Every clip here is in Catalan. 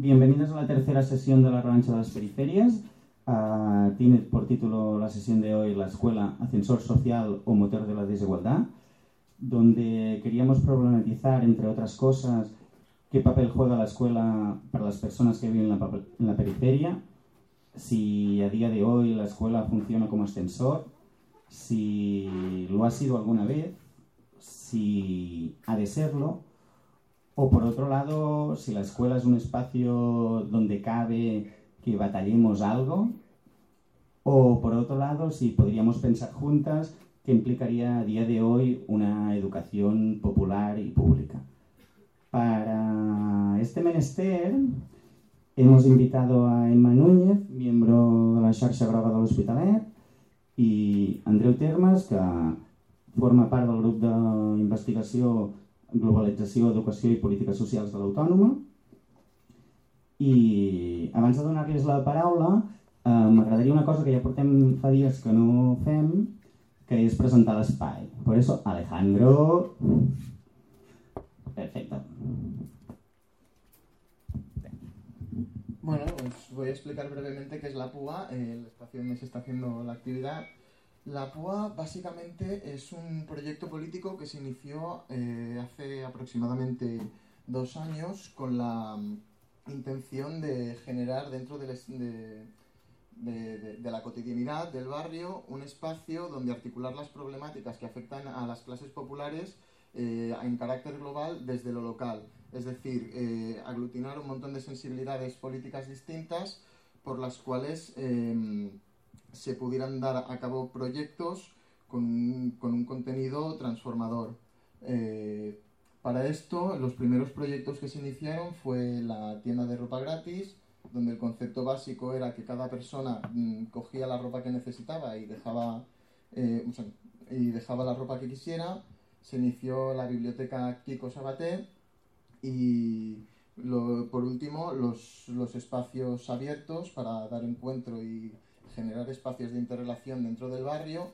Bienvenidos a la tercera sesión de la Revancha de las Periferias. Tiene por título la sesión de hoy La escuela, ascensor social o motor de la desigualdad, donde queríamos problematizar, entre otras cosas, qué papel juega la escuela para las personas que viven en la periferia, si a día de hoy la escuela funciona como ascensor, si lo ha sido alguna vez, si ha de serlo, o por otro lado, si la escuela es un espacio donde cabe que batallemos algo, o por otro lado, si podríamos pensar juntas qué implicaría a día de hoy una educación popular y pública. Para este menester hemos invitado a Emma Núñez, miembro de la xarxa groga de l'Hospitalet, i Andreu Termes, que forma part del grup d'investigació Globalització, Educació i Polítiques Socials de l'Autònoma. I abans de donar-los la paraula, m'agradaria una cosa que ja portem fa dies que no fem, que és presentar l'espai. Por eso, Alejandro... Perfecto. Bueno, os voy a explicar brevemente qué es la PUA, el espacio donde se está haciendo la actividad. La PUA básicamente es un proyecto político que se inició hace aproximadamente 2 años con la intención de generar dentro de la cotidianidad del barrio un espacio donde articular las problemáticas que afectan a las clases populares en carácter global desde lo local. Es decir, aglutinar un montón de sensibilidades políticas distintas por las cuales se pudieran dar a cabo proyectos con un contenido transformador. Para esto, los primeros proyectos que se iniciaron fue la tienda de ropa gratis, donde el concepto básico era que cada persona cogía la ropa que necesitaba y dejaba la ropa que quisiera. Se inició la biblioteca Kiko Sabaté y por último los espacios abiertos para dar encuentro y generar espacios de interrelación dentro del barrio,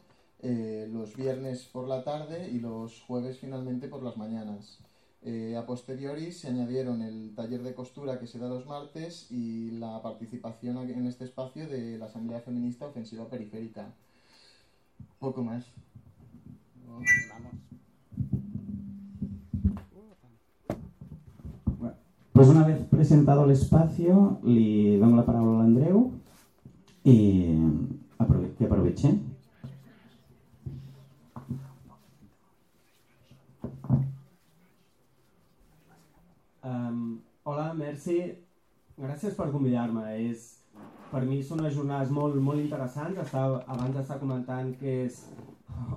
los viernes por la tarde y los jueves finalmente por las mañanas. A posteriori se añadieron el taller de costura que se da los martes y la participación en este espacio de la Asamblea Feminista Ofensiva Periférica. Poco más. Vamos. Pues una vez presentado el espacio, le doy la palabra a Andreu y que aproveche. Hola, merci. Gràcies per convidar-me. Per mi són unes jornades molt, molt interessants. Abans d'estar comentant que és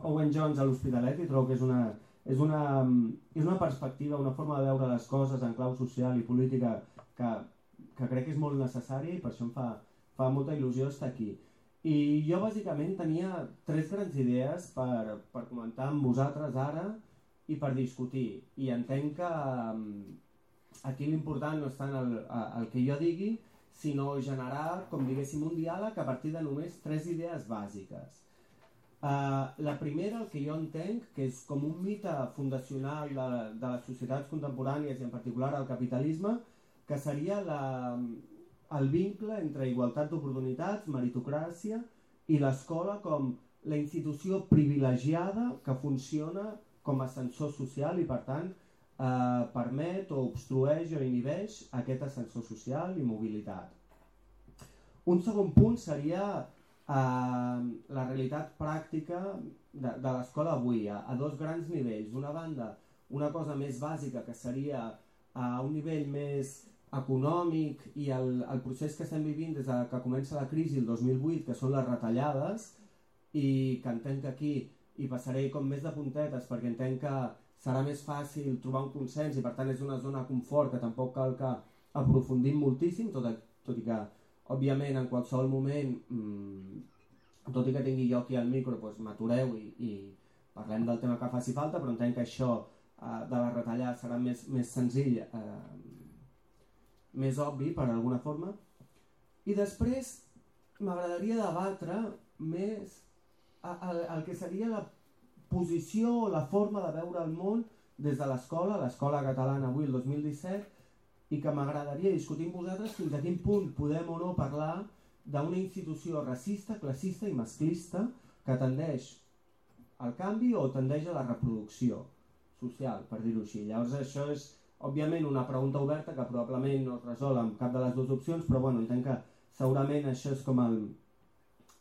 Owen Jones a l'Hospitalet i trobo que és una perspectiva, una forma de veure les coses en clau social i política que crec que és molt necessària i per això em fa molta il·lusió estar aquí. I jo bàsicament tenia 3 grans idees per comentar amb vosaltres ara i per discutir. I entenc que aquí l'important no és tant el que jo digui, sinó generar, com diguéssim, un diàleg a partir de només 3 idees bàsiques. La primera, el que jo entenc, que és com un mite fundacional de les societats contemporànies i en particular el capitalisme, que seria el vincle entre igualtat d'oportunitats, meritocràcia i l'escola com la institució privilegiada que funciona com a ascensor social i per tant permet o obstrueix o inhibeix aquest ascensor social i mobilitat. Un segon punt seria la realitat pràctica de l'escola avui, a 2 grans nivells. D'una banda, una cosa més bàsica que seria a un nivell més econòmic i el procés que estem vivint des que comença la crisi el 2008, que són les retallades, i que entenc que aquí hi passaré com més de puntetes perquè entenc que serà més fàcil trobar un consens i per tant és una zona de confort que tampoc cal que aprofundim moltíssim, tot i que òbviament en qualsevol moment, tot i que tingui jo aquí al micro, m'atureu i parlem del tema que faci falta, però entenc que això de la retallada serà més senzill, més obvi per alguna forma. I després m'agradaria debatre més el que seria la posició o la forma de veure el món des de l'escola catalana avui, el 2017, i que m'agradaria discutir amb vosaltres fins a quin punt podem o no parlar d'una institució racista, classista i masclista que tendeix al canvi o tendeix a la reproducció social, per dir-ho així. Llavors això és, òbviament, una pregunta oberta que probablement no es resol amb cap de les dues opcions, però bueno, entenc que segurament això és com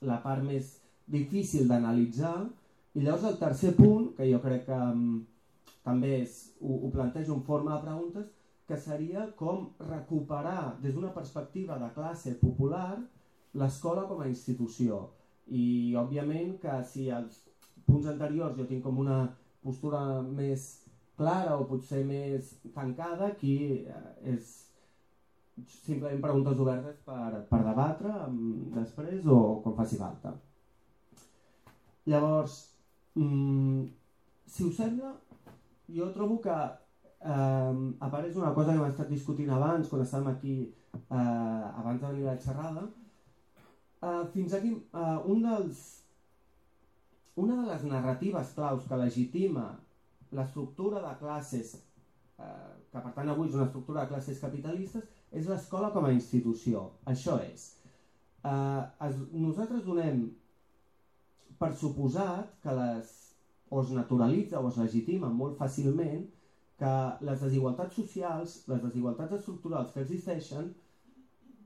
la part més difícil d'analitzar. I llavors el tercer punt, que jo crec que també ho plantejo en forma de preguntes, que seria com recuperar des d'una perspectiva de classe popular l'escola com a institució. I òbviament que si als punts anteriors jo tinc com una postura més clara o potser més tancada, aquí és simplement preguntes obertes per debatre després o quan faci falta. Llavors, si us sembla, jo trobo que apareix una cosa que hem estat discutint abans, quan estàvem aquí abans de venir a la xerrada. Fins aquí, una de les narratives claus que legitima l'estructura de classes, que per tant avui és una estructura de classes capitalistes, és l'escola com a institució. Això és. Nosaltres donem per suposat que o es naturalitza o es legitima molt fàcilment que les desigualtats socials, les desigualtats estructurals que existeixen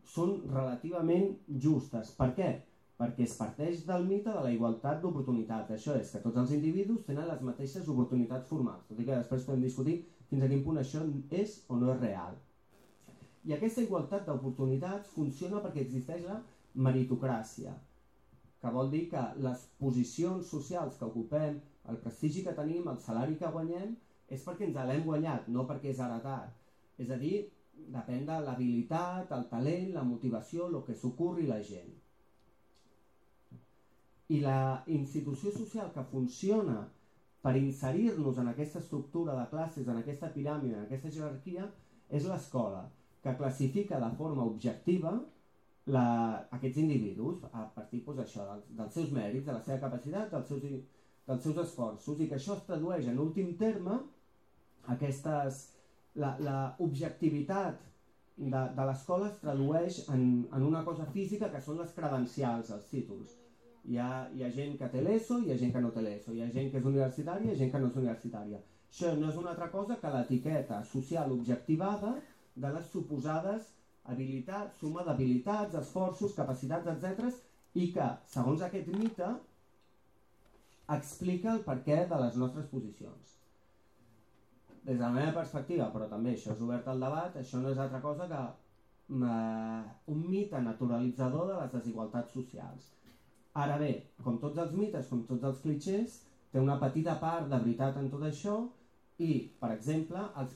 són relativament justes. Per què? Perquè es parteix del mite de la igualtat d'oportunitats. Això és, que tots els individus tenen les mateixes oportunitats formals, tot i que després podem discutir fins a quin punt això és o no és real. I aquesta igualtat d'oportunitats funciona perquè existeix la meritocràcia, que vol dir que les posicions socials que ocupem, el prestigi que tenim, el salari que guanyem, és perquè ens l'hem guanyat, no perquè és heretat. És a dir, depèn de l'habilitat, el talent, la motivació, el que s'ocorri la gent. I la institució social que funciona per inserir-nos en aquesta estructura de classes, en aquesta piràmide, en aquesta jerarquia, és l'escola, que classifica de forma objectiva aquests individus a partir dels seus mèrits, de la seva capacitat, dels seus esforços, i que això es tradueix en últim terme l'objectivitat de l'escola es tradueix en una cosa física que són les credencials, els títols. Hi ha gent que té l'ESO, hi ha gent que no té l'ESO, hi ha gent que és universitària, hi ha gent que no és universitària. Això no és una altra cosa que l'etiqueta social objectivada de les suposades habilitats, suma d'habilitats, esforços, capacitats, etc. i que, segons aquest mite, explica el perquè de les nostres posicions. Des de la meva perspectiva, però també això és obert al debat, això no és altra cosa que un mite naturalitzador de les desigualtats socials. Ara bé, com tots els mites, com tots els clixés, té una petita part de veritat en tot això i, per exemple, els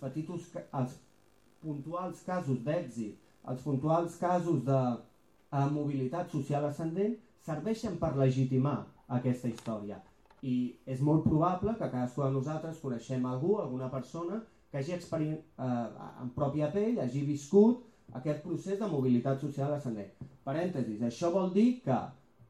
puntuals casos d'èxit, els puntuals casos de mobilitat social ascendent serveixen per legitimar aquesta història. I és molt probable que cadascú de nosaltres coneixem algú, alguna persona, que hagi en pròpia pell, hagi viscut aquest procés de mobilitat social ascendent. Parèntesis, això vol dir que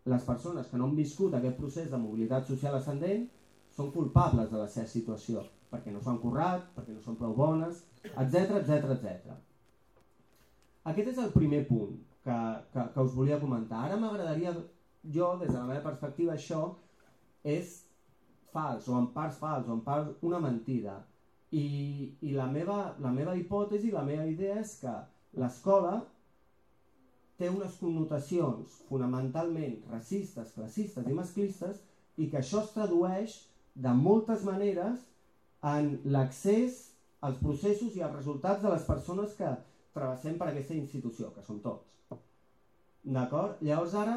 les persones que no han viscut aquest procés de mobilitat social ascendent són culpables de la seva situació, perquè no s'han currat, perquè no són prou bones, etc. Aquest és el primer punt que us volia comentar. Ara m'agradaria, jo, des de la meva perspectiva, això és fals, o en part fals, o en part una mentida. I la meva hipòtesi, la meva idea és que l'escola té unes connotacions fonamentalment racistes, classistes i masclistes i que això es tradueix de moltes maneres en l'accés als processos i als resultats de les persones que travessem per aquesta institució, que són tots. D'acord? Llavors ara,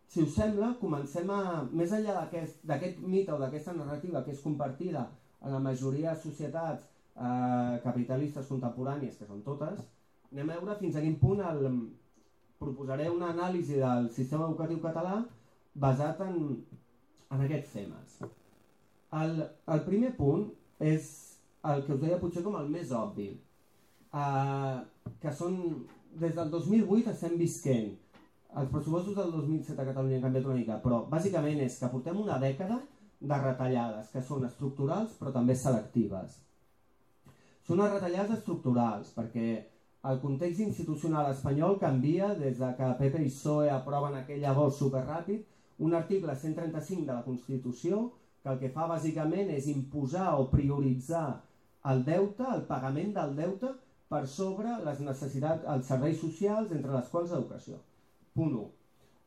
si us sembla, comencem més enllà d'aquest mite o d'aquesta narrativa que és compartida en la majoria de societats capitalistes contemporànies, que són totes, anem a veure fins a quin punt proposaré una anàlisi del sistema educatiu català basat en aquests temes. El primer punt és el que us deia potser com el més obvi, que són, des del 2008 estem visquent. Els pressupostos del 2007 a Catalunya han canviat una mica, però bàsicament és que portem una dècada de retallades que són estructurals però també selectives. Són unes retallades estructurals, perquè el context institucional espanyol canvia des de que PP i PSOE aproven aquell llavors superràpid un article 135 de la Constitució que el que fa bàsicament és imposar o prioritzar el deute, el pagament del deute per sobre les necessitats, els serveis socials, entre les quals l'educació. Punt 1.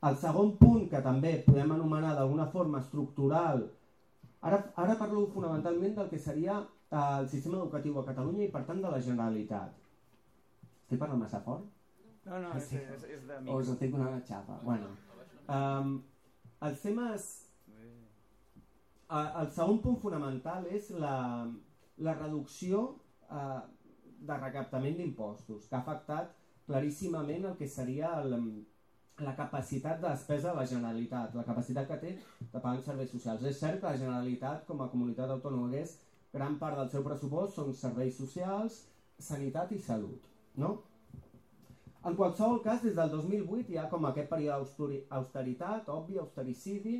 El segon punt, que també podem anomenar d'alguna forma estructural, ara parlo fonamentalment del que seria el sistema educatiu a Catalunya i per tant de la Generalitat. Estic parlant massa fort? No, és de mi. O us estic donant una xapa? Bueno, els temes... El segon punt fonamental és la reducció de recaptament d'impostos, que ha afectat claríssimament el que seria la capacitat de despesa de la Generalitat, la capacitat que té de pagar serveis socials. És cert que la Generalitat, com a comunitat autònoma que és, gran part del seu pressupost són serveis socials, sanitat i salut. No? En qualsevol cas, des del 2008 hi ha com aquest període d'austeritat, obvi, austericidi,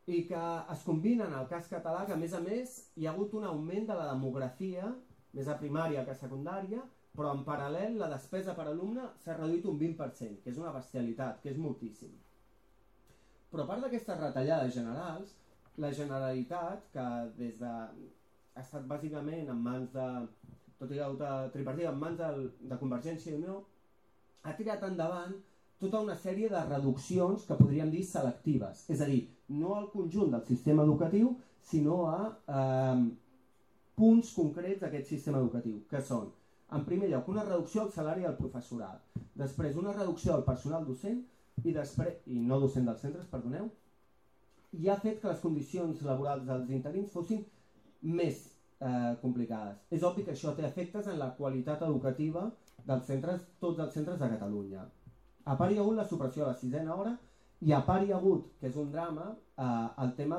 i que es combina en el cas català que, a més, hi ha hagut un augment de la demografia, més a primària que a secundària, però en paral·lel la despesa per alumne s'ha reduït un 20%, que és una bestialitat, que és moltíssim. Però a part d'aquestes retallades generals, la Generalitat, que ha estat bàsicament en mans de... tot i que tripartit en mans de Convergència i Unió, ha tirat endavant tota una sèrie de reduccions que podríem dir selectives. És a dir, no al conjunt del sistema educatiu, sinó a punts concrets d'aquest sistema educatiu, que són, en primer lloc, una reducció al salari del professorat, després una reducció al personal docent i no docent dels centres, perdoneu, i ha fet que les condicions laborals dels interins fossin més complicades. És obvi que això té efectes en la qualitat educativa dels centres, tots els centres de Catalunya. A part hi ha hagut la supressió de la 6ª hora i a part hi ha hagut, que és un drama, el tema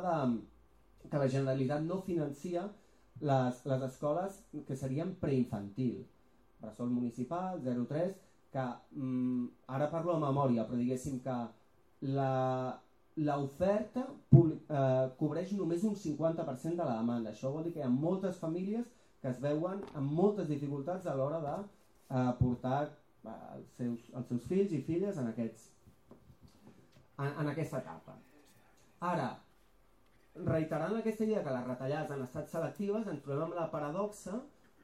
que la Generalitat no financia les escoles que serien preinfantil, bressol municipal, 0-3, que ara parlo de memòria, però diguéssim que l'oferta cobreix només un 50% de la demanda. Això vol dir que hi ha moltes famílies que es veuen amb moltes dificultats a l'hora de portar els seus fills i filles en aquesta etapa. Ara, reiterant aquesta idea que les retallades han estat selectives, ens trobem amb la paradoxa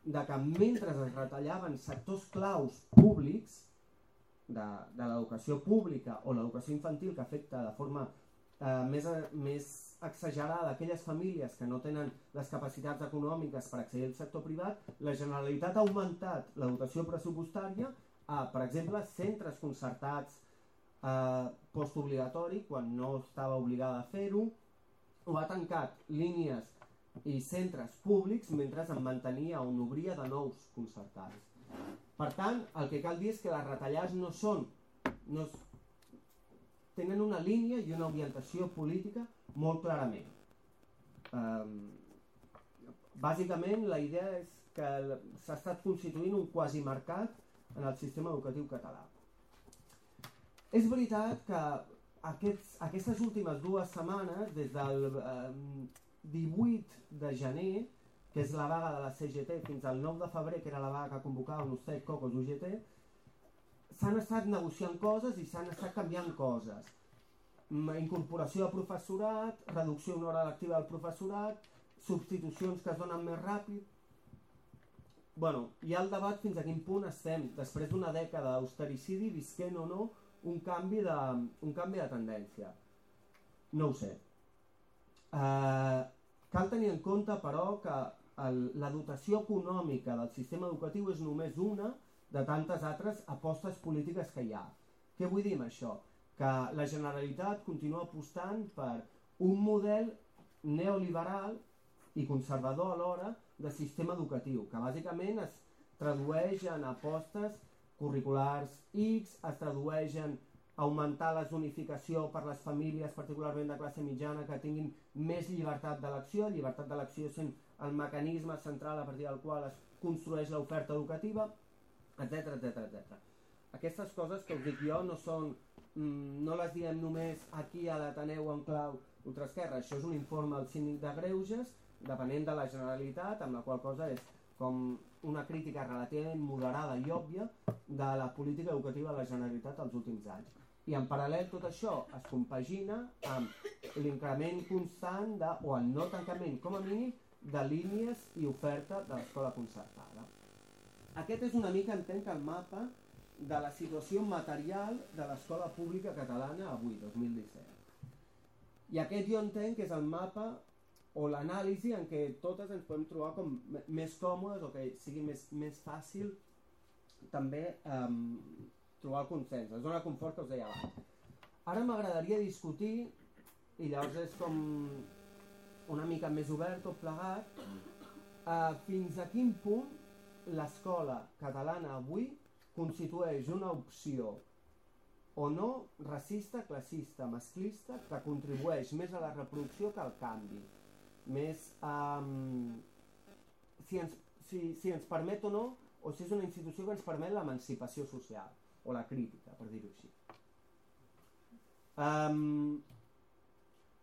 de que mentre es retallaven sectors claus públics de l'educació pública o l'educació infantil, que afecta de forma més exagerada aquelles famílies que no tenen les capacitats econòmiques per accedir al sector privat, la Generalitat ha augmentat la dotació pressupostària a, per exemple, centres concertats postobligatori quan no estava obligada a fer-ho, o ha tancat línies i centres públics mentre en mantenia o n'obria de nous concertats. Per tant, el que cal dir és que les retallades tenen una línia i una orientació política molt clarament. Bàsicament, la idea és que s'ha estat constituint un quasimercat en el sistema educatiu català. És veritat que aquestes últimes 2 setmanes, des del 18 de gener, que és la vaga de la CGT, fins al 9 de febrer, que era la vaga que convocava UNICEF, COCOS, UGT, s'han estat negociant coses i s'han estat canviant coses. Incorporació de professorat, reducció d'una hora lectiva del professorat, substitucions que es donen més ràpid. Bueno, hi ha el debat fins a quin punt estem, després d'una dècada d'austericidi, visquent o no un canvi de tendència. No ho sé. Cal tenir en compte, però, que la dotació econòmica del sistema educatiu és només una de tantes altres apostes polítiques que hi ha. Què vull dir amb això? Que la Generalitat continua apostant per un model neoliberal i conservador alhora de sistema educatiu, que bàsicament es tradueix en apostes curriculars X, es tradueix en augmentar la zonificació per les famílies, particularment de classe mitjana, que tinguin més llibertat d'elecció sent el mecanisme central a partir del qual es construeix l'oferta educativa, etc. Aquestes coses que us dic jo no les diem només aquí a l'Ateneu en clau ultraesquerra. Això és un informe del Síndic de Greuges, depenent de la Generalitat, amb la qual cosa és com una crítica relativament moderada i òbvia de la política educativa de la Generalitat els últims anys. I en paral·lel tot això es compagina amb l'increment constant o el no tancament com a mínim de línies i oferta de l'escola concertada. Aquest és una mica, entenc, el mapa de la situació material de l'escola pública catalana avui, 2017. I aquest jo entenc que és el mapa o l'anàlisi en què totes ens podem trobar com més còmodes o que sigui més fàcil també trobar el consens, la zona de confort que us deia abans. Ara m'agradaria discutir, i llavors és com una mica més obert tot plegat, fins a quin punt l'escola catalana avui constitueix una opció o no racista, classista, masclista, que contribueix més a la reproducció que al canvi. Més si ens permet o no, o si és una institució que ens permet l'emancipació social, o la crítica, per dir-ho així.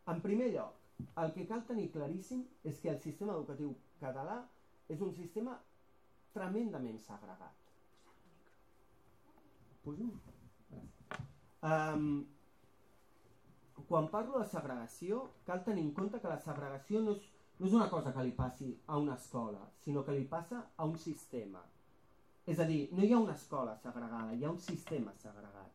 En primer lloc, el que cal tenir claríssim és que el sistema educatiu català és un sistema tremendament segregat. Pujo? Quan parlo de segregació, cal tenir en compte que la segregació no és una cosa que li passi a una escola, sinó que li passa a un sistema. És a dir, no hi ha una escola segregada, hi ha un sistema segregat.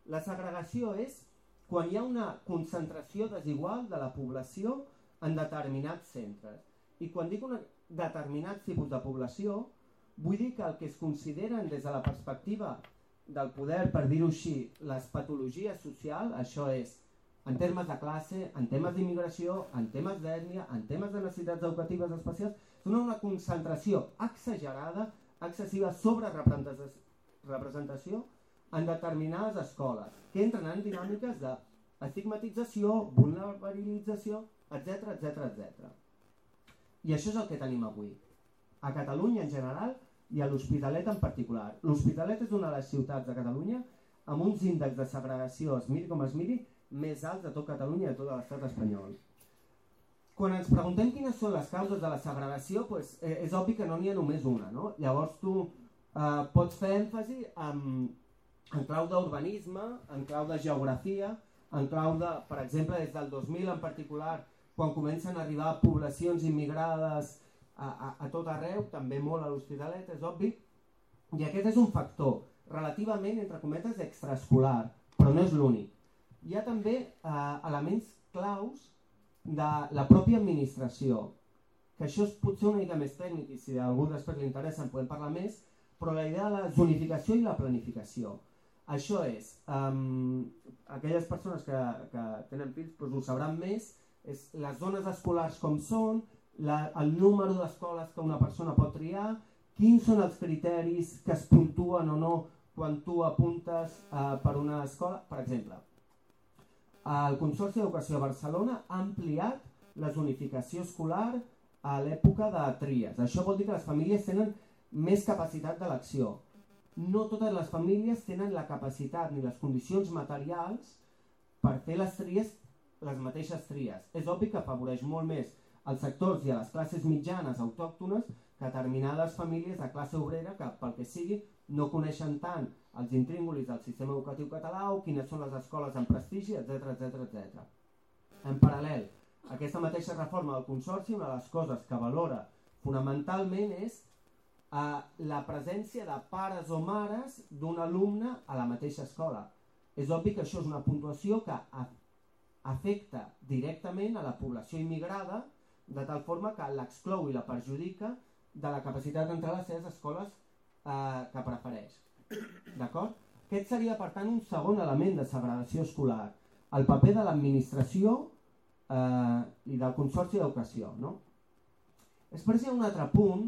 La segregació és quan hi ha una concentració desigual de la població en determinats centres. I quan dic un determinat tipus de població, vull dir que el que es consideren des de la perspectiva del poder, per dir-ho així, les patologies socials, això és, en termes de classe, en temes d'immigració, en temes d'ètnia, en temes de necessitats educatives especials, donen una concentració exagerada, excessiva sobre-representació en determinades escoles, que entren en dinàmiques d'estigmatització, vulnerabilització, etc. I això és el que tenim avui. A Catalunya en general i a l'Hospitalet en particular. L'Hospitalet és una de les ciutats de Catalunya amb uns índexs de segregació, es miri com es miri, més alts de tot Catalunya i de tot l'estat espanyol. Quan ens preguntem quines són les causes de la segregació, és obvi que no n'hi ha només una, no? Llavors tu pots fer èmfasi en clau d'urbanisme, en clau de geografia, en clau de, per exemple, des del 2000 en particular, quan comencen a arribar poblacions immigrades a tot arreu, també molt a l'Hospitalet, és obvi, i aquest és un factor relativament, entre cometes, extraescolar, però no és l'únic. Hi ha també elements claus de la pròpia administració, que això és potser una mica més tècnic i si a algú després li interessa en podem parlar més, però la idea de la zonificació i la planificació. Això és, aquelles persones que tenen fills ho sabran més, és les zones escolars com són, el número d'escoles que una persona pot triar, quins són els criteris que es puntuen o no quan tu apuntes per una escola. Per exemple, el Consorci d'Educació de Barcelona ha ampliat la zonificació escolar a l'època de tries. Això vol dir que les famílies tenen més capacitat d'elecció. No totes les famílies tenen la capacitat ni les condicions materials per fer les tries, les mateixes tries. És obvi que afavoreix molt més als sectors i a les classes mitjanes autòctones que determinades famílies de classe obrera que, pel que sigui, no coneixen tant els intríngulis del sistema educatiu català o quines són les escoles en prestigi, etc. En paral·lel, aquesta mateixa reforma del Consorci, una de les coses que valora fonamentalment és la presència de pares o mares d'un alumne a la mateixa escola. És obvi que això és una puntuació que afecta directament a la població immigrada de tal forma que l'exclou i la perjudica de la capacitat d'entrar a les seves escoles que prefereix. D'acord? Aquest seria, per tant, un segon element de segregació escolar, el paper de l'administració i del Consorci d'Educació. Després hi ha un altre punt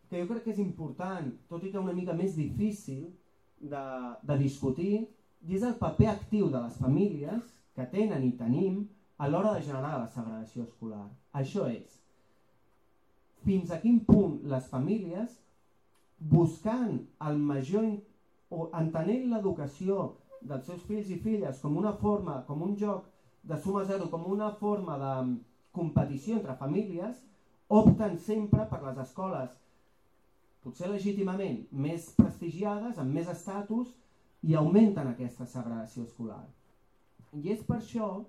que jo crec que és important, tot i que una mica més difícil de discutir, i és el paper actiu de les famílies que tenen i tenim a l'hora de generar la segregació escolar. Això és, fins a quin punt les famílies, buscant el major o entenent l'educació dels seus fills i filles com una forma, com un joc de suma zero, com una forma de competició entre famílies, opten sempre per les escoles potser legítimament, més prestigiades, amb més estatus, i augmenten aquesta segregació escolar. I és per això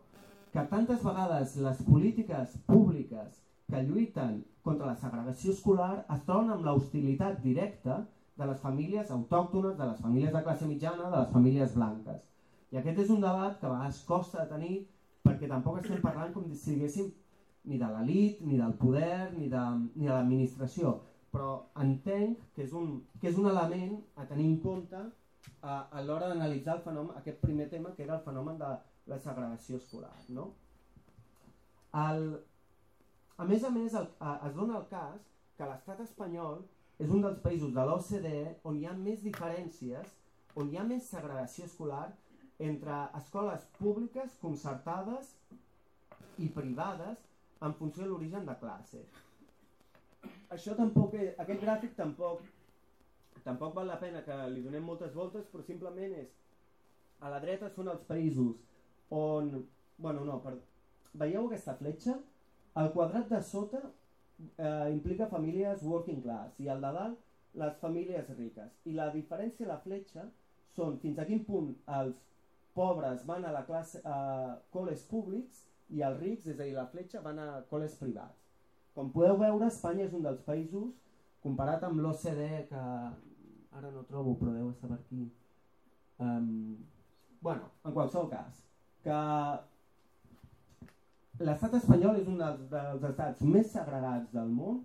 que tantes vegades les polítiques públiques que lluiten contra la segregació escolar es troben amb l'hostilitat directa de les famílies autòctones, de les famílies de classe mitjana, de les famílies blanques. I aquest és un debat que a vegades costa de tenir perquè tampoc estem parlant com si diguéssim ni de l'elit, ni del poder, ni de l'administració, però entenc que és un element a tenir en compte a l'hora d'analitzar el fenomen, aquest primer tema que era el fenomen de la segregació escolar. No? A més, es dona el cas que l'estat espanyol és un dels països de l'OCDE on hi ha més diferències, on hi ha més segregació escolar entre escoles públiques, concertades i privades en funció de l'origen de classe. Aquest gràfic tampoc val la pena que li donem moltes voltes, però simplement és, a la dreta són els països on, veieu aquesta fletxa? El quadrat de sota implica famílies working class i el de dalt les famílies riques. I la diferència a la fletxa són fins a quin punt els pobres van a la classe a col·les públics i els rics, és a dir, la fletxa, van a col·les privats. Com podeu veure, Espanya és un dels països, comparat amb l'OCDE, que ara no trobo, però deu estar per aquí. En qualsevol cas, que l'estat espanyol és un dels estats més segregats del món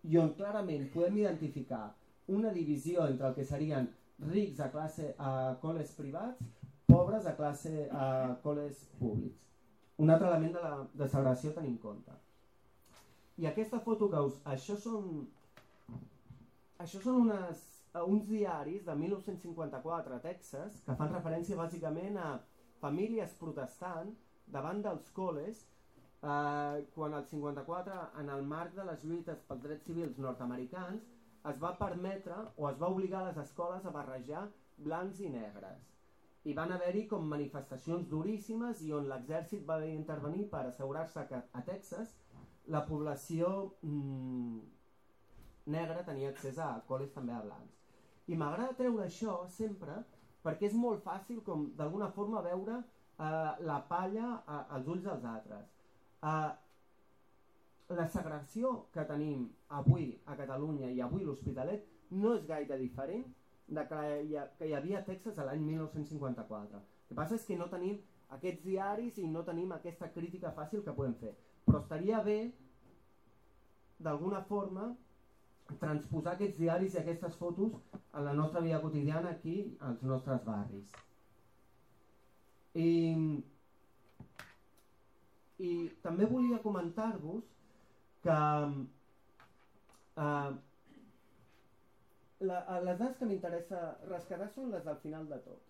i on clarament podem identificar una divisió entre el que serien rics a col·les privats, pobres a col·les públics. Un altre element de segregació a tenir en compte. I aquesta foto que Això són uns diaris de 1954 a Texas que fan referència bàsicament a famílies protestant davant dels col·les quan el 54, en el marc de les lluites pels drets civils nord-americans, es va permetre o es va obligar les escoles a barrejar blancs i negres. I van haver-hi com manifestacions duríssimes i on l'exèrcit va haver d'intervenir per assegurar-se que a Texas la població negra tenia accés a col·les també a blancs. I m'agrada treure això sempre perquè és molt fàcil com d'alguna forma veure la palla als ulls dels altres. La segregació que tenim avui a Catalunya i avui a l'Hospitalet no és gaire diferent de que hi havia a Texas l'any 1954. El que passa és que no tenim aquests diaris i no tenim aquesta crítica fàcil que podem fer. Però estaria bé, d'alguna forma, transposar aquests diaris i aquestes fotos a la nostra vida quotidiana aquí, als nostres barris. I també volia comentar-vos que les dades que m'interessa rescatar són les del final de tot.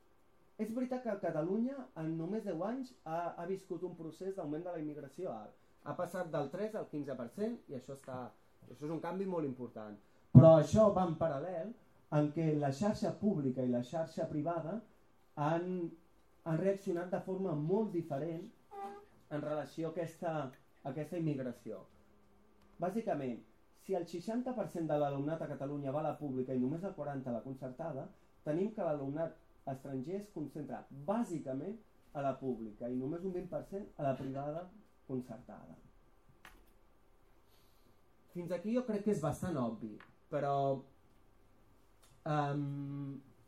És veritat que Catalunya en només 10 anys ha viscut un procés d'augment de la immigració alt. Ha passat del 3 al 15% i això és un canvi molt important. Però això va en paral·lel en què la xarxa pública i la xarxa privada han reaccionat de forma molt diferent en relació a aquesta immigració. Bàsicament, si el 60% de l'alumnat a Catalunya va a la pública i només el 40% a la concertada, tenim que l'alumnat estranger es concentra bàsicament a la pública i només un 20% a la privada concertada. Fins aquí jo crec que és bastant obvi, però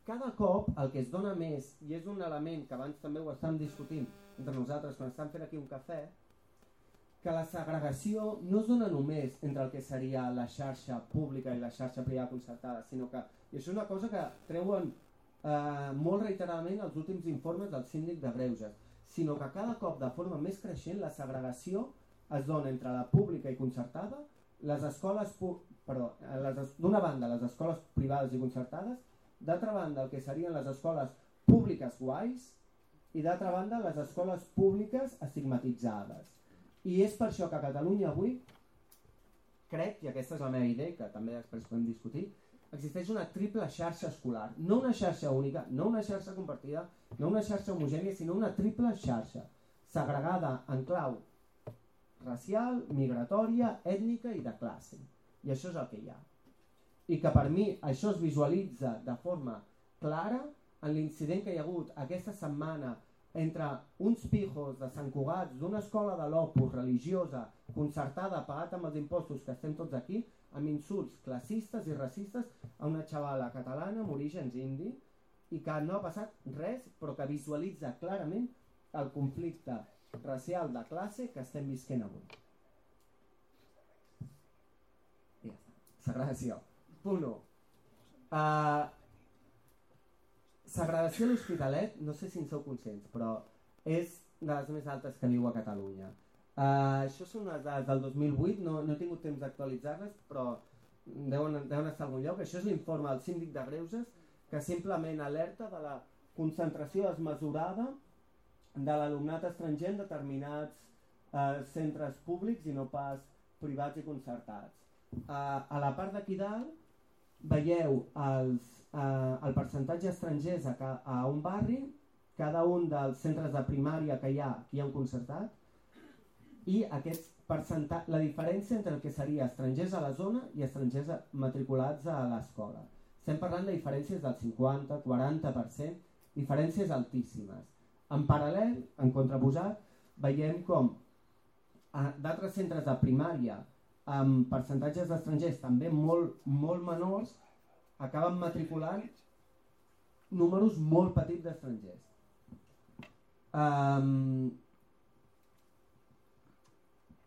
cada cop el que es dona més, i és un element que abans també ho estàvem discutint entre nosaltres quan estàvem fent aquí un cafè, que la segregació no es dona només entre el que seria la xarxa pública i la xarxa privada concertada, sinó que, i això és una cosa que treuen molt reiteradament els últims informes del síndic de Greuges, sinó que cada cop de forma més creixent la segregació es dona entre la pública i concertada, d'una banda les escoles privades i concertades, d'altra banda el que serien les escoles públiques guais i d'altra banda les escoles públiques estigmatitzades. I és per això que a Catalunya avui, crec, i aquesta és la meva idea, que també després podem discutir, existeix una triple xarxa escolar. No una xarxa única, no una xarxa compartida, no una xarxa homogènia, sinó una triple xarxa, segregada en clau racial, migratòria, ètnica i de classe. I això és el que hi ha. i que per mi això es visualitza de forma clara en l'incident que hi ha hagut aquesta setmana entre uns pijos de Sant Cugat d'una escola de l'Opus religiosa concertada, pagat amb els impostos que estem tots aquí, amb insults classistes i racistes a una xavala catalana amb orígens indi i que no ha passat res, però que visualitza clarament el conflicte racial de classe que estem visquent avui. I ja està. Segregació. Punt 1. Segregació a l'Hospitalet, no sé si en sou conscients, però és de les més altes que viu a Catalunya. Això són unes dades del 2008, no he tingut temps d'actualitzar-les, però deuen estar a algun lloc. Això és l'informe del síndic de Greuges, que simplement alerta de la concentració desmesurada de l'alumnat estranger en determinats centres públics i no pas privats i concertats. A la part d'aquí dalt veieu el percentatge estrangers a un barri, cada un dels centres de primària que hi ha un concertat, i la diferència entre el que seria estrangers a la zona i estrangers matriculats a l'escola. Estem parlant de diferències del 50-40%, diferències altíssimes. En paral·lel, en contraposat, veiem com d'altres centres de primària amb percentatges d'estrangers també molt menors acaben matriculant números molt petits d'estrangers.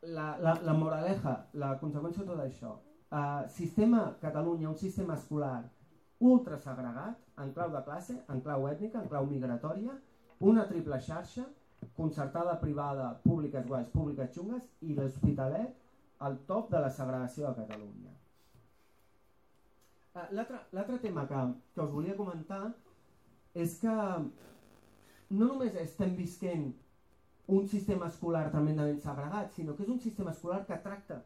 La moraleja, la conseqüència de tot això, sistema Catalunya, un sistema escolar ultra segregat, en clau de classe, en clau ètnica, en clau migratòria, una triple xarxa, concertada, privada, públiques guais, públiques xungues, i l'Hospitalet al top de la segregació a Catalunya. L'altre tema que us volia comentar és que no només estem visquent un sistema escolar tremendament segregat, sinó que és un sistema escolar que tracta,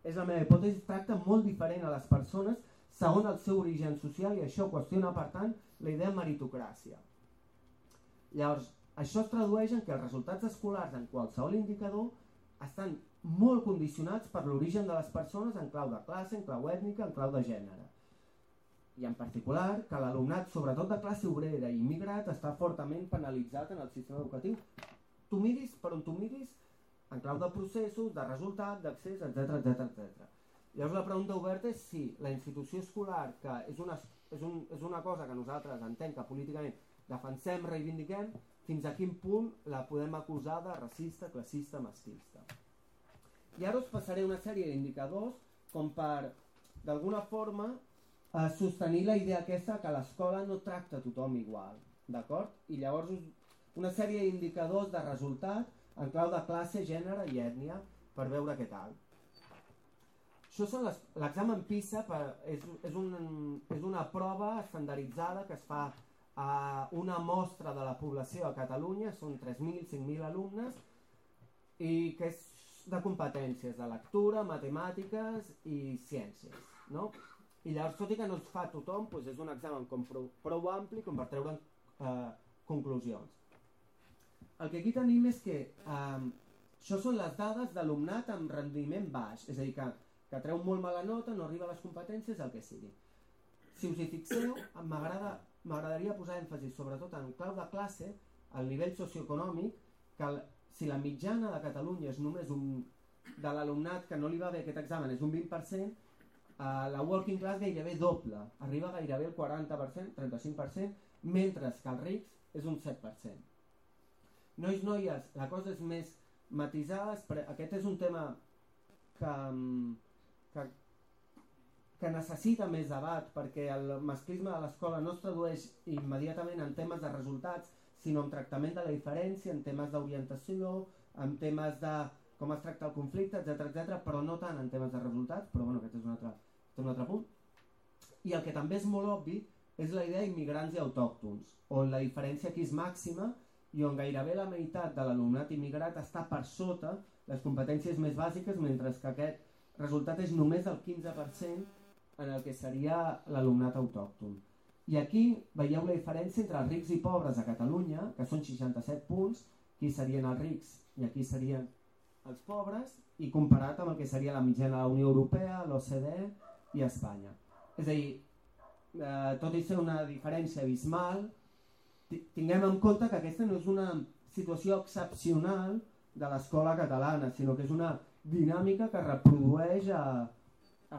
és la meva hipòtesi, tracta molt diferent a les persones segons el seu origen social, i això qüestiona, per tant, la idea de meritocràcia. Llavors, això es tradueix en que els resultats escolars en qualsevol indicador estan molt condicionats per l'origen de les persones en clau de classe, en clau ètnica, en clau de gènere. I en particular que l'alumnat, sobretot de classe obrera i immigrat, està fortament penalitzat en el sistema educatiu. Tu miris per on tu miris, en clau de processos, de resultat, d'accés, etc. Llavors la pregunta oberta és si la institució escolar, que és una cosa que nosaltres entenc que políticament defensem, reivindiquem, fins a quin punt la podem acusar de racista, classista, masclista. I ara us passaré una sèrie d'indicadors com per, d'alguna forma, sostenir la idea aquesta que l'escola no tracta a tothom igual, d'acord? I llavors una sèrie d'indicadors de resultat en clau de classe, gènere i ètnia per veure què tal. Això són l'examen PISA, és una prova estandarditzada que es fa a una mostra de la població a Catalunya, són 3.000, 5.000 alumnes, i que és de competències de lectura, matemàtiques i ciències, no? I llavors, tot i que no es fa a tothom, és un examen prou ampli com per treure conclusions. El que aquí tenim és que això són les dades d'alumnat amb rendiment baix, és a dir, que treu molt mala nota, no arriba a les competències, el que sigui. Si us hi fixeu, m'agradaria posar èmfasi sobretot en clau de classe, al nivell socioeconòmic, que si la mitjana de Catalunya és només de l'alumnat que no li va bé aquest examen és un 20%, la working class gairebé doble, arriba gairebé el 40%, 35%, mentre que els rics és un 7%. Nois, noies, la cosa és més matisada, aquest és un tema que necessita més debat, perquè el masclisme de l'escola no es tradueix immediatament en temes de resultats, sinó en tractament de la diferència, en temes d'orientació, en temes de com es tracta el conflicte, etc., però no tant en temes de resultats, però bueno, aquest és un altre punt. I el que també és molt obvi és la idea d'immigrants i autòctons, on la diferència aquí és màxima i on gairebé la meitat de l'alumnat immigrat està per sota les competències més bàsiques, mentre que aquest resultat és només del 15% en el que seria l'alumnat autòcton. I aquí veieu la diferència entre els rics i pobres a Catalunya, que són 67 punts, aquí serien els rics i aquí serien els pobres, i comparat amb el que seria la mitjana de la Unió Europea, l'OCDE i Espanya. És a dir, tot i ser una diferència abismal, tinguem en compte que aquesta no és una situació excepcional de l'escola catalana, sinó que és una dinàmica que reprodueix a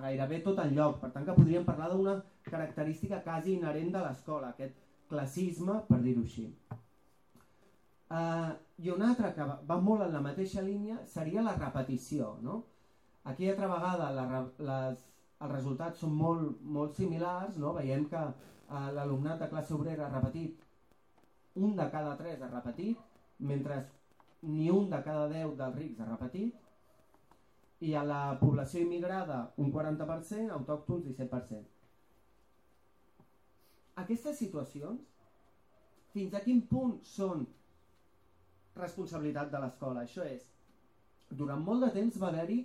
gairebé tot el lloc. Per tant, que podríem parlar d'una característica quasi inherent de l'escola, aquest classisme, per dir-ho així. I una altra que va molt en la mateixa línia seria la repetició, no? Aquí altra vegada els resultats són molt similars, no? Veiem que l'alumnat de classe obrera ha repetit, 1 de cada 3 ha repetit, mentre ni 1 de cada 10 dels rics ha repetit, i a la població immigrada un 40%, autòctons 17%. Aquestes situacions, fins a quin punt són responsabilitat de l'escola? Això és, durant molt de temps va haver-hi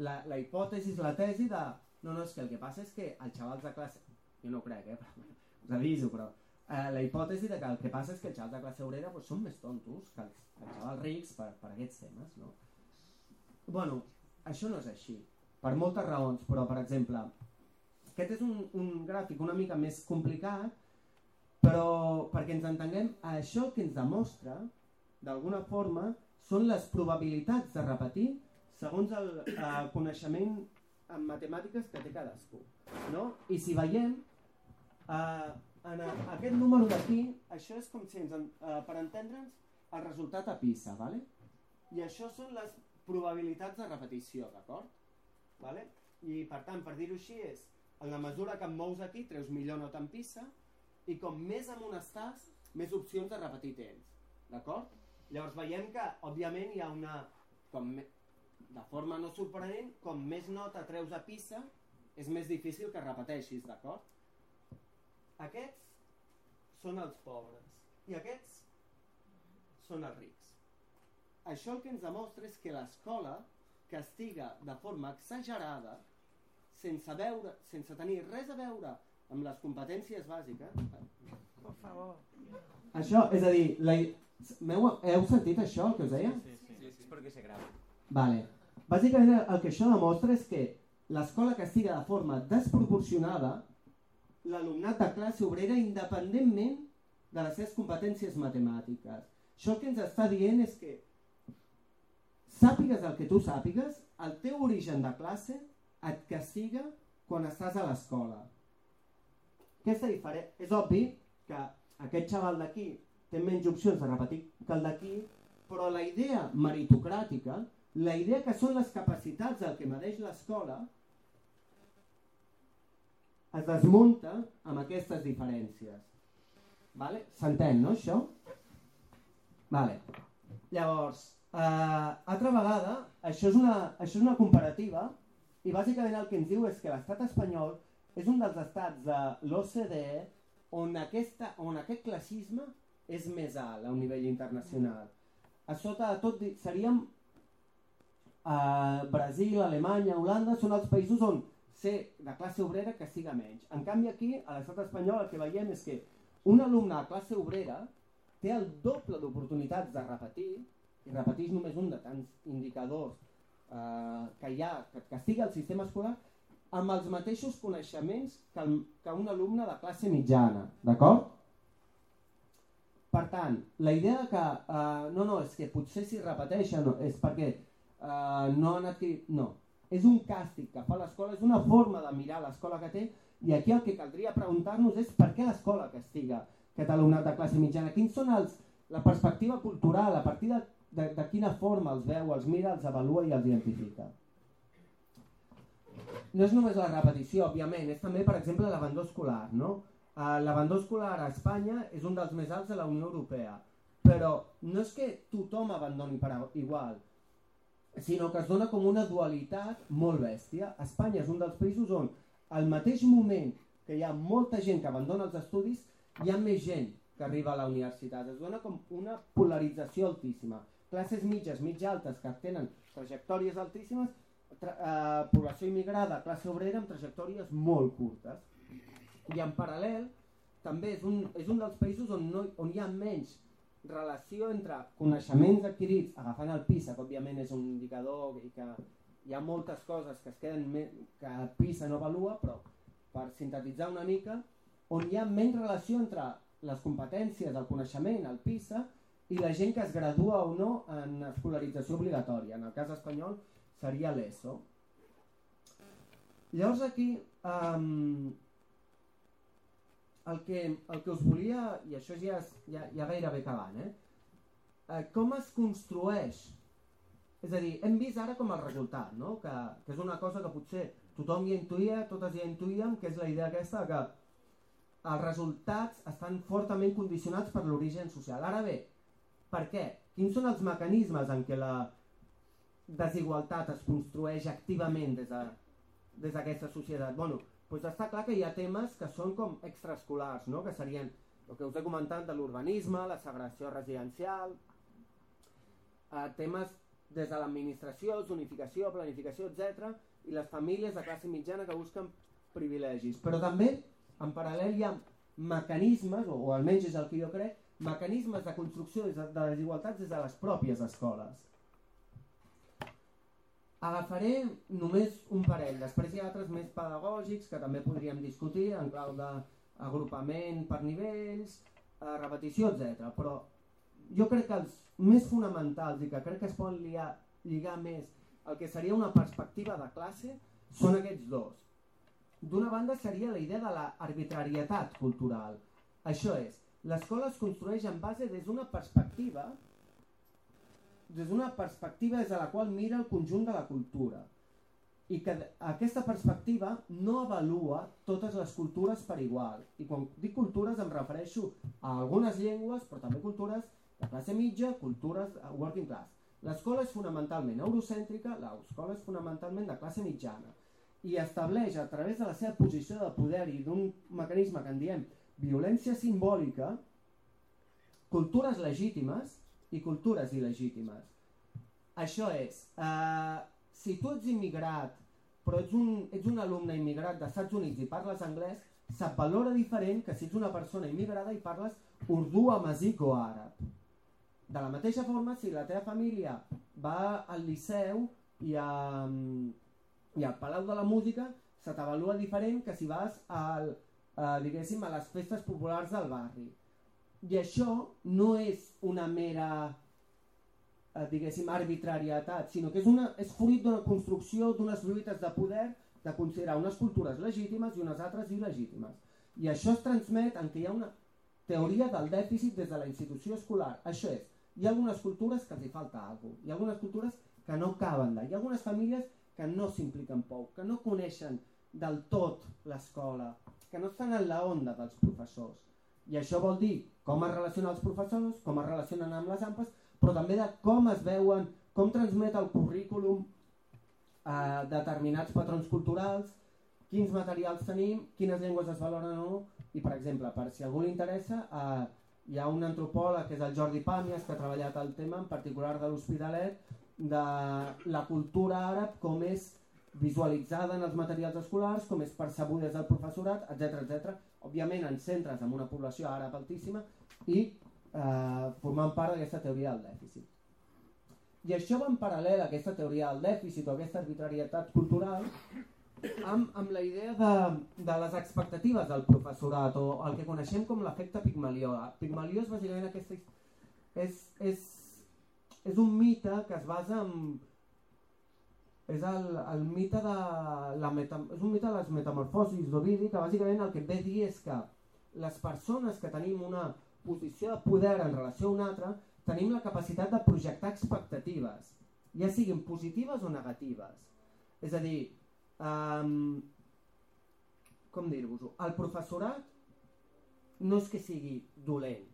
la hipòtesi, la tesi de no, és que el que passa és que els xavals de classe... Jo no ho crec, us aviso, però la hipòtesi de que el que passa és que els xavals de classe obrera són més tontos que els xavals rics per aquests temes, no? Bueno, això no és així, per moltes raons, però per exemple, aquest és un gràfic una mica més complicat, però perquè ens entenguem, això que ens demostra, d'alguna forma, són les probabilitats de repetir segons el coneixement en matemàtiques que té cadascú, no? I si veiem, en aquest número d'aquí, això és com si per entendre'ns el resultat a PISA, ¿vale? I això són les probabilitats de repetició, d'acord? ¿Vale? I per tant, per dir-ho així, és en la mesura que em mous aquí, treus millor nota en PISA, i com més amunt estàs, més opcions de repetir tens, d'acord? Llavors veiem que, òbviament, hi ha una... de forma no sorprenent, com més nota treus a PISA, és més difícil que repeteixis, d'acord? Aquests són els pobres i aquests són els rics. Això el que ens demostra és que l'escola castiga de forma exagerada, sense tenir res a veure amb les competències bàsiques. Per favor. Això, és a dir, heu sentit això, el que us deia? Sí, és perquè se grava. Vale. Bàsicament el que això demostra és que l'escola castiga de forma desproporcionada l'alumnat de classe obrera independentment de les seves competències matemàtiques. Això que ens està dient és que sàpigues el que tu sàpigues, el teu origen de classe et castiga quan estàs a l'escola. És obvi que aquest xaval d'aquí té menys opcions de repetir que el d'aquí, però la idea meritocràtica, la idea que són les capacitats del que medeix l'escola, es desmunta amb aquestes diferències. Vale? S'entén, no, això? Vale. Llavors, altra vegada, això és una comparativa i bàsicament el que ens diu és que l'estat espanyol és un dels estats de l'OCDE on aquest classisme és més alt a un nivell internacional. A sota de tot seríem Brasil, Alemanya, Holanda, són els països on ser de classe obrera castiga menys. En canvi aquí, a l'estat espanyol, el que veiem és que un alumne de classe obrera té el doble d'oportunitats de repetir, i repeteix només un de tants indicadors que hi ha, que castiga el sistema escolar, amb els mateixos coneixements que un alumne de classe mitjana, d'acord? Per tant, la idea que és que potser si repeteixen és perquè no han adquirit... No, és un càstig que fa l'escola, és una forma de mirar l'escola que té, i aquí el que caldria preguntar-nos és per què l'escola castiga aquest alumnat de classe mitjana, quins són la perspectiva cultural, a partir de quina forma els veu, els mira, els avalua i els identifica. No és només la repetició, òbviament, és també, per exemple, l'abandó escolar, no? L'abandó escolar a Espanya és un dels més alts de la Unió Europea, però no és que tothom abandoni per igual, sinó que es dona com una dualitat molt bèstia. Espanya és un dels països on al mateix moment que hi ha molta gent que abandona els estudis, hi ha més gent que arriba a la universitat. Es dona com una polarització altíssima. Classes mitges, mitja altes, que tenen trajectòries altíssimes, població immigrada, classe obrera amb trajectòries molt curtes. I en paral·lel, també és un dels països on hi ha menys relació entre coneixements adquirits, agafant el PISA, que òbviament és un indicador i que hi ha moltes coses que es queden que PISA no avalua, però per sintetitzar una mica, on hi ha menys relació entre les competències, el coneixement, el PISA, i la gent que es gradua o no en escolarització obligatòria. En el cas espanyol seria l'ESO. Llavors aquí el que us volia, i això ja gairebé acabant, com es construeix? És a dir, hem vist ara com el resultat, no? que és una cosa que potser tothom ja intuïa, totes ja intuïem, que és la idea aquesta que els resultats estan fortament condicionats per l'origen social. Ara bé, per què? Quins són els mecanismes en què la desigualtat es construeix activament des d'aquesta societat? Doncs està clar que hi ha temes que són com extraescolars, no? Que serien el que us he comentat de l'urbanisme, la segregació residencial, temes des de l'administració, zonificació, planificació, etc. I les famílies de classe mitjana que busquen privilegis. Però també, en paral·lel, hi ha mecanismes, o almenys és el que jo crec, mecanismes de construcció de desigualtats des de les pròpies escoles. Agafaré només un parell, després hi ha altres més pedagògics que també podríem discutir en clau d'agrupament per nivells, repetició, etc. Però jo crec que els més fonamentals i que crec que es poden lligar més el que seria una perspectiva de classe són aquests dos. D'una banda seria la idea de l'arbitrarietat cultural. Això és, l'escola es construeix en base des d'una perspectiva des de la qual mira el conjunt de la cultura i que aquesta perspectiva no avalua totes les cultures per igual. I quan dic cultures em refereixo a algunes llengües, però també cultures de classe mitja, cultures working class. L'escola és fonamentalment eurocèntrica, l'escola és fonamentalment de classe mitjana i estableix a través de la seva posició de poder i d'un mecanisme que en diem violència simbòlica, cultures legítimes i cultures il·legítimes. Això és, si tu ets immigrat, però ets un alumne immigrat dels Estats Units i parles anglès, se't valora diferent que si ets una persona immigrada i parles urdú, amazic o àrab. De la mateixa forma, si la teva família va al Liceu i al Palau de la Música, se t'avalua diferent que si vas a les festes populars del barri. I això no és una mera arbitrarietat, sinó que és fruit d'una construcció d'unes lluites de poder de considerar unes cultures legítimes i unes altres il·legítimes. I això es transmet en què hi ha una teoria del dèficit des de la institució escolar. Això és, hi ha algunes cultures que els hi falta alguna cosa, hi ha algunes cultures que no caben d'allà, hi ha algunes famílies que no s'impliquen prou, que no coneixen del tot l'escola, que no estan en la onda dels professors. I això vol dir com es relacionen els professors, com es relacionen amb les AMPAs, però també de com es veuen, com transmet el currículum determinats patrons culturals, quins materials tenim, quines llengües es valoren o no, i per exemple, per si a algú li interessa, hi ha un antropòleg que és el Jordi Pàmies que ha treballat el tema, en particular de l'Hospitalet, de la cultura àrab, com és visualitzada en els materials escolars, com és percebuda des del professorat, etc. Òbviament en centres amb una població àrab altíssima i formant part d'aquesta teoria del dèficit. I això va en paral·lel a aquesta teoria del dèficit o aquesta arbitrarietat cultural amb la idea de les expectatives del professorat o el que coneixem com l'efecte Pigmalió. Pigmalió és bàsicament aquesta... És un mite que es basa en... És el mite és un mite de les metamorfosis d'Ovidi, que bàsicament el que ve a dir és que les persones que tenim una posició de poder en relació a una altra tenim la capacitat de projectar expectatives, ja siguin positives o negatives. És a dir, com dir-vos-ho, el professorat no és que sigui dolent,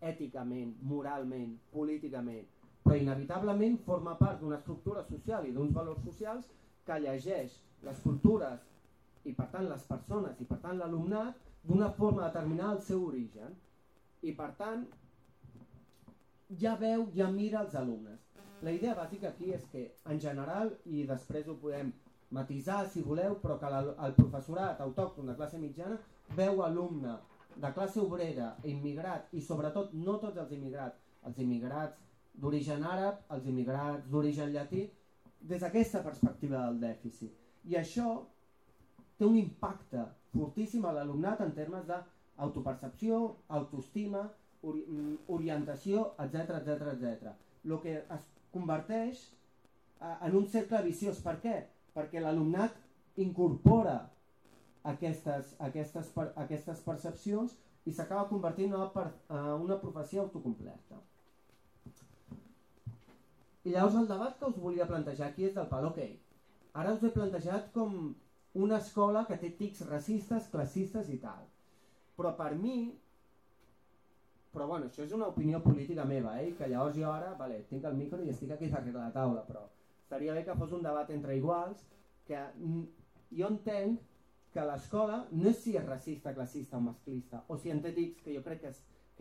èticament, moralment, políticament, però inevitablement forma part d'una estructura social i d'uns valors socials que llegeix les cultures i per tant les persones i per tant l'alumnat d'una forma determinada al seu origen i per tant ja veu, ja mira els alumnes. La idea bàsica aquí és que en general, i després ho podem matisar si voleu, però que el professorat autòcton de classe mitjana veu alumne de classe obrera, immigrat i sobretot no tots els immigrats d'origen àrab, els immigrats d'origen llatí, des d'aquesta perspectiva del dèficit. I això té un impacte fortíssim a l'alumnat en termes d'autopercepció, autoestima, orientació, etc. El que es converteix en un cercle viciós. Per què? Perquè l'alumnat incorpora aquestes percepcions i s'acaba convertint en una profecia autocomplerta. I llavors el debat que us volia plantejar aquí és del pal, ok, ara us he plantejat com una escola que té tics racistes, classistes i tal. Però per mi, això és una opinió política meva, que llavors jo ara, tinc el micro i estic aquí darrere la taula, però estaria bé que fos un debat entre iguals, que jo entenc que l'escola no és si és racista, classista o masclista, o si en té tics, que jo crec que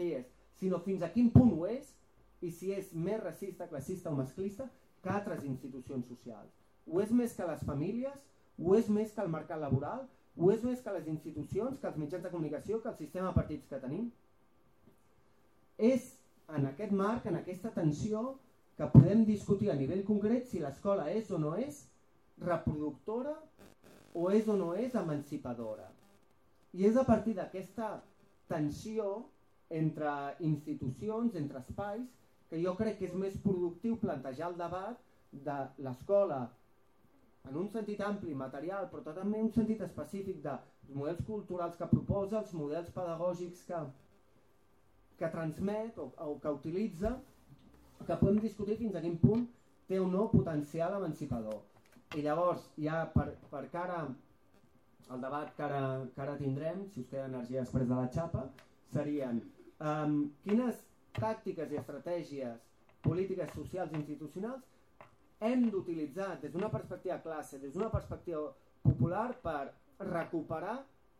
hi és, sinó fins a quin punt ho és, i si és més racista, classista o masclista que altres institucions socials. Ho és més que les famílies, ho és més que el mercat laboral, ho és més que les institucions, que els mitjans de comunicació, que el sistema de partits que tenim. És en aquest marc, en aquesta tensió, que podem discutir a nivell concret si l'escola és o no és reproductora o és emancipadora. I és a partir d'aquesta tensió entre institucions, entre espais, que jo crec que és més productiu plantejar el debat de l'escola en un sentit ampli, material, però també en un sentit específic dels models culturals que proposa, els models pedagògics que transmet o que utilitza, que podem discutir fins a quin punt té o no potencial emancipador. I llavors, ja per cara al debat que ara tindrem, si us queda energia després de la xapa, serien quines tàctiques i estratègies polítiques, socials i institucionals hem d'utilitzar des d'una perspectiva classe, des d'una perspectiva popular per recuperar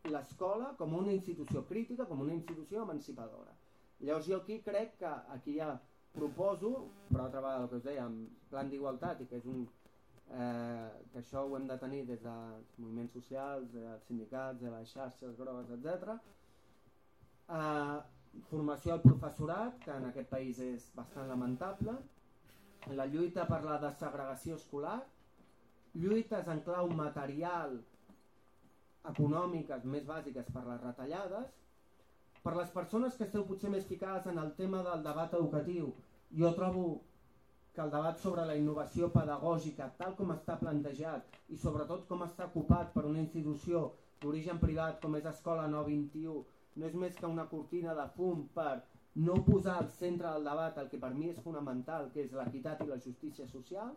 l'escola com una institució crítica, com una institució emancipadora. Llavors jo aquí crec que aquí ja proposo, per altra vegada el que us deia, en plan d'igualtat, i que és que això ho hem de tenir des dels moviments socials, dels sindicats, de les xarxes grogues, etc. Formació al professorat, que en aquest país és bastant lamentable, la lluita per la desegregació escolar, lluites en clau material, econòmiques més bàsiques per les retallades. Per les persones que esteu potser més ficades en el tema del debat educatiu, jo trobo que el debat sobre la innovació pedagògica, tal com està plantejat i sobretot com està ocupat per una institució d'origen privat com és Escola 921, no és més que una cortina de fum per no posar al centre del debat el que per mi és fonamental, que és l'equitat i la justícia social.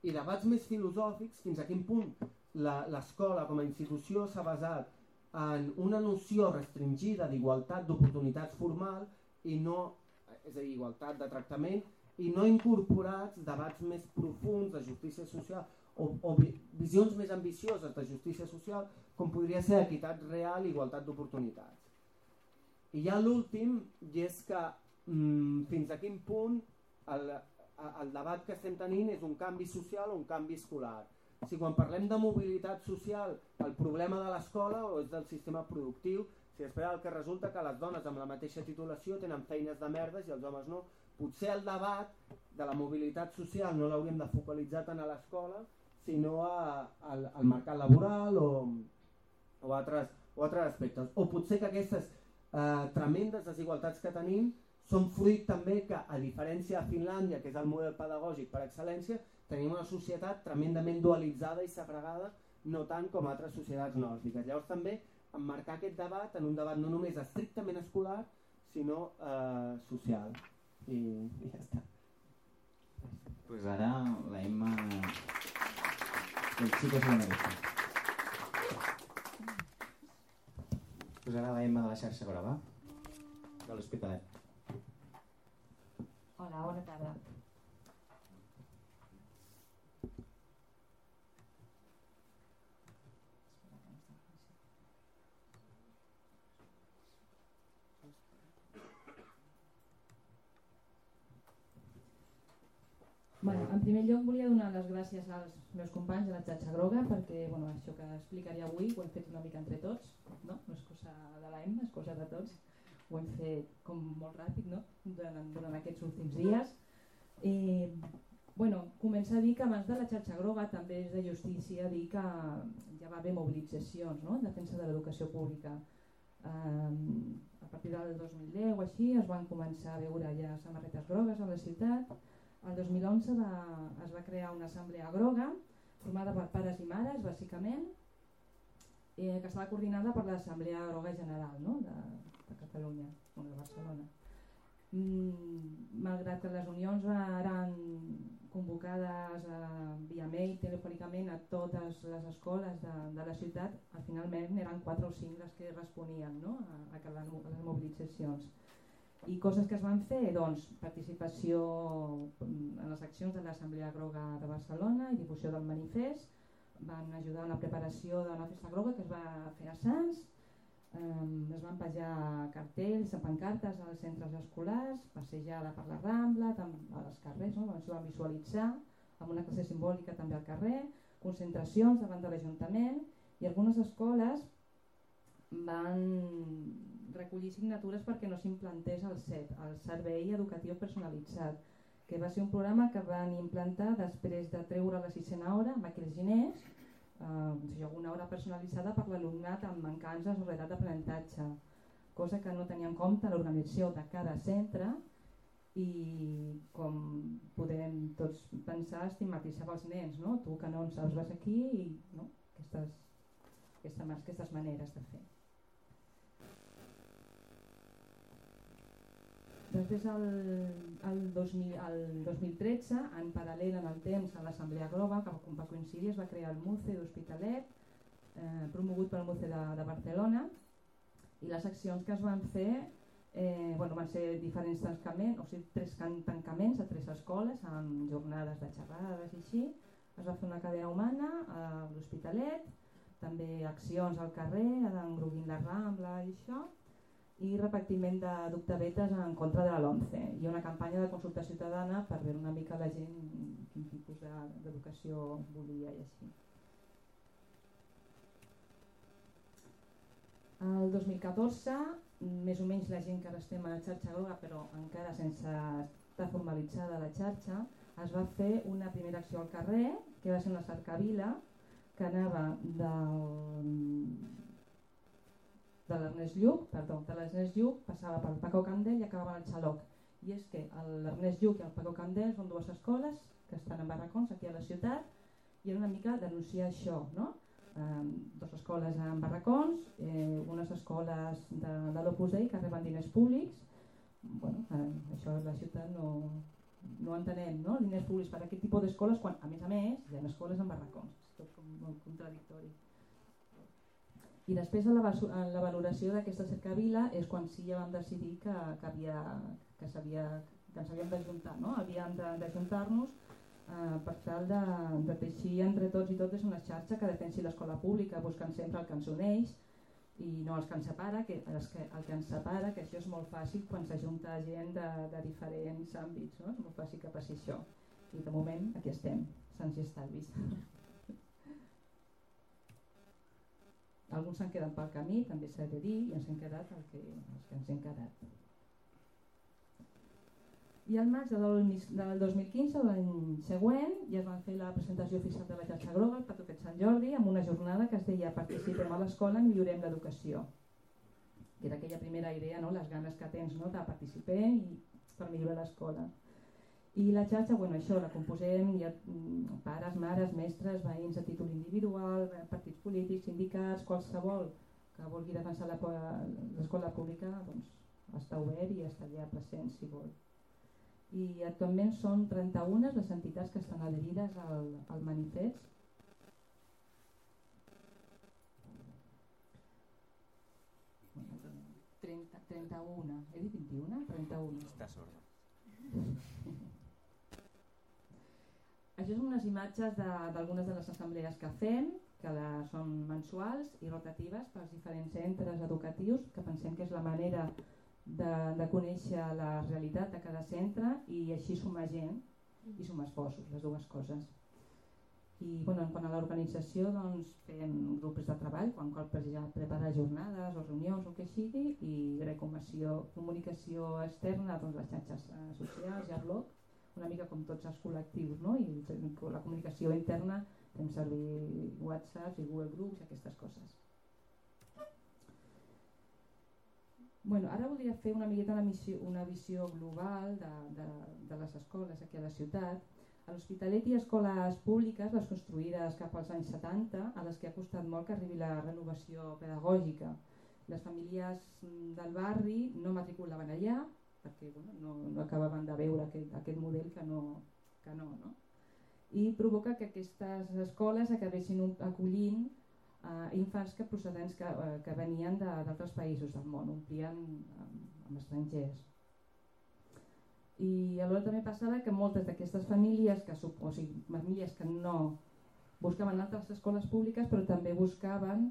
I debats més filosòfics, fins a quin punt l'escola com a institució s'ha basat en una noció restringida d'igualtat d'oportunitats formal i no, és a dir, igualtat de tractament, i no incorporats debats més profunds de justícia social o visions més ambicioses de justícia social, com podria ser equitat real i igualtat d'oportunitats. I ja l'últim, i és que fins a quin punt el debat que estem tenint és un canvi social o un canvi escolar. Si quan parlem de mobilitat social el problema de l'escola o és del sistema productiu, si després el que resulta que les dones amb la mateixa titulació tenen feines de merdes i els homes no, potser el debat de la mobilitat social no l'hauríem de focalitzar tant a l'escola sinó al mercat laboral o altres aspectes. O potser que aquestes tremendes desigualtats que tenim són fruit també que, a diferència de Finlàndia, que és el model pedagògic per excel·lència, tenim una societat tremendament dualitzada i segregada, no tant com altres societats nòrdiques. Llavors també emmarcar aquest debat en un debat no només estrictament escolar, sinó social. I ja està. Pues ara la Emma... El chico se lo merece. Pues ara la Emma de la xarxa Groga, de l'Hospitalet. Hola, bona tarda. En primer lloc volia donar les gràcies als meus companys de la xarxa groga perquè això que explicaré avui ho hem fet una mica entre tots, no és cosa de l'Emma, és cosa de tots. Ho hem fet com molt ràpid durant aquests últims dies. Comença a dir que abans de la xarxa groga també és de justícia dir que ja va haver mobilitzacions, no?, en defensa de l'educació pública. A partir del 2010 o així es van començar a veure ja samarretes grogues a la ciutat. El 2011 es va crear una assemblea groga formada per pares i mares, bàsicament, que estava coordinada per l'Assemblea Groga General, no?, de Catalunya, o de Barcelona. Malgrat que les unions eren convocades via mail, telefònicament a totes les escoles de la ciutat, finalment eren 4 o 5 les que responien, no?, a les mobilitzacions. I coses que es van fer, doncs, participació en les accions de l'Assemblea Groga de Barcelona i difusió del manifest, van ajudar en la preparació d'una festa groga que es va fer a Sants, es van penjar cartells, pancartes als centres escolars, passejada per la Rambla, als carrers, no?, es van visualitzar, amb una classe simbòlica també al carrer, concentracions davant de l'Ajuntament, i algunes escoles van recollir signatures perquè no s'implantés el CEP, el Servei Educatiu Personalitzat, que va ser un programa que van implantar després de treure la 6a hora amb aquells diners, una hora personalitzada per l'alumnat amb mancances o retards d'aprenentatge, cosa que no tenia en compte l'organització de cada centre i, com podem tots pensar, estigmatitzava els nens, no? Tu que no en saps vas aquí i no? Aquestes maneres de fer. Després, el 2013, en paral·lel en el temps a l'Assemblea Groga, que va coincidir, es va crear el MUCE d'Hospitalet, promogut pel MUCE de Barcelona, i les accions que es van fer van ser diferents tancaments, o sigui, 3 tancaments a 3 escoles, amb jornades de xerrades i així. Es va fer una cadena humana a l'Hospitalet, també accions al carrer, engroguint la Rambla i això, i repartiment de dictavetes en contra de la LOMCE i una campanya de consulta ciutadana per veure una mica la gent quin tipus d'educació volia i així. El 2014, més o menys la gent que ara estem a la xarxa groga, però encara sense estar formalitzada la xarxa, es va fer una primera acció al carrer, que va ser una cercavila que anava de l'Ernest Lluch, passava pel Paco Candel i acabava al Xaloc. I és que l'Ernest Lluch i el Paco Candel són 2 escoles que estan en barracons aquí a la ciutat i era una mica denunciar això, no? 2 escoles en barracons, unes escoles de l'Opus Dei que reben diners públics. Això la ciutat no entenem, no? Diners públics per aquest tipus d'escoles quan, a més, hi ha escoles en barracons. És tot com molt contradictori. I després en la valoració d'aquesta cercavila és quan sí ja vam decidir que ens havíem d'ajuntar, no? Havíem d'ajuntar-nos per tal de teixir entre tots i totes una xarxa que defensi l'escola pública, buscant sempre el que ens uneix i no els que ens separa, el que ens separa, que això és molt fàcil quan s'ajunta gent de diferents àmbits, no? És molt fàcil que passi això. I de moment aquí estem, sants i estalvis. Alguns s'han quedat pel camí, també s'ha de dir, i ens hem quedat els que ens hem quedat. I al maig del 2015, l'any següent, ja es van fer la presentació oficial de la xarxa groga, el Patoquet Sant Jordi, amb una jornada que es deia Participem a l'escola, millorem l'educació. Que era aquella primera idea, no? Les ganes que tens, no? De participar i per millorar l'escola. I la xarxa, això, la composem pares, mares, mestres, veïns a títol individual, partits polítics, sindicats, qualsevol que vulgui defensar l'escola pública, doncs està obert i està allà present si vol. I actualment són 31 les entitats que estan adherides al manifest. Bueno, 31, he dit 21? 31. Està sorda. Això són unes imatges d'algunes de les assemblees que fem, que són mensuals i rotatives pels diferents centres educatius, que pensem que és la manera de conèixer la realitat de cada centre i així sumar gent i sumar esforços, les dues coses. I en quant a l'organització, doncs, fem grups de treball, quan cal preparar jornades o reunions o el que sigui, i comunicació externa, doncs, les xarxes socials i el blog, una mica com tots els col·lectius, no? I la comunicació interna fem servir WhatsApp i Google Groups i aquestes coses. Bueno, ara voldria fer una miqueta una visió global de les escoles aquí a la ciutat. A l'Hospitalet hi ha escoles públiques, les construïdes cap als anys 70, a les que ha costat molt que arribi la renovació pedagògica. Les famílies del barri no matriculaven allà perquè no acabaven de veure aquest model que no. I provoca que aquestes escoles acabessin acollint infants procedents que venien d'altres països del món, omplien amb estrangers. I alhora també passava que moltes d'aquestes famílies, famílies que no buscaven altres escoles públiques, però també buscaven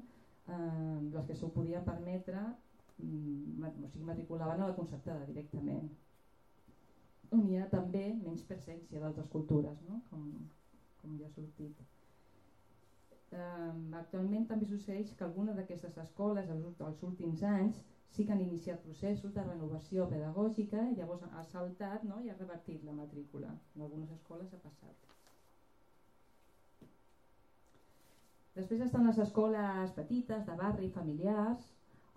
les que s'ho podien permetre, matriculaven a la concertada directament, on hi ha també menys presència d'altres cultures, no? com ja ha sortit. Actualment també succeeix que algunes d'aquestes escoles als últims anys sí que han iniciat processos de renovació pedagògica i llavors ha saltat, no? I ha revertit la matrícula. En algunes escoles ha passat. Després estan les escoles petites, de barri, familiars,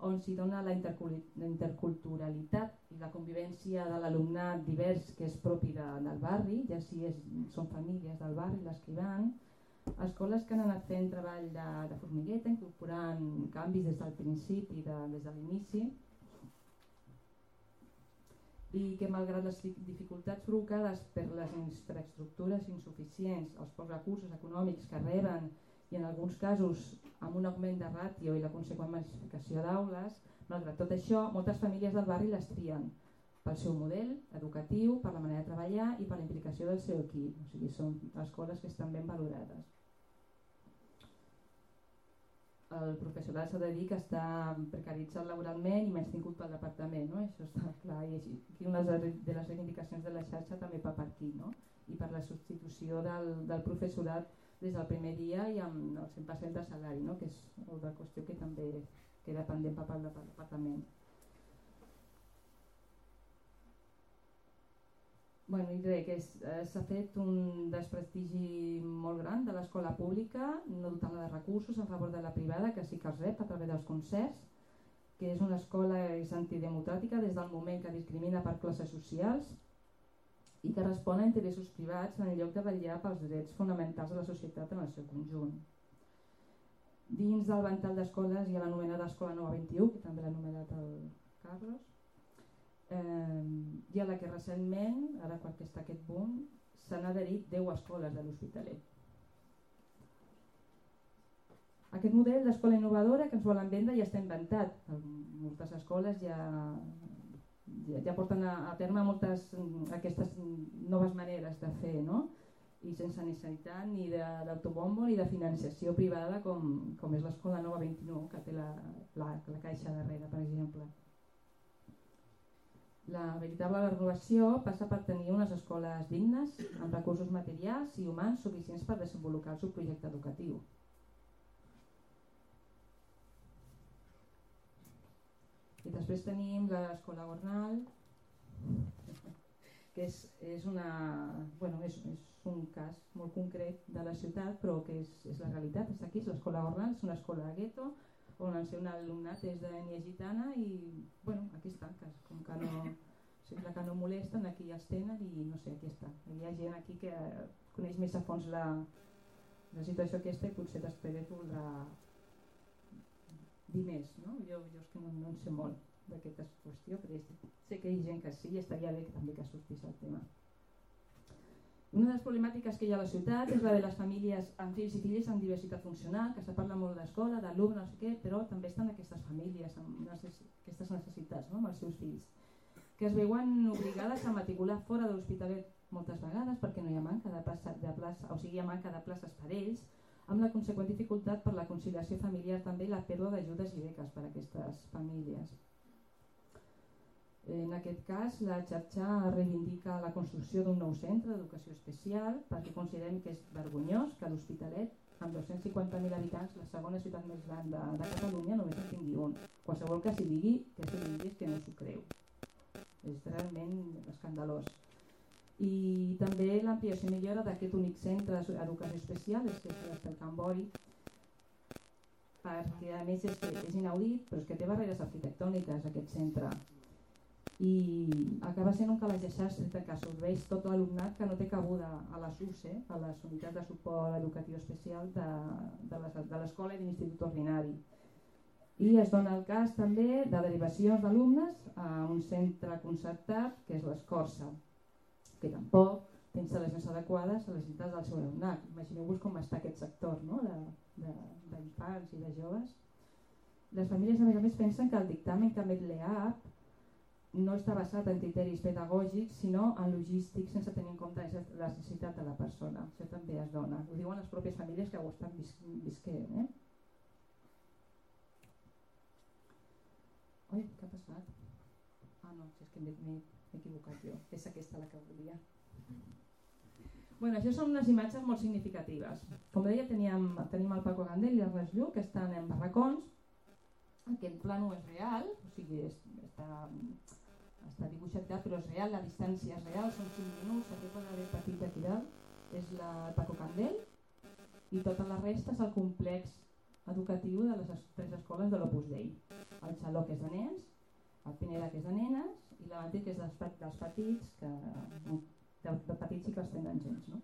on s'hi dona la interculturalitat i la convivència de l'alumnat divers que és propi del barri, ja si són famílies del barri les que hi van. Escoles que han anat fent treball de formigueta, incorporant canvis des del principi, des de l'inici, i que malgrat les dificultats provocades per les infraestructures insuficients, els pocs recursos econòmics que reben i en alguns casos amb un augment de ràtio i la conseqüent massificació d'aules, malgrat tot això, moltes famílies del barri les trien pel seu model educatiu, per la manera de treballar i per la implicació del seu equip. O sigui, són escoles que estan ben valorades. El professorat s'ha de dir que està precaritzat laboralment i menys tingut pel departament, no? Això està clar. I aquí una de les reivindicacions de la xarxa també va per aquí, no? I per la substitució del professorat des del primer dia i amb el 100% de salari, no? Que és una qüestió que també queda pendent per part del departament. Bueno, i res, que s'ha fet un desprestigi molt gran de l'escola pública, no dotant-la de recursos en favor de la privada, que sí que els rep a través dels concerts, que és una escola antidemocràtica des del moment que discrimina per classes socials i que respon a interessos privats en lloc de vetllar pels drets fonamentals de la societat en el seu conjunt. Dins del ventall d'escoles hi ha l'anomenada Escola Nova 21, que també l'ha anomenat el Carlos, i a la que recentment, ara quan està aquest boom, s'han adherit 10 escoles de l'Hospitalet. Aquest model d'escola innovadora que ens volen vendre ja està inventat. Moltes escoles ja porten a terme moltes aquestes noves maneres de fer, no? I sense necessitat ni d'autobombo ni de financiació privada com és l'Escola Nova 21, que té la Caixa darrere, per exemple. La veritable renovació passa per tenir unes escoles dignes, amb recursos materials i humans suficients per desenvolupar el seu projecte educatiu. I després tenim l'Escola Gornal, que és un cas molt concret de la ciutat, però que és la realitat. És aquí, l'Escola Gornal és una escola de gueto, on el seu alumnat és d'ètnia gitana i aquí està, com que sembla que no molesten, aquí ja els tenen i no sé, aquí està. Hi ha gent aquí que coneix més a fons la situació aquesta i potser després voldrà dir més, no? Jo és que no en sé molt d'aquesta qüestió, però sé que hi ha gent que sí i estaria bé també que sortís el tema. Una de les problemàtiques que hi ha a la ciutat és la de les famílies amb fills i filles amb diversitat funcional, que se parla molt d'escola, d'alumne, no sé què, però també estan aquestes famílies amb aquestes necessitats, no? Amb els seus fills, que es veuen obligades a matricular fora de l'Hospitalet moltes vegades perquè no hi ha manca de plaça, hi ha manca de places per ells, amb la conseqüent dificultat per la conciliació familiar també i la pèrdua d'ajudes i beques per a aquestes famílies. En aquest cas, la xarxa reivindica la construcció d'un nou centre d'educació especial perquè considerem que és vergonyós que l'Hospitalet, amb 250.000 habitants, la segona ciutat més gran de Catalunya, només en tingui un. Qualsevol que s'hi digui és que no s'ho creu. És realment escandalós. I també l'ampliació i millora d'aquest únic centre d'educació especial, és que és el Can Bori, perquè a més és inaudit, però és que té barreres arquitectòniques aquest centre. I acaba sent un calaix de sastre que absorbeix tot l'alumnat que no té cabuda a les UCE, a les unitats de suport educatiu especial de l'escola i de l'institut ordinari. I es dona el cas també de derivacions d'alumnes a un centre concertat que és l'Escorça, que tampoc té instal·lacions adequades a les necessitats del seu alumnat. Imagineu-vos com està aquest sector, no? d'infants i de joves. Les famílies a més pensen que el dictamen que emet l'EAP no està basat en criteris pedagògics sinó en logístics sense tenir en compte la necessitat de la persona. Això també es dona. Ho diuen les pròpies famílies que ho estan visquent. Ui, què ha passat? Ah no, és que m'he equivocat jo. És aquesta la que volia. Bueno, això són unes imatges molt significatives. Com deia, tenim el Paco Gandel i l'Ernest Lluch, que estan en barracons. Aquest plano és real, o sigui, està dibuixat, però és real, la distància és real, són 5 minuts, aquest quadre petit d'aquí dalt és el Paco Gandel i tota la resta és el complex educatiu de les 3 escoles de l'Opus Dei. El Xaló, que és de nens, el Pineda, que és de nenes, i la Matí, que és dels petits, de petits i que els tenen gens. No?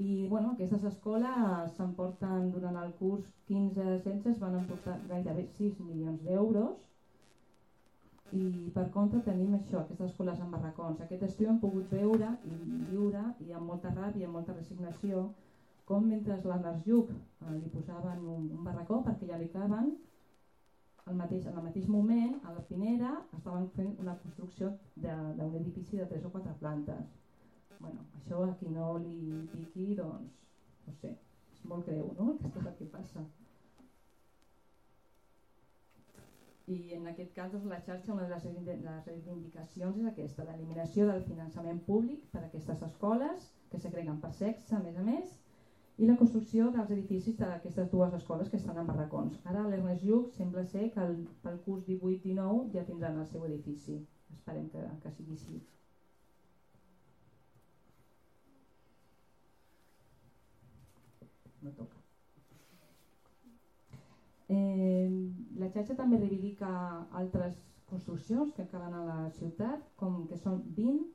I bueno, aquestes escoles s'emporten durant el curs 15-16, es van emportar gairebé 6 milions d'euros, i per contra tenim això, aquestes escoles en barracons. Aquest estiu hem pogut veure i viure, i amb molta ràbia i amb molta resignació, com mentre l'Ernest Lluch li posaven un barracó perquè ja li caben, en el mateix moment, a la Pineda, estaven fent una construcció d'un edifici de 3 o 4 plantes. Bueno, això a qui no li piqui, doncs, no sé, és molt greu, no?, aquest és el que passa. I en aquest cas, doncs, la xarxa, una de les reivindicacions és aquesta, l'eliminació del finançament públic per a aquestes escoles, que segreguen per sexe, a més, i la construcció dels edificis d'aquestes 2 escoles que estan en barracons. Ara l'Ernest Lluch sembla ser que pel curs 18-19 ja tindran el seu edifici. Esperem que sigui així. No toca. La xarxa també reivindica altres construccions que calen a la ciutat, com que són 20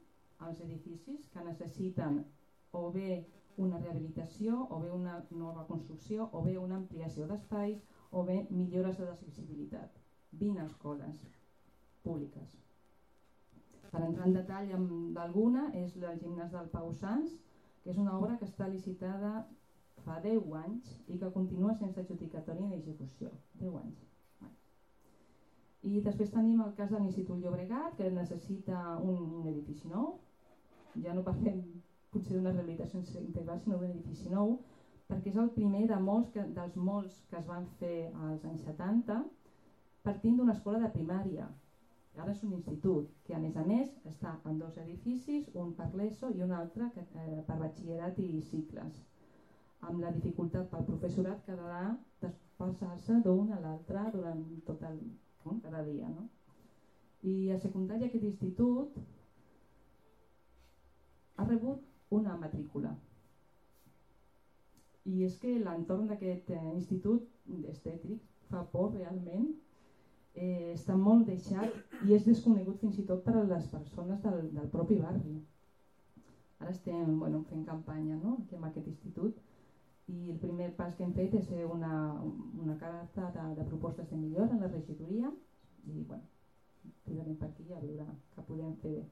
els edificis que necessiten o bé una rehabilitació, o bé una nova construcció, o bé una ampliació d'espais, o bé millores de l'accessibilitat. 20 escoles públiques. Per entrar en detall d'alguna, és el gimnàs del Pau Sans, que és una obra que està licitada fa 10 anys i que continua sense adjudicatòria ni execució. 10 anys. I després tenim el cas de l'Institut Llobregat, que necessita un edifici nou. Ja no parlem potser d'una rehabilitació integral, sinó d'un edifici nou, perquè és el primer dels molts que es van fer als anys 70, partint d'una escola de primària. Ara és un institut, que a més està en 2 edificis, un per l'ESO i un altre per batxillerat i cicles, amb la dificultat pel professorat que ha de desplaçar-se d'un a l'altre durant tot cada dia. No? I a secundària aquest institut ha rebut una matrícula. I és que l'entorn d'aquest institut estètic fa por realment, està molt deixat i és desconegut fins i tot per a les persones del propi barri. Ara estem fent campanya aquí amb aquest institut i el primer pas que hem fet és fer una carta de propostes de millora en la regidoria i podrem per aquí a veure què podem fer bé.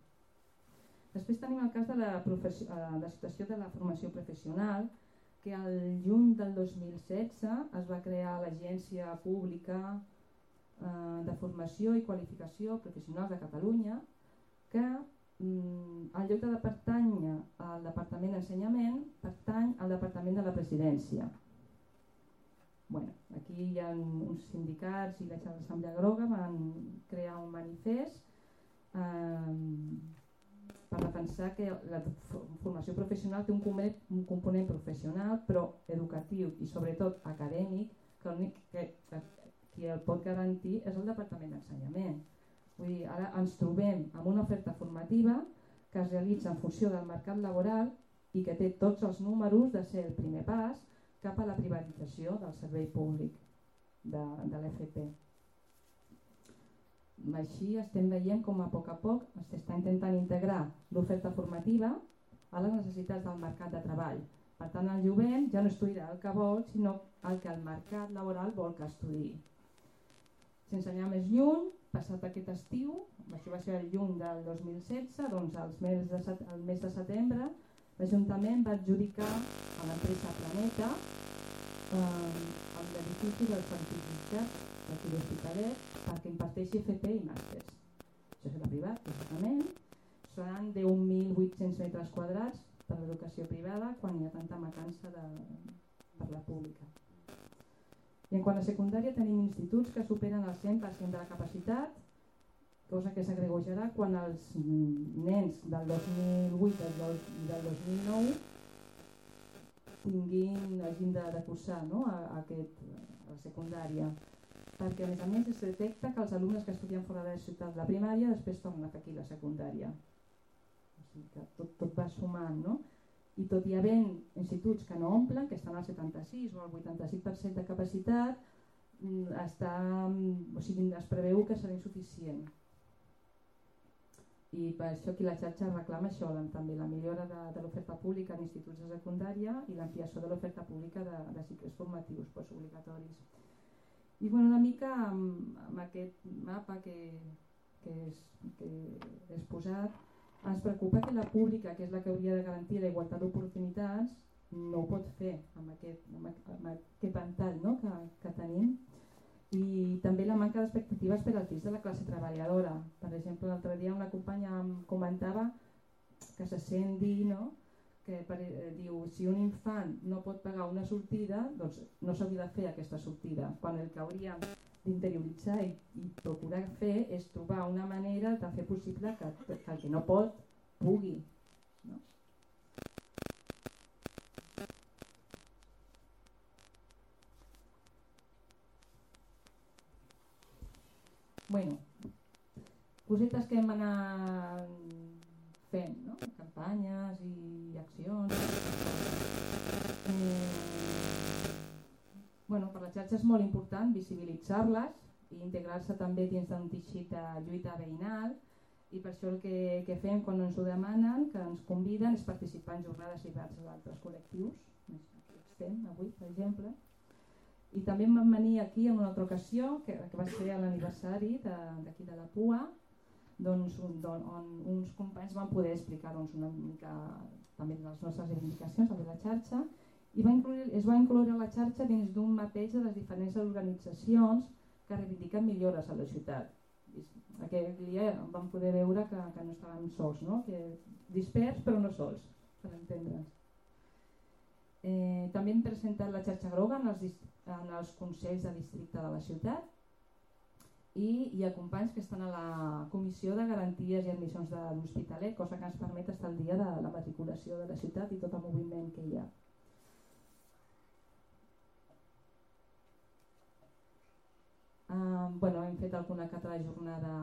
Després tenim el cas de la situació de la formació professional, que al juny del 2016 es va crear l'Agència Pública de Formació i Qualificació Professionals de Catalunya, que en lloc de pertànyer al Departament d'Ensenyament, pertany al Departament de la Presidència. Aquí hi ha uns sindicats i l'Assemblea Groga van crear un manifest per defensar que la formació professional té un component professional però educatiu i sobretot acadèmic, que l'únic que qui el pot garantir és el Departament d'Ensenyament. Vull dir, ara ens trobem amb una oferta formativa que es realitza en funció del mercat laboral i que té tots els números de ser el primer pas cap a la privatització del servei públic de l'FP. Així estem veient com a poc s'està intentant integrar l'oferta formativa a les necessitats del mercat de treball. Per tant, el jovent ja no estudiarà el que vol, sinó el que el mercat laboral vol que estudiï. Sense anar més lluny, passat aquest estiu, això va ser el juny del 2016, doncs al mes de setembre, l'Ajuntament va adjudicar a l'empresa Planeta l'edifici del certificat d'aquí l'Hospitalet perquè imparteixi FP i màsters. Això serà privat, lògicament. Seran 10.800 metres quadrats per l'educació privada quan hi ha tanta mancança per la pública. I en quant a secundària tenim instituts que superen el 100% de la capacitat, cosa que s'agregojarà quan els nens del 2008 i del 2009 hagin de cursar a la secundària. Perquè a més es detecta que els alumnes que estudien fora de la ciutat de la primària després tornen a fer aquí la secundària. O sigui que tot va sumant, no? I tot hi havent instituts que no omplen, que estan al 76 o al 85% de capacitat, es preveu que serà insuficient. I per això aquí la xarxa reclama això, també la millora de l'oferta pública en instituts de secundària i l'ampliació de l'oferta pública de cicles formatius postobligatoris. I una mica amb aquest mapa que he exposat, ens preocupa que la pública, que és la que hauria de garantir la igualtat d'oportunitats, no ho pot fer amb aquest ventall que tenim. I també la manca d'expectatives per als fills de la classe treballadora. Per exemple, l'altre dia una companya em comentava que se sent dir, que diu, si un infant no pot pagar una sortida, doncs no s'hauria de fer aquesta sortida, quan el que hauríem d'interioritzar i procurar fer és trobar una manera de fer possible que el que no pot pugui. Bueno, cosetes que hem anat fent, campanyes i accions. Per la xarxa és molt important visibilitzar-les i integrar-se també dins d'un teixit de lluita veïnal, i per això el que fem quan ens ho demanen, que ens conviden, és participar en jornades i debats d'altres col·lectius, aquí estem avui, per exemple. I també em van venir aquí en una altra ocasió, que va ser a l'aniversari d'aquí de la PUA, on uns companys van poder explicar una mica també les nostres reivindicacions de la xarxa, i es va incloure la xarxa dins d'un mapeig de les diferents organitzacions que reivindiquen millores a la ciutat. Aquell dia vam poder veure que no estàvem sols, que dispers però no sols, per entendre'ns. També hem presentat la xarxa groga en els consells de districte de la ciutat, i hi ha companys que estan a la Comissió de Garanties i Admissions de l'Hospitalet, cosa que ens permet estar al dia de la matriculació de la ciutat i tot el moviment que hi ha. Hem fet alguna que altra jornada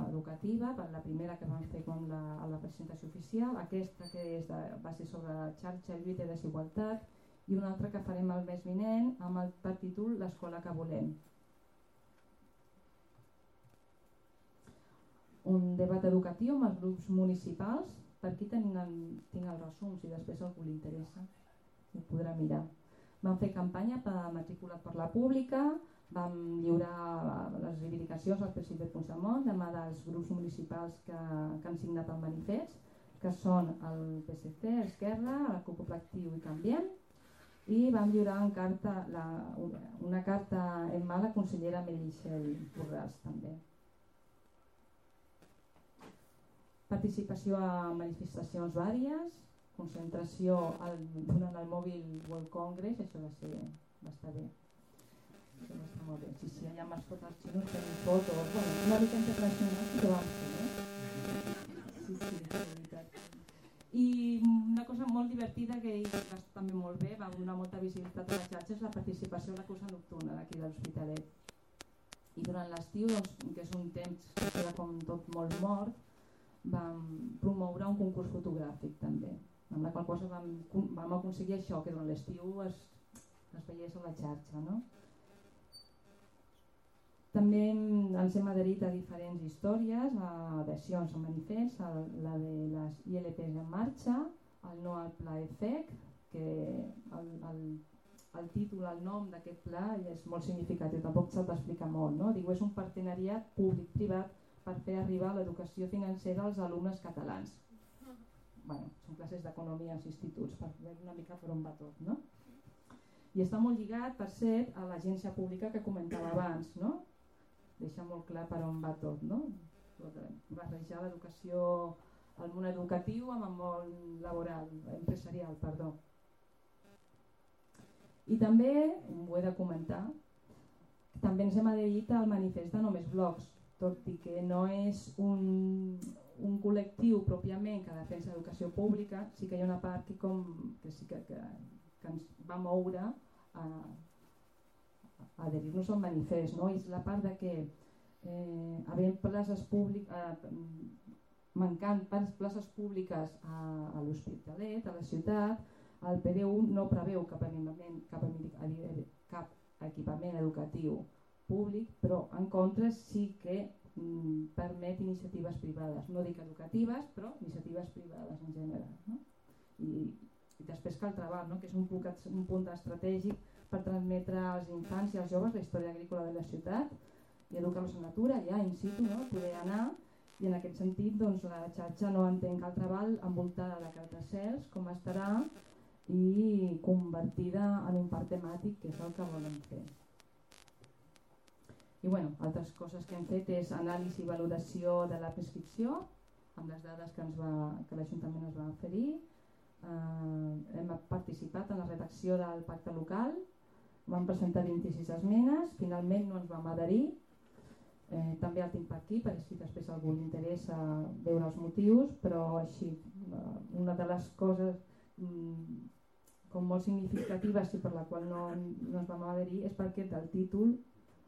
educativa, la primera que vam fer a la presentació oficial, aquesta que va ser sobre la xarxa, lluita i desigualtat, i una altra que farem el mes vinent amb el títol L'escola que volem. Un debat educatiu amb els grups municipals, per aquí tinc el resum, si després a algú li interessa, ho podrà mirar. Vam fer campanya per matriculat per la pública, vam lliurar les reivindicacions al president Puigdemont, demà dels grups municipals que han signat el manifest, que són el PSC, Esquerra, la CUP Actiu i Canviem, i vam lliurar una carta en mà a la consellera Meritxell Borràs també. Participació a manifestacions vàries, concentració durant el Mobile World Congress, això va estar bé. Això va estar molt bé. Sí, allà amb els fotos xinos tenim fotos, una mica internacional que vam fer, Sí, és veritat. I una cosa molt divertida que va també molt bé, va donar molta visibilitat a la xarxa, és la participació a la cursa nocturna d'aquí de l'Hospitalet. I durant l'estiu, que és un temps que queda com tot molt mort, vam promoure un concurs fotogràfic també, amb la qual cosa vam aconseguir això, que durant l'estiu es veiés a la xarxa, no? També ens hem adherit a diferents històries, a adhesions a manifests, la de les ILPs en marxa, el no al pla EFEC, que el títol, el nom d'aquest pla és molt significatiu, tampoc s'ha d'explicar molt, no? Diu, és un partenariat públic-privat per fer arribar l'educació financera als alumnes catalans. Bueno, són classes d'economia als instituts, per veure una mica per on va tot, no? I està molt lligat, per cert, a l'agència pública que comentava abans, no? Deixa molt clar per on va tot, no? Barrejar l'educació, el món educatiu amb el món laboral, empresarial, perdó. I també, ho he de comentar, també ens hem adherit al manifest de Només Blogs, tot i que no és un col·lectiu pròpiament que defensa l'educació pública, sí que hi ha una part que sí que ens va moure a adherir-nos al manifest, no? És la part de que havent places públiques, mancant places públiques a l'Hospitalet, a la ciutat, el PDU no preveu cap equipament educatiu públic, però en contra sí que permet iniciatives privades, no dic educatives, però iniciatives privades en general, no? I després cal treballar, no? Que és un punt estratègic per transmetre als infants i als joves la història agrícola de la ciutat i educar-los en natura, ja in situ, no? Poder anar, i en aquest sentit doncs, la xarxa no entén cal treball envoltada de cartacels com estarà i convertida en un parc temàtic, que és el que volen fer. I bueno, altres coses que hem fet és anàlisi i valoració de la prescripció, amb les dades que l'Ajuntament ens va oferir. Hem participat en la redacció del pacte local, vam presentar 26 esmenes, finalment no ens vam adherir. També el tinc per aquí, perquè si després a algú li interessa veure els motius, però així, una de les coses com molt significatives i per la qual no ens vam adherir és perquè del títol,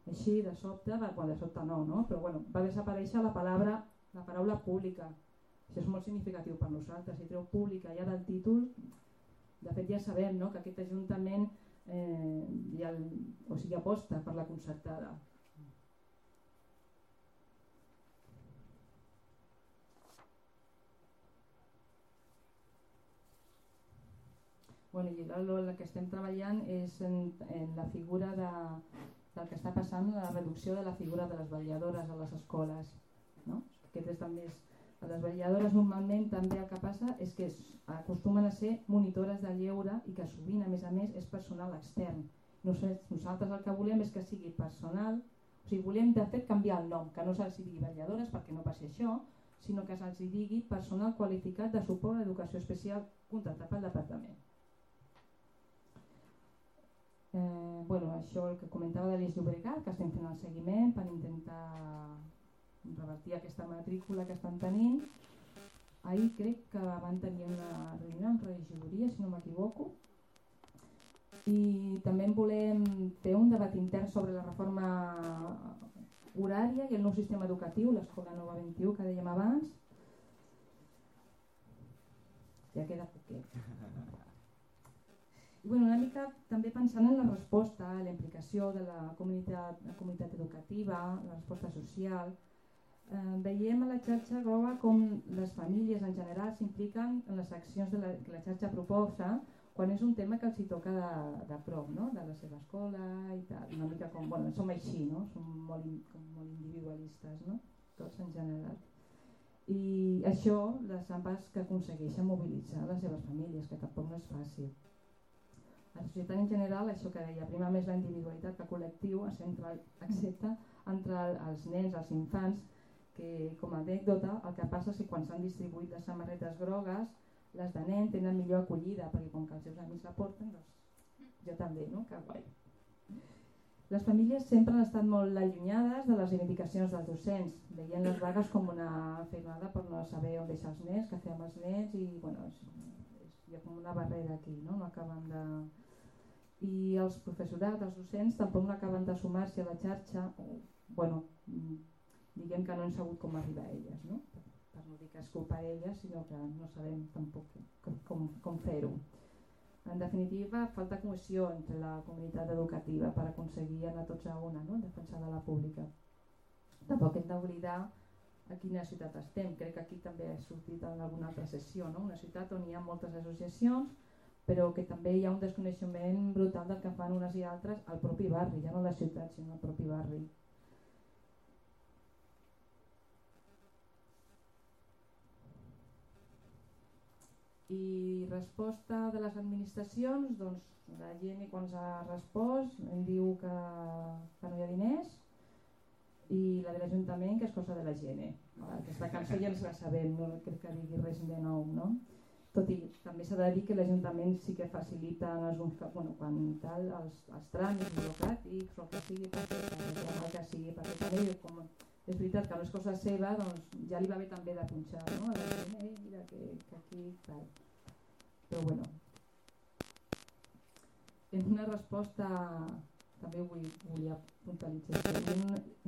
així de sobte, quan de sobte no, però bueno, va desaparèixer la paraula pública. Això és molt significatiu per nosaltres. Si treu pública ja del títol, de fet ja sabem, no?, que aquest Ajuntament aposta per la concertada. Bueno, i el que estem treballant és en la figura del que està passant, la reducció de la figura de les vetlladores a les escoles, no? Les vetlladores normalment també el que passa és que acostumen a ser monitores de lleure i que sovint a més és personal extern. Nosaltres el que volem és que sigui personal, o sigui, volem de fet canviar el nom, que no se'ls digui vetlladores perquè no passi això, sinó que se'ls digui personal qualificat de suport a l'educació especial contractat pel departament. Això el que comentava de l'Eix Llobregat, que estem fent el seguiment per intentar revertir aquesta matrícula que estan tenint. Ahir crec que van tenir una reunió amb regidoria, si no m'equivoco, i també volem fer un debat intern sobre la reforma horària i el nou sistema educatiu, l'Escola Nova 21 que dèiem abans. Ja queda poquet. I una mica també pensant en la resposta, la implicació de la comunitat educativa, la resposta social. Veiem a la xarxa groga com les famílies en general s'impliquen en les accions que la xarxa proposa quan és un tema que els hi toca de prop, no? De la seva escola i tal. Una mica com, som així, no? Som molt individualistes, no? Tots en general. I això, les AMPAs que aconsegueixen mobilitzar les seves famílies, que tampoc no és fàcil. La societat en general, això que deia, prima més la individualitat que el col·lectiu, excepte entre els nens, els infants, que com a anècdota el que passa és que quan s'han distribuït les samarretes grogues, les de nen tenen millor acollida, perquè com que els seus amics la porten, doncs jo també, no? Que guai. Les famílies sempre han estat molt allunyades de les reivindicacions dels docents, veient les vagues com una feinada per no saber on deixar els nens, què fer amb els nens, i hi ha com una barrera aquí, no? No acaben de... I els professorats, els docents, tampoc no acaben de sumar-se a la xarxa, diguem que no han sabut com arribar a elles, no? Per no dic que és culpa d'ella, sinó que no sabem tampoc com fer-ho. En definitiva, falta cohesió entre la comunitat educativa per aconseguir anar tots a una, no? Defensar de la pública. Tampoc hem d'oblidar a quina ciutat estem. Crec que aquí també ha sortit en alguna altra sessió, no? Una ciutat on hi ha moltes associacions, però que també hi ha un desconeixement brutal del que fan unes i altres al propi barri, ja no a la ciutat, sinó al propi barri. I resposta de les administracions, doncs la gent quan ens ha respost em diu que no hi ha diners, i la de l'Ajuntament que és cosa de la gent. Aquesta cançó ja ens la sabem, no crec que digui res de nou, no? Tot i també s'ha de dir que l'Ajuntament sí que facilita en alguns casos, quan tal, els tràmits burocràtics o el que sigui, perquè també com és veritat que no és cosa seva, doncs ja li va bé també de punxar, no? A la gent, mira que aquí tal. Però bueno, en una resposta també volia puntualitzar.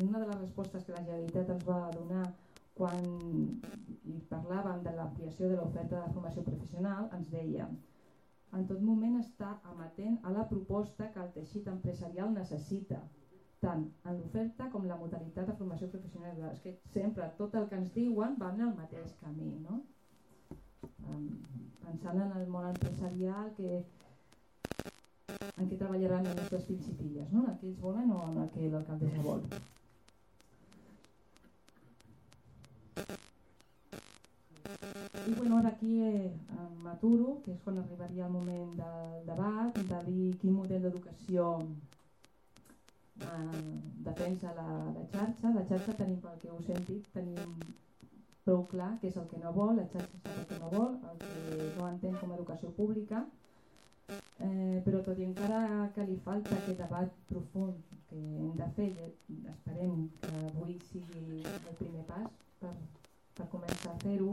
Una de les respostes que la Generalitat ens va donar quan parlàvem de l'ampliació de l'oferta de formació professional, ens deia: en tot moment està amatent a la proposta que el teixit empresarial necessita, tant en l'oferta com la modalitat de formació professional. És que sempre tot el que ens diuen va en el mateix camí, no? Pensant en el món empresarial, en què treballaran els nostres fills i filles, no? En el que ells volen o en el que l'alcaldessa vol. I bueno, ara aquí m'aturo, que és quan arribaria el moment del debat, de dir quin model d'educació defensa la xarxa. La xarxa tenim, pel que us hem dit, tenim prou clar què és el que no vol, la xarxa sap el que no vol, el que no entén com a educació pública, però tot i encara que li falta aquest debat profund que hem de fer, esperem que avui sigui el primer pas per començar a fer-ho.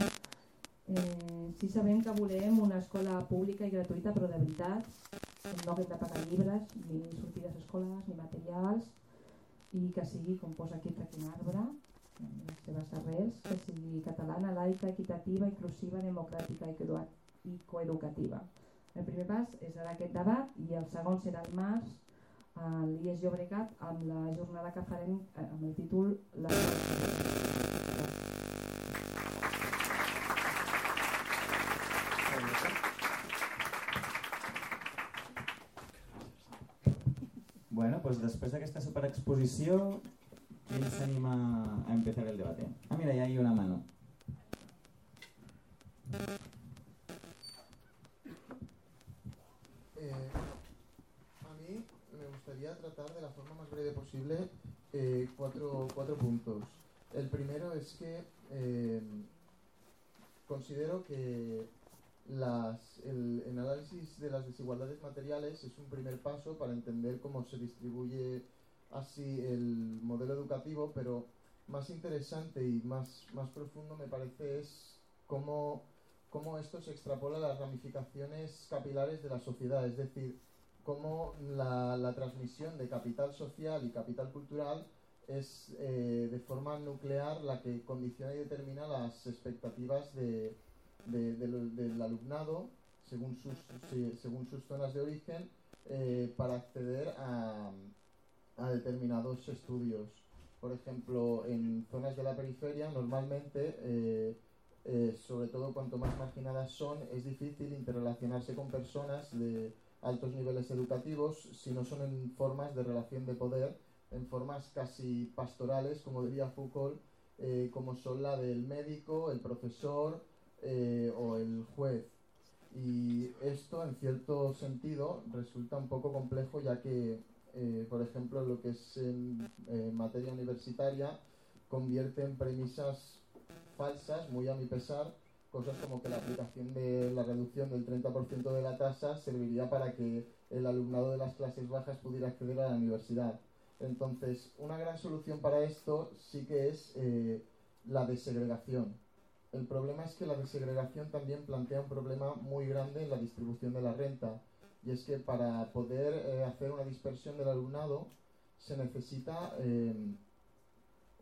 Sí sabem que volem una escola pública i gratuïta, però de veritat, no haguem de pagar llibres, ni sortides escolars, ni materials, i que sigui, com posa aquí Traquin Arbre, les seves arrels, que sigui catalana, laica, equitativa, inclusiva, democràtica i coeducativa. El primer pas és ara aquest debat i el segon serà el març a l'IES Llobregat amb la jornada que farem amb el títol Bueno, pues després d'aquesta superexposició, ¿quién se anima a empezar el debate? Ah, mira, ya hay una mano. A mí me gustaría tratar de la forma más breve posible cuatro puntos. El primero es que considero que el análisis de las desigualdades materiales es un primer paso para entender cómo se distribuye así el modelo educativo, pero más interesante y más profundo me parece es cómo esto se extrapola a las ramificaciones capilares de la sociedad, es decir, cómo la transmisión de capital social y capital cultural es de forma nuclear la que condiciona y determina las expectativas del alumnado según sus zonas de origen para acceder a determinados estudios. Por ejemplo, en zonas de la periferia normalmente, sobre todo cuanto más marginadas son, es difícil interrelacionarse con personas de altos niveles educativos si no son en formas de relación de poder, en formas casi pastorales, como diría Foucault, como son la del médico, el profesor o el juez. Y esto en cierto sentido resulta un poco complejo, ya que por ejemplo lo que es en materia universitaria convierte en premisas falsas, muy a mi pesar, cosas como que la aplicación de la reducción del 30% de la tasa serviría para que el alumnado de las clases bajas pudiera acceder a la universidad. Entonces, una gran solución para esto sí que es la desegregación. El problema es que la desegregación también plantea un problema muy grande en la distribución de la renta, y es que para poder hacer una dispersión del alumnado se necesita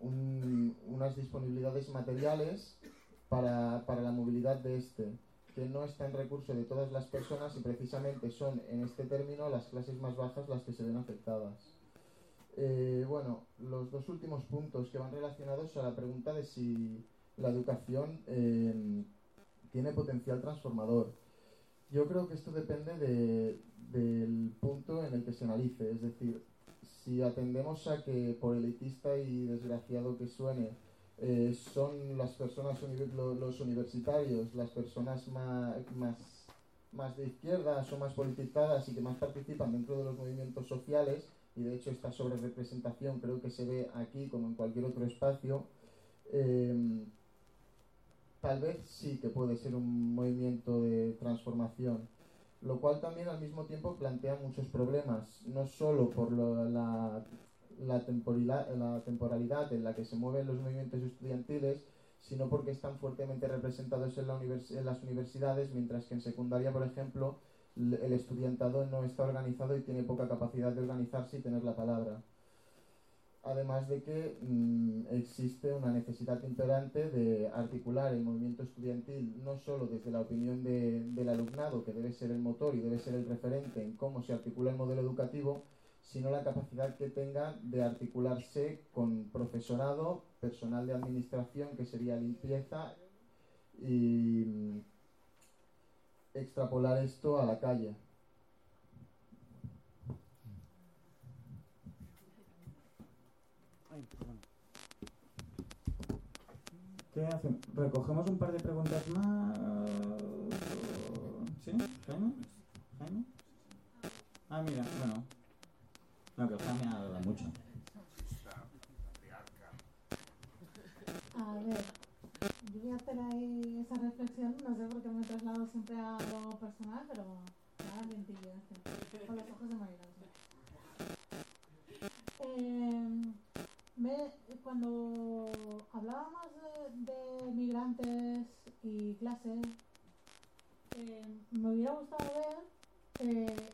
unas disponibilidades materiales para la movilidad de este, que no está en recurso de todas las personas y precisamente son en este término las clases más bajas las que se ven afectadas. Bueno, los dos últimos puntos que van relacionados a la pregunta de si la educación tiene potencial transformador. Yo creo que esto depende del punto en el que se analice, es decir, si atendemos a que, por elitista y desgraciado que suene, son las personas, los universitarios, las personas más de izquierdas o más politizadas y que más participan dentro de los movimientos sociales, y de hecho esta sobrerepresentación creo que se ve aquí como en cualquier otro espacio, tal vez sí que puede ser un movimiento de transformación, lo cual también al mismo tiempo plantea muchos problemas, no solo por la temporalidad en la que se mueven los movimientos estudiantiles, sino porque están fuertemente representados en las universidades, mientras que en secundaria, por ejemplo, el estudiantado no está organizado y tiene poca capacidad de organizarse y tener la palabra. Además de que existe una necesidad imperante de articular el movimiento estudiantil no solo desde la opinión del alumnado, que debe ser el motor y debe ser el referente en cómo se articula el modelo educativo, sino la capacidad que tenga de articularse con profesorado, personal de administración, que sería limpieza, y extrapolar esto a la calle. ¿Qué hacemos? ¿Recogemos un par de preguntas más? ¿Sí? ¿Jaime? ¿Jaime? Ah, mira, bueno. No, que Jaime habla mucho. A ver, yo voy a hacer ahí esa reflexión, no sé por qué me traslado siempre a lo personal, pero nada, lentillo, con los ojos de Marilán. Cuando hablábamos de migrantes y clases, me hubiera gustado ver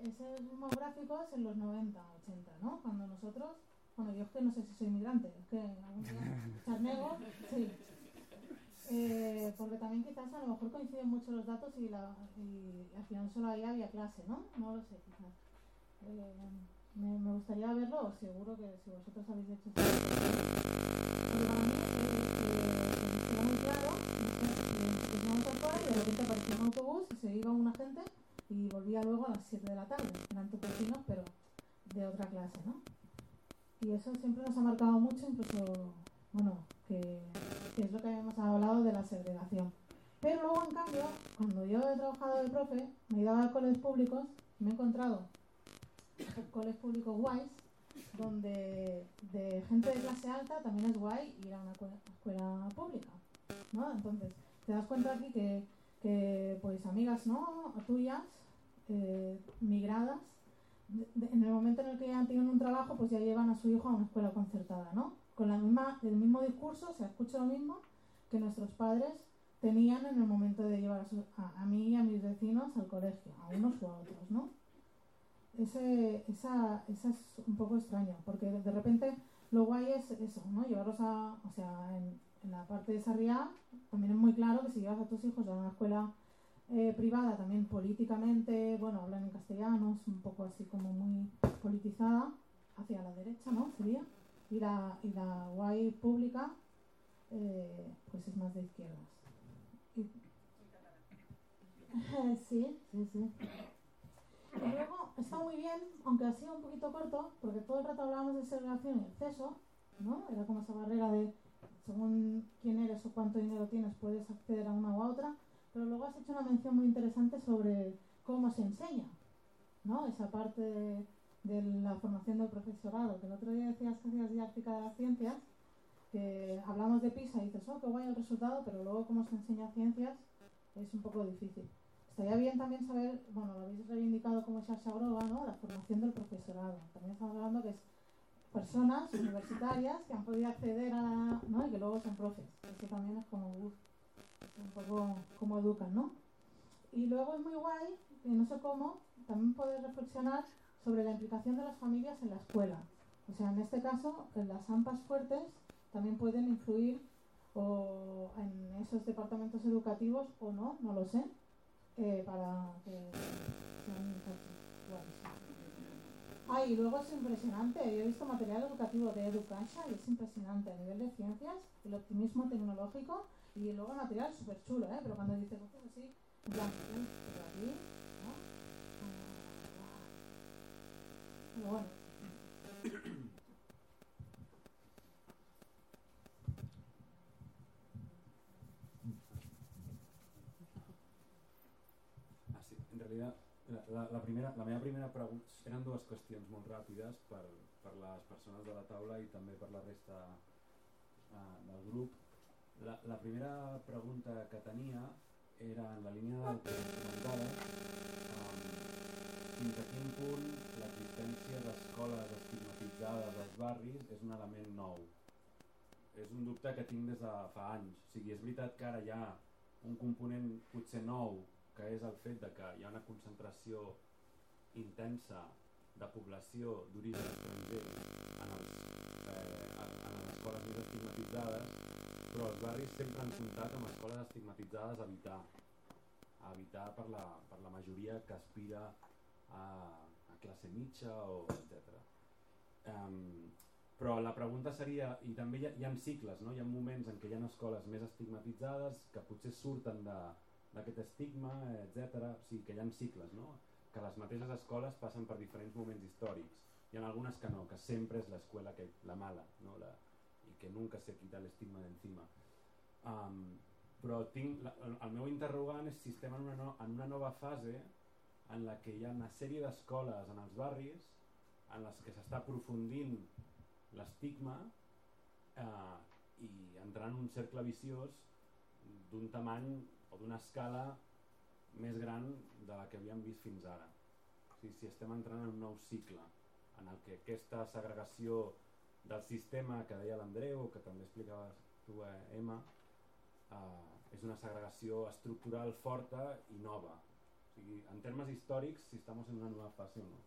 esos mismos gráficos en los 90, 80, ¿no? Cuando nosotros, bueno, yo es que no sé si soy migrante, es que algún día charnego, sí. Porque también quizás a lo mejor coinciden mucho los datos y al final solo ahí había clase, ¿no? No lo sé, quizás. Me gustaría verlo, seguro que si vosotros habéis hecho esto. Porque para mí era muy claro, que íbamos afuera y de repente aparecía un autobús y se iba una gente y volvía luego a las 7 de la tarde. Eran tupecinos, pero de otra clase, ¿no? Y eso siempre nos ha marcado mucho, incluso, bueno, que es lo que hemos hablado de la segregación. Pero luego, en cambio, cuando yo he trabajado de profe, me he ido a colegios públicos y me he encontrado colegios públicos guays, donde de gente de clase alta también es guay ir a una escuela pública, ¿no? Entonces, te das cuenta aquí que pues amigas, ¿no?, tuyas, migradas, en el momento en el que ya tienen un trabajo, pues ya llevan a su hijo a una escuela concertada, ¿no? Con el mismo discurso, se escucha lo mismo que nuestros padres tenían en el momento de llevar a mí y a mis vecinos al colegio, a unos u a otros, ¿no? Esa es un poco extraño, porque de repente lo guay es eso, ¿no? Llevarlos o sea, en la parte de Sarriá también es muy claro que si llevas a tus hijos a una escuela privada, también políticamente, bueno, hablan en castellano, es un poco así como muy politizada, hacia la derecha, ¿no? Sería. Y la guay pública, pues es más de izquierdas. Sí. Y luego está muy bien, aunque ha sido un poquito corto, porque todo el rato hablábamos de segregación y exceso, ¿no? Era como esa barrera de según quién eres o cuánto dinero tienes puedes acceder a una u a otra, pero luego has hecho una mención muy interesante sobre cómo se enseña, ¿no? Esa parte de la formación del profesorado, que el otro día decías que hacías didáctica de las ciencias, que hablamos de PISA y dices, oh, qué guay el resultado, pero luego cómo se enseña ciencias es un poco difícil. Estaría bien también saber, bueno, lo habéis reivindicado como Sasha Groga, ¿no?, la formación del profesorado. También estamos hablando que es personas universitarias que han podido acceder a, ¿no?, y que luego son profes. Eso también es como, un poco cómo educan, ¿no? Y luego es muy guay, que no sé cómo, también poder reflexionar sobre la implicación de las familias en la escuela. O sea, en este caso, las AMPAs fuertes también pueden influir o en esos departamentos educativos o no, no lo sé, para que sean iguales. Y luego es impresionante, yo he visto material educativo de Educasa y es impresionante a nivel de ciencias, el optimismo tecnológico y luego material súper chulo, pero cuando dice cosas así, en plan, pero aquí, ¿no? Pero bueno. Sí, en realidad la meva primera pregunta eren dues qüestions molt ràpides per les persones de la taula i també per la resta del grup. La primera pregunta que tenia era en la línia del que comentava, fins a quin punt l'existència d'escoles estigmatitzades als barris és un element nou. És un dubte que tinc des de fa anys. O sigui, és veritat que ara hi ha un component potser nou, que és el fet de que hi ha una concentració intensa de població d'origen estranger en les escoles més estigmatitzades, però els barris sempre han comptat amb escoles estigmatitzades a evitar per la majoria que aspira a classe mitja, etc. Però la pregunta seria, i també hi ha cicles, no? Hi ha moments en què hi ha escoles més estigmatitzades que potser surten d'aquest estigma, etc. O sigui, que hi ha cicles, no? Que les mateixes escoles passen per diferents moments històrics. Hi ha algunes que no, que sempre és l'escola la mala, no? I que nunca se quita l'estigma d'encima. Però el meu interrogant és si estem en una nova fase en la que hi ha una sèrie d'escoles en els barris en les que s'està aprofundint l'estigma i entrant en un cercle viciós d'un tamany o d'una escala més gran de la que havíem vist fins ara. O sigui, si estem entrant en un nou cicle en el que aquesta segregació del sistema que deia l'Andreu, que també explicaves tu, Emma, és una segregació estructural forta i nova. O sigui, en termes històrics, si estem en una nova fase o no.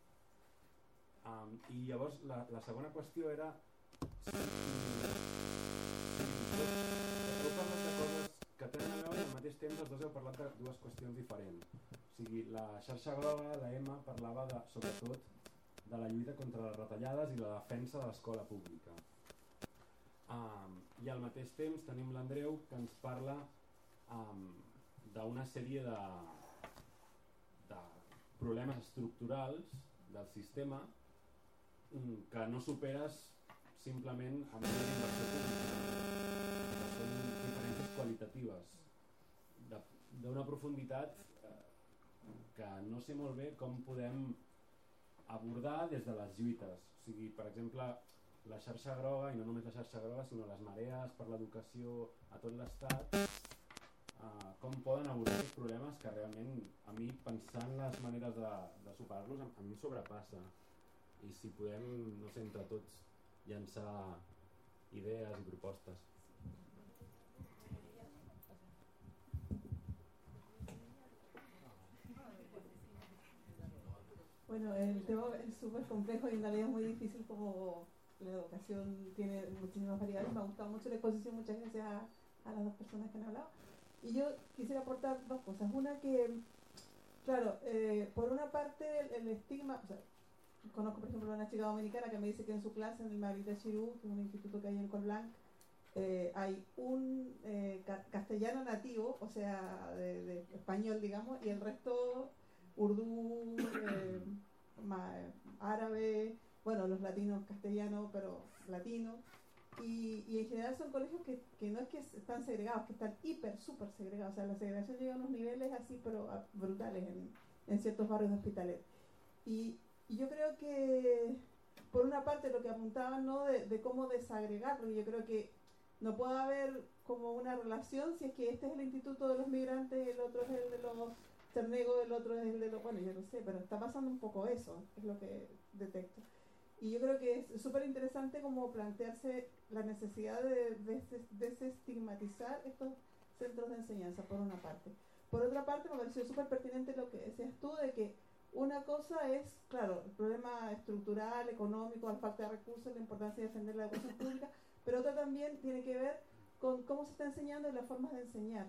I llavors la segona qüestió era si heu parlat de coses que tenen a veure i al mateix temps els dos heu parlat de dues qüestions diferents. O sigui, la xarxa groga, la Emma, parlava sobretot de la lluita contra les retallades i la defensa de l'escola pública. I al mateix temps tenim l'Andreu que ens parla d'una sèrie de problemes estructurals del sistema que no superes simplement amb una inversió pública, que són diferències qualitatives d'una profunditat que no sé molt bé com podem abordar des de les lluites. O sigui, per exemple, la xarxa groga, i no només la xarxa groga, sinó les marees per l'educació a tot l'estat, com poden abordar aquests problemes que realment a mi, pensant les maneres de superar-los, a mi sobrepassa. I si podem, no sé, entre tots llançar idees i propostes. Bueno, el tema es súper complejo y en realidad es muy difícil, como la educación tiene muchísimas variables. Me ha gustado mucho la exposición, muchas gracias a las dos personas que han hablado. Y yo quisiera aportar dos cosas. Una que, claro, por una parte el estigma, o sea, conozco por ejemplo a una chica dominicana que me dice que en su clase en el Margarita Xirú, que es un instituto que hay en Colblanc, hay un castellano nativo, o sea, de español, digamos, y el resto urdú, árabe, bueno, los latinos castellano, pero latino. Y en general son colegios que no es que están segregados, que están súper segregados. O sea, la segregación llega a unos niveles así, pero brutales en ciertos barrios de Hospitalet. Y yo creo que, por una parte, lo que apuntaban, ¿no?, de cómo desagregar, porque yo creo que no puede haber como una relación si es que este es el instituto de los migrantes, el otro es el de los Cernego, el otro es el de los... Bueno, yo no sé, pero está pasando un poco eso, es lo que detecto. Y yo creo que es súper interesante como plantearse la necesidad de desestigmatizar estos centros de enseñanza, por una parte. Por otra parte, me pareció súper pertinente lo que decías tú, de que una cosa es, claro, el problema estructural, económico, la falta de recursos, la importancia de defender la educación pública, pero otra también tiene que ver con cómo se está enseñando y las formas de enseñar.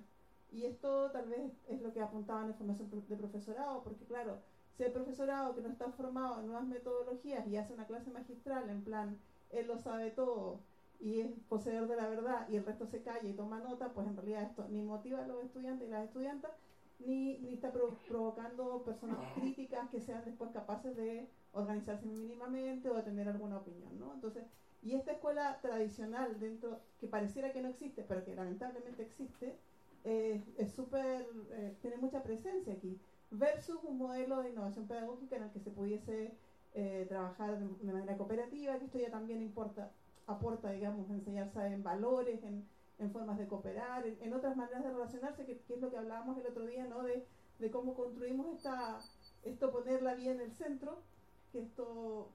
Y esto tal vez es lo que apuntaban en formación de profesorado, porque claro, si el profesorado que no está formado en nuevas metodologías y hace una clase magistral en plan, él lo sabe todo y es poseedor de la verdad y el resto se calla y toma nota, pues en realidad esto ni motiva a los estudiantes y las estudiantas, ni está provocando personas críticas que sean después capaces de organizarse mínimamente o de tener alguna opinión, ¿no? Entonces, y esta escuela tradicional dentro, que pareciera que no existe, pero que lamentablemente existe, es súper, tiene mucha presencia aquí, versus un modelo de innovación pedagógica en el que se pudiese trabajar de manera cooperativa, que esto ya también aporta, digamos, enseñarse en valores, en formas de cooperar, en otras maneras de relacionarse, que es lo que hablábamos el otro día, ¿no? De cómo construimos esto, poner la vida en el centro, que esto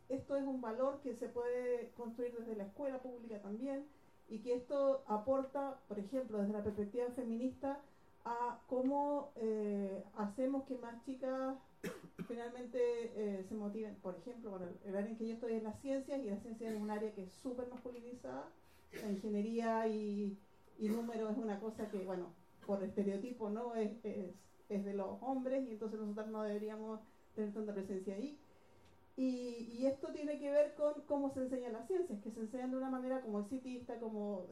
es un valor que se puede construir desde la escuela pública también, y que esto aporta, por ejemplo, desde la perspectiva feminista, a cómo hacemos que más chicas finalmente se motiven. Por ejemplo, bueno, el área en que yo estoy es las ciencias, y la ciencia es un área que es súper masculinizada. La ingeniería y número es una cosa que, bueno, por estereotipo, ¿no? Es de los hombres, y entonces nosotros no deberíamos tener tanta presencia ahí. Y esto tiene que ver con cómo se enseñan las ciencias, que se enseñan de una manera como exitista, como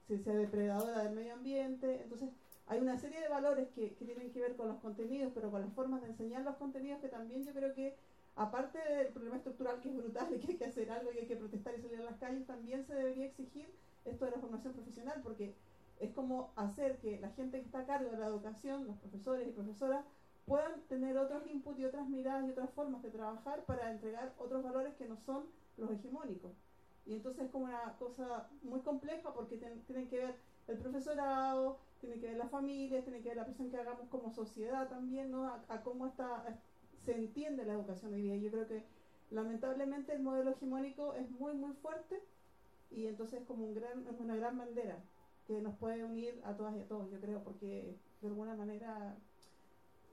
ciencia depredadora del medio ambiente. Entonces hay una serie de valores que tienen que ver con los contenidos, pero con las formas de enseñar los contenidos, que también yo creo que, aparte del problema estructural, que es brutal y que hay que hacer algo y hay que protestar y salir a las calles, también se debería exigir esto de la formación profesional, porque es como hacer que la gente que está a cargo de la educación, los profesores y profesoras, puedan tener otros inputs y otras miradas y otras formas de trabajar para entregar otros valores que no son los hegemónicos. Y entonces es como una cosa muy compleja, porque tienen que ver el profesorado, tiene que ver las familias, tiene que ver la presión que hagamos como sociedad también, ¿no? A cómo se entiende la educación hoy día. Yo creo que lamentablemente el modelo hegemónico es muy muy fuerte, y entonces es como es una gran bandera que nos puede unir a todas y a todos, yo creo, porque de alguna manera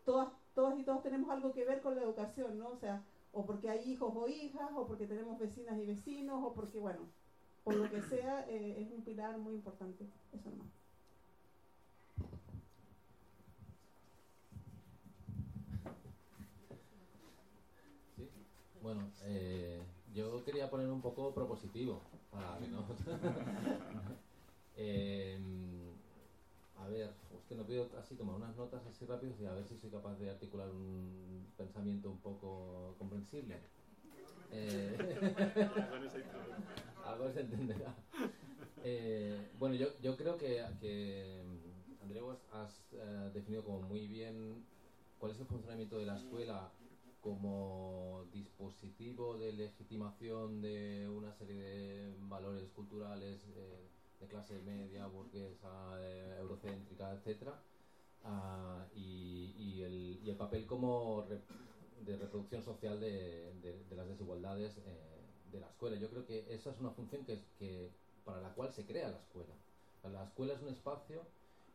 todas y todos tenemos algo que ver con la educación, ¿no? O sea, o porque hay hijos o hijas, o porque tenemos vecinas y vecinos, o porque, bueno, por lo que sea, es un pilar muy importante. Eso nomás. ¿Sí? Bueno, yo quería poner un poco propositivo para que no... a ver, es que no pido así tomar unas notas así rápidas y a ver si soy capaz de articular un pensamiento un poco comprensible. Algo se entenderá. Bueno, yo creo que Andreu, has definido como muy bien cuál es el funcionamiento de la escuela como dispositivo de legitimación de una serie de valores culturales de clase media, burguesa, eurocéntrica, etcétera, y el papel como de reproducción social de las desigualdades de la escuela. Yo creo que esa es una función para la cual se crea la escuela. La escuela es un espacio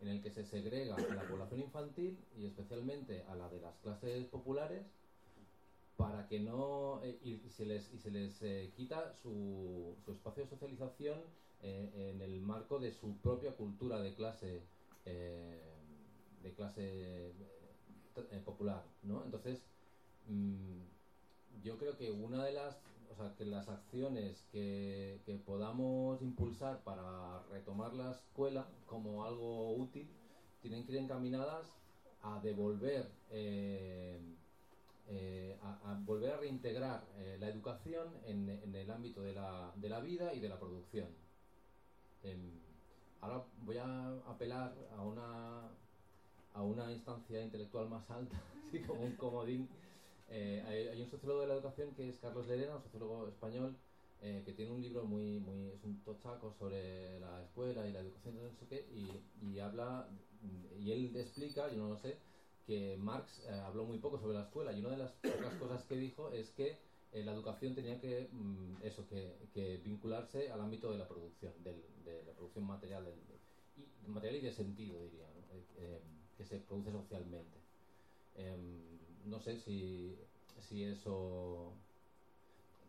en el que se segrega a la población infantil, y especialmente a la de las clases populares, para que no y se les quita su espacio de socialización en el marco de su propia cultura de clase popular, ¿no? Entonces yo creo que que las acciones que podamos impulsar para retomar la escuela como algo útil tienen que ir encaminadas a devolver a volver a reintegrar la educación en el ámbito de la vida y de la producción. Ahora voy a apelar a una instancia intelectual más alta, así como un comodín. Hay un sociólogo de la educación que es Carlos Lerena, un sociólogo español, que tiene un libro es un tochaco sobre la escuela y la educación, no sé qué, y habla, y él explica, yo no lo sé, que Marx habló muy poco sobre la escuela, y una de las pocas cosas que dijo es que la educación tenía que vincularse al ámbito de la producción, de la producción material, material y de sentido, diría, ¿no? Que se produce socialmente. No sé si eso...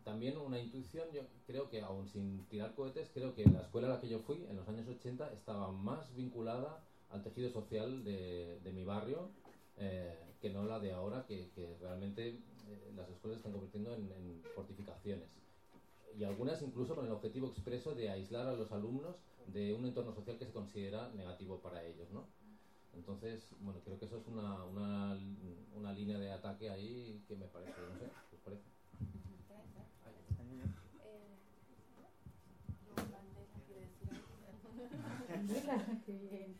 también una intuición, yo creo que aún sin tirar cohetes, creo que la escuela a la que yo fui en los años 80 estaba más vinculada al tejido social de mi barrio que no la de ahora, que realmente las escuelas se están convirtiendo en fortificaciones. Y algunas incluso con el objetivo expreso de aislar a los alumnos de un entorno social que se considera negativo para ellos, ¿no? Entonces, bueno, creo que eso es una línea de ataque ahí que me parece, no sé, ¿qué os parece? Qué bien.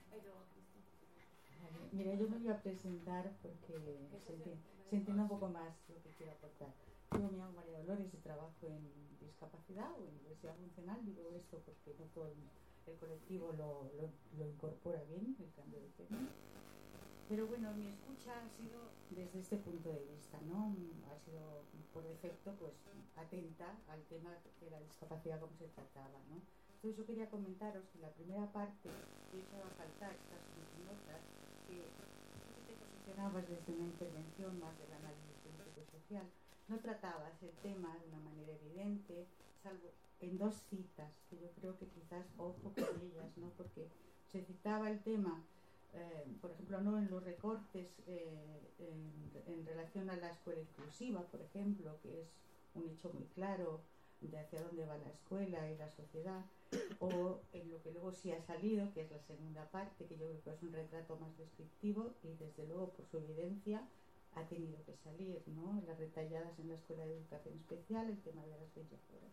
Mira, yo me voy a presentar porque se entienda un poco más lo que quiero aportar. Yo me llamo María Dolores y trabajo en discapacidad o en diversidad funcional. Digo esto porque no todo el colectivo lo incorpora bien, el cambio de tema. Pero bueno, mi escucha ha sido desde este punto de vista, ¿no? Ha sido por defecto pues atenta al tema de la discapacidad como se trataba, ¿no? Entonces yo quería comentaros que la primera parte que he echado a faltar, estas notas, que tú te posicionabas desde una intervención más del análisis político-social, no tratabas el tema de una manera evidente, salvo en dos citas, que yo creo que quizás ojo con ellas, ¿no? Porque se citaba el tema, por ejemplo, no en los recortes en relación a la escuela inclusiva, por ejemplo, que es un hecho muy claro de hacia dónde va la escuela y la sociedad, o en lo que luego sí ha salido, que es la segunda parte, que yo creo que es un retrato más descriptivo y desde luego por su evidencia ha tenido que salir, ¿no? Las retalladas en la Escuela de Educación Especial, el tema de las 20 horas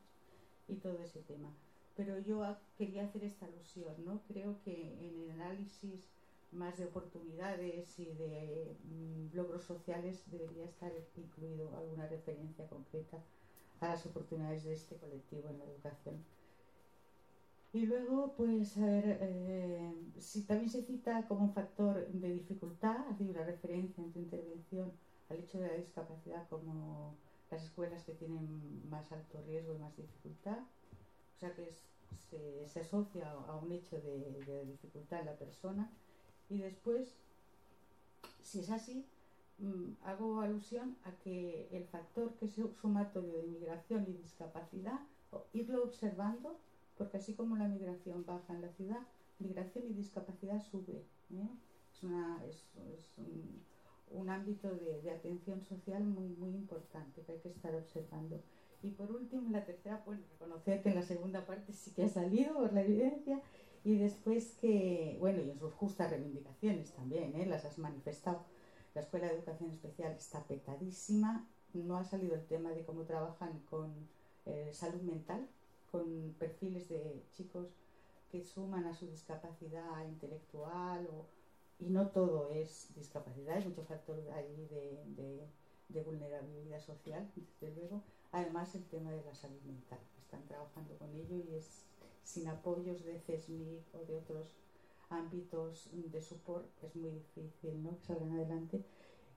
y todo ese tema. Pero yo quería hacer esta alusión, ¿no? Creo que en el análisis más de oportunidades y de logros sociales debería estar incluido alguna referencia concreta a las oportunidades de este colectivo en la educación. Y luego, pues, a ver, si también se cita como un factor de dificultad, ha sido una referencia en tu intervención al hecho de la discapacidad como las escuelas que tienen más alto riesgo y más dificultad, o sea que se asocia a un hecho de dificultad en la persona. Y después, si es así, hago alusión a que el factor que es sumatorio de migración y discapacidad, irlo observando, porque así como la migración baja en la ciudad, migración y discapacidad sube, ¿eh? Es un ámbito de atención social muy, muy importante que hay que estar observando. Y por último, la tercera, pues reconocer que en la segunda parte sí que ha salido por la evidencia, y después que, bueno, y en sus justas reivindicaciones también, las has manifestado. La Escuela de Educación Especial está petadísima, no ha salido el tema de cómo trabajan con salud mental, con perfiles de chicos que suman a su discapacidad intelectual, y no todo es discapacidad, hay muchos factores ahí de vulnerabilidad social, desde luego. Además, el tema de la salud mental, están trabajando con ello y es sin apoyos de CESMIC o de otros ámbitos de support es muy difícil, ¿no?, que salgan adelante.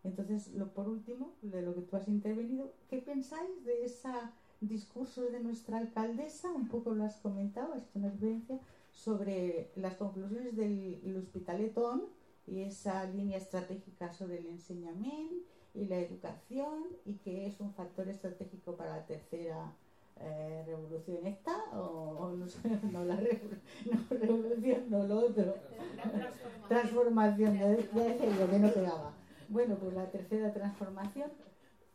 Entonces, por último, de lo que tú has intervenido, ¿qué pensáis de ese discurso de nuestra alcaldesa? Un poco lo has comentado, has hecho una referencia sobre las conclusiones del Hospitalet On y esa línea estratégica sobre el enseñamiento y la educación, y que es un factor estratégico para la tercera revolución esta, o no sé, no la revolución, no lo otro, transformación, ya decía yo que no pegaba. Bueno, pues la tercera transformación,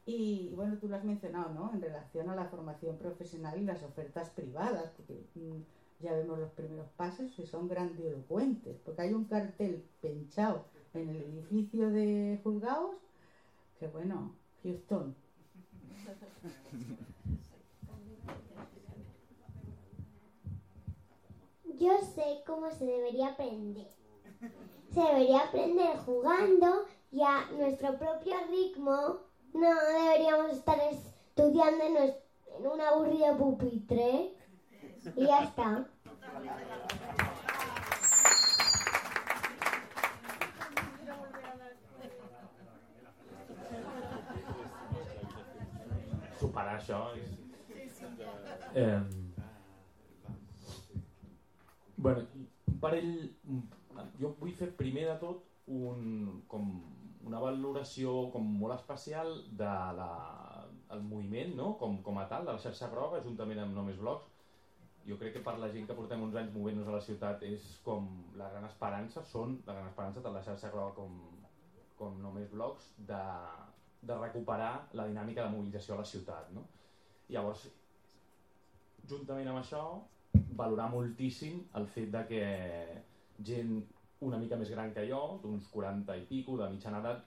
y bueno, tú lo has mencionado, ¿no?, en relación a la formación profesional y las ofertas privadas, porque ya vemos los primeros pasos que son grandilocuentes, porque hay un cartel pinchado en el edificio de juzgados que, bueno, Houston. Yo sé cómo se debería aprender. Se debería aprender jugando y a nuestro propio ritmo. No deberíamos estar estudiando en un aburrido pupitre. Y ya está. Superar això bueno, un parell, jo vull fer primer de tot una valoració com molt especial de el moviment, no? com a tal, de la xarxa groga, juntament amb No Més Blocs. Jo crec que per la gent que portem uns anys movent-nos a la ciutat és com la gran esperança, són la gran esperança de la xarxa groga com No Més Blocs de recuperar la dinàmica de mobilització a la ciutat, no? Llavors, juntament amb això, valorar moltíssim el fet de que gent una mica més gran que jo, d'uns 40 i pico, de mitjana edat,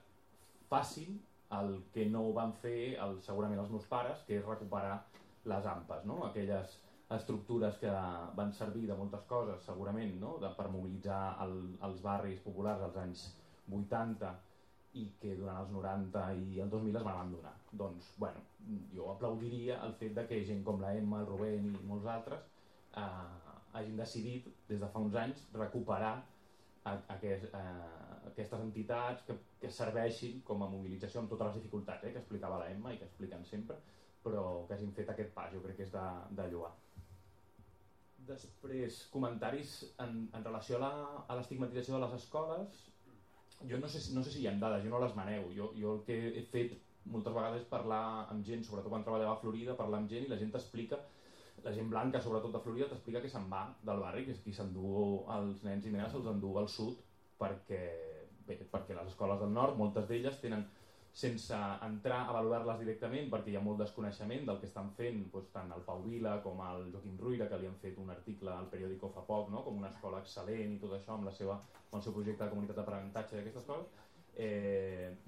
facin el que no van fer segurament els meus pares, que és recuperar les AMPAs, no? Aquelles estructures que van servir de moltes coses, segurament, no? Per mobilitzar els barris populars als anys 80 i que durant els 90 i el 2000 es van abandonar. Doncs, bueno, jo aplaudiria el fet de que gent com la Emma, el Rubén i molts altres hagin decidit, des de fa uns anys, recuperar aquestes entitats que serveixin com a mobilització amb totes les dificultats que explicava la Emma i que expliquen sempre, però que hagin fet aquest pas, jo crec que és de lloar. Després, comentaris en relació a l'estigmatització de les escoles. Jo no sé si hi ha dades, jo no les manego. Jo el que he fet moltes vegades és parlar amb gent, sobretot quan treballava a Florida, parlar amb gent i la gent t'explica, la gent blanca sobretot de Florida t'explica que se'n va del barri, que és qui s'endú els nens i nenes, se'ls endú al sud perquè les escoles del nord, moltes d'elles tenen, sense entrar a valorar-les directament perquè hi ha molt desconeixement del que estan fent, doncs, tant el Pau Vila com el Joaquim Ruïra, que li han fet un article al periòdico fa poc, no? Com una escola excel·lent i tot això amb el seu projecte de comunitat d'aprenentatge i aquestes coses,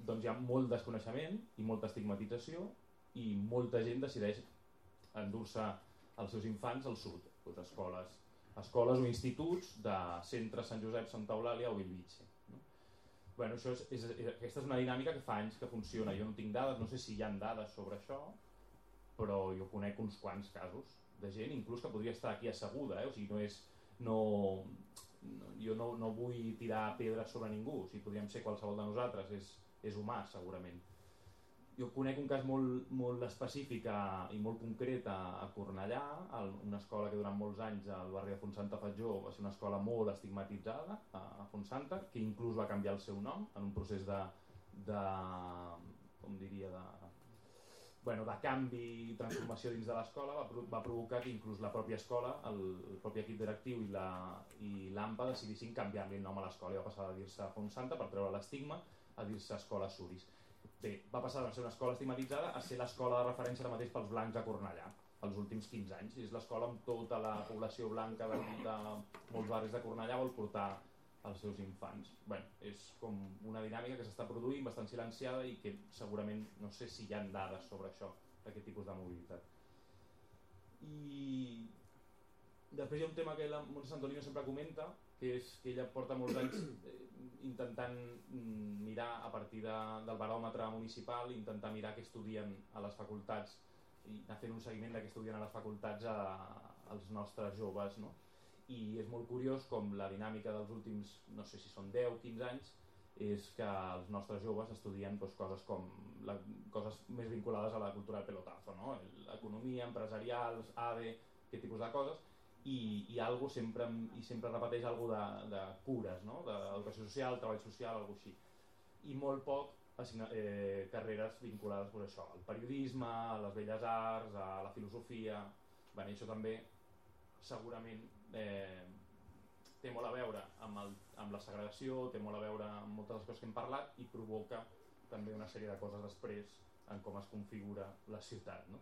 doncs hi ha molt desconeixement i molta estigmatització i molta gent decideix endur-se els seus infants al sud, doncs escoles o instituts de centre Sant Josep, Santa Eulàlia o Bellvitge. Bueno, aquesta és una dinàmica que fa anys que funciona. Jo no tinc dades, no sé si hi ha dades sobre això, però jo conec uns quants casos de gent, inclús que podria estar aquí asseguda, o sigui, jo no vull tirar pedres sobre ningú, o sigui, podríem ser qualsevol de nosaltres, és humà segurament. Jo conec un cas molt específic i molt concret a Cornellà, una escola que durant molts anys al barri de Fontsanta Fatjó va ser una escola molt estigmatitzada a Fontsanta, que inclús va canviar el seu nom en un procés de canvi i transformació dins de l'escola, va provocar que inclús la pròpia escola, el propi equip directiu i l'AMPA decidissin canviar-li el nom a l'escola i va passar de dir-se Fontsanta per treure l'estigma a dir-se Escola Suris. Bé, va passar de ser una escola estigmatitzada a ser l'escola de referència ara mateix pels blancs a Cornellà, els últims 15 anys. És l'escola amb tota la població blanca de molts barris de Cornellà vol portar els seus infants. Bé, és com una dinàmica que s'està produint, bastant silenciada i que segurament no sé si hi ha dades sobre això, d'aquest tipus de mobilitat. I després hi ha un tema que la Montse Santolino sempre comenta, que és que ella porta molts anys intentant mirar a partir del baròmetre municipal, intentar mirar què estudien a les facultats i anar fent un seguiment de què estudien a les facultats als nostres joves, no? I és molt curiós com la dinàmica dels últims, no sé si són 10 o 15 anys, és que els nostres joves estudien coses més vinculades a la cultura del pelotazo, no? Economia, empresarials, ADE, aquest tipus de coses, i algo sempre repeteix algo de cures, no? D'educació social, treball social, algo així. I molt poc carreres vinculades a això, al periodisme, a les belles arts, a la filosofia. Bé, això també segurament té molt a veure amb la segregació, té molt a veure amb moltes de les coses que hem parlat i provoca també una sèrie de coses després en com es configura la ciutat, no?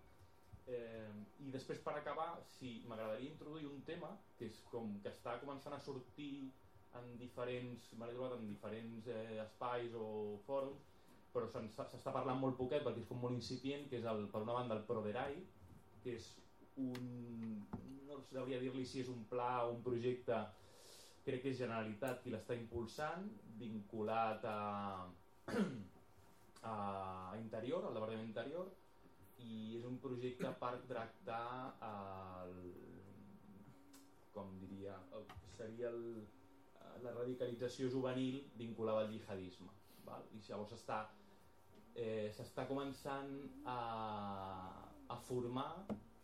I després, per acabar, m'agradaria introduir un tema que és com que està començant a sortir m'he trobat en diferents espais o fòrums, però s'està parlant molt poquet perquè és com molt incipient, que és per una banda el Proderai, que és no sabria dir-li si és un pla o un projecte, crec que és Generalitat qui l'està impulsant, vinculat a Interior, al Departament d'Interior, i és un projecte per tractar seria la radicalització juvenil vinculada al jihadisme, val? I llavors s'està començant a formar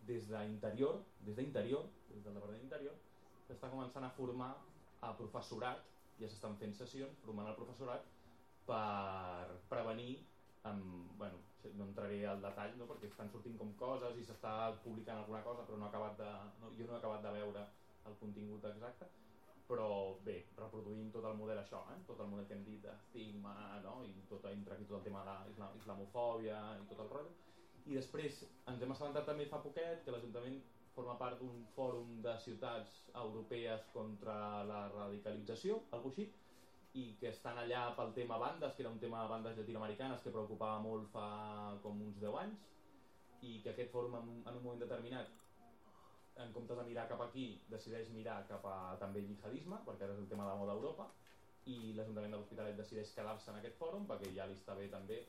des d'Interior, des del Departament d'Interior, s'està començant a formar a professorat, ja s'estan fent sessions formant el professorat per prevenir bueno, no entraré al detall, no? Perquè estan sortint com coses i s'està publicant alguna cosa, però jo no he acabat de veure el contingut exacte, però bé, reproduint tot el model això, tot el model que hem dit d'estigma, no? I entra aquí tot el tema de l'islamofòbia i tot el rotllo. I després ens hem assabentat també fa poquet que l'Ajuntament forma part d'un fòrum de ciutats europees contra la radicalització, alguna cosa així, i que estan allà pel tema bandes, que era un tema de bandes llatinoamericanes que preocupava molt fa com uns 10 anys, i que aquest fòrum en un moment determinat, en comptes de mirar cap aquí, decideix mirar cap a també el jihadisme, perquè ara és el tema de moda a Europa, i l'Ajuntament de l'Hospitalet decideix quedar-se en aquest fòrum, perquè ja li està bé també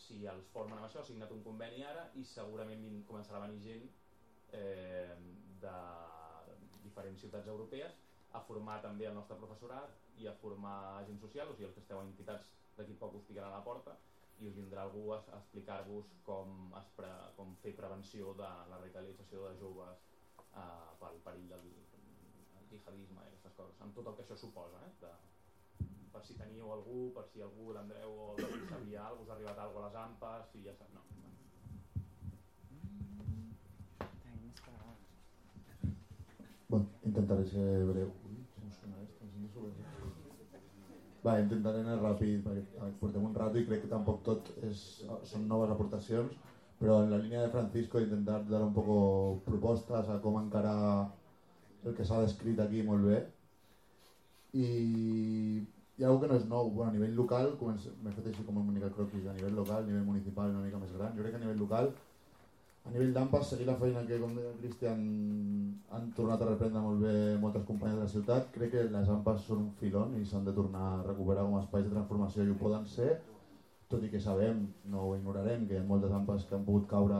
si els formen amb això, ha signat un conveni ara, i segurament començarà a venir gent de diferents ciutats europees a formar també el nostre professorat i a formar agents socials, o sigui, els que esteu en entitats d'aquí poc us picaran a la porta i us vindrà algú a explicar-vos com fer prevenció de la radicalització de joves pel perill del jihadisme i aquestes coses, amb tot el que això suposa, per si teníeu algú, per si algú, l'Andreu o el sabia alguna cosa, us ha arribat alguna cosa a les AMPAs i ja saps, no. Bueno, intentaré ser breu. Intentaré anar ràpid perquè portem un rato i crec que tampoc tot són noves aportacions, però en la línia de Francisco intentar dar un poco propostes a com encarar el que s'ha descrit aquí molt bé. I hi ha alguna que no és nou. Bueno, a nivell local, m'he fet així com una mica croquis, a nivell local, a nivell municipal una mica més gran. Jo crec que a nivell local, a nivell d'AMPAs, seguir la feina que, com deia el Cristian, han tornat a reprendre molt bé moltes companyes de la ciutat. Crec que les AMPAs són un filon i s'han de tornar a recuperar com a espais de transformació i ho poden ser, tot i que sabem, no ho ignorarem, que hi ha moltes AMPAs que han pogut caure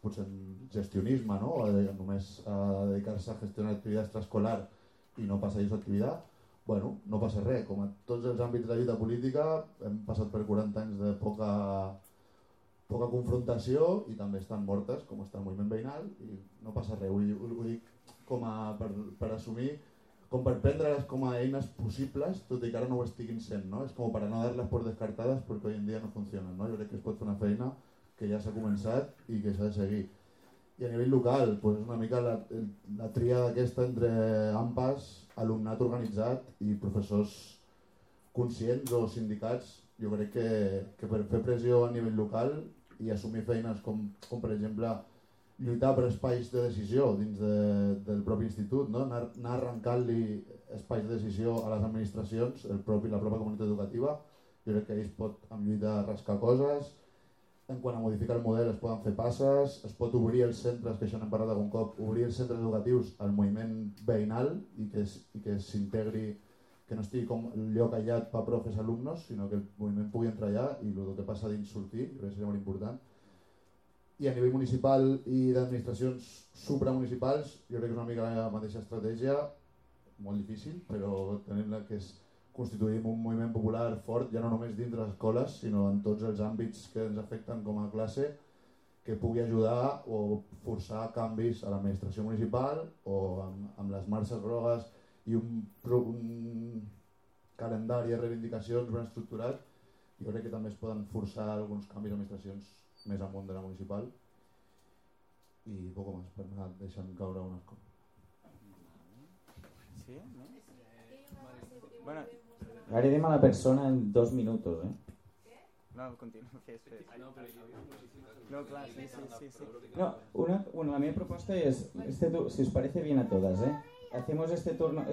potser en gestionisme, no? O només a dedicar-se a gestionar activitats extraescolar i no passar-hi su activitat. Bueno, no passa res, com a tots els àmbits de la lluita política hem passat per 40 anys de poca confrontació i també estan mortes, com està el moviment veïnal, i no passa res. Ho dic com per assumir, com per prendre-les com a eines possibles, tot i que ara no ho estiguin sent, no? És com per no dar-les por descartades perquè avui en dia no funcionen, no? Jo crec que es pot fer una feina que ja s'ha començat i que s'ha de seguir. I a nivell local, doncs una mica la tria aquesta entre AMPAs, alumnat organitzat i professors conscients o sindicats. Jo crec que per fer pressió a nivell local i assumir feines com per exemple lluitar per espais de decisió dins del propi institut, no? Anar arrencant-li espais de decisió a les administracions, la pròpia comunitat educativa. Jo crec que ells pot amb lluita rascar coses. En quant a modificar el model es poden fer passes, es pot obrir els centres, que això n'hem parlat algun cop, obrir els centres educatius al moviment veïnal i que s'integri, que no estigui com el lloc aïllat per profes alumnos, sinó que el moviment pugui entrar allà i el que passa dins sortir, crec que seria molt important. I a nivell municipal i d'administracions supramunicipals, jo crec que és una mica la mateixa estratègia, molt difícil, però tenim que constituïm un moviment popular fort, ja no només dins de les escoles, sinó en tots els àmbits que ens afecten com a classe, que pugui ajudar o forçar canvis a l'administració municipal o amb les marxes grogues i un calendari de reivindicacions ben estructurat. Jo crec que també es poden forçar alguns canvis d'administracions més amunt de la municipal i poc més per anar deixant caure unes coses. Sí, no? Bueno, agredim a la persona en 2 minutos, No, continúa. No, claro, sí. No, la mi propuesta es, si os parece bien a todas, hacemos este turno...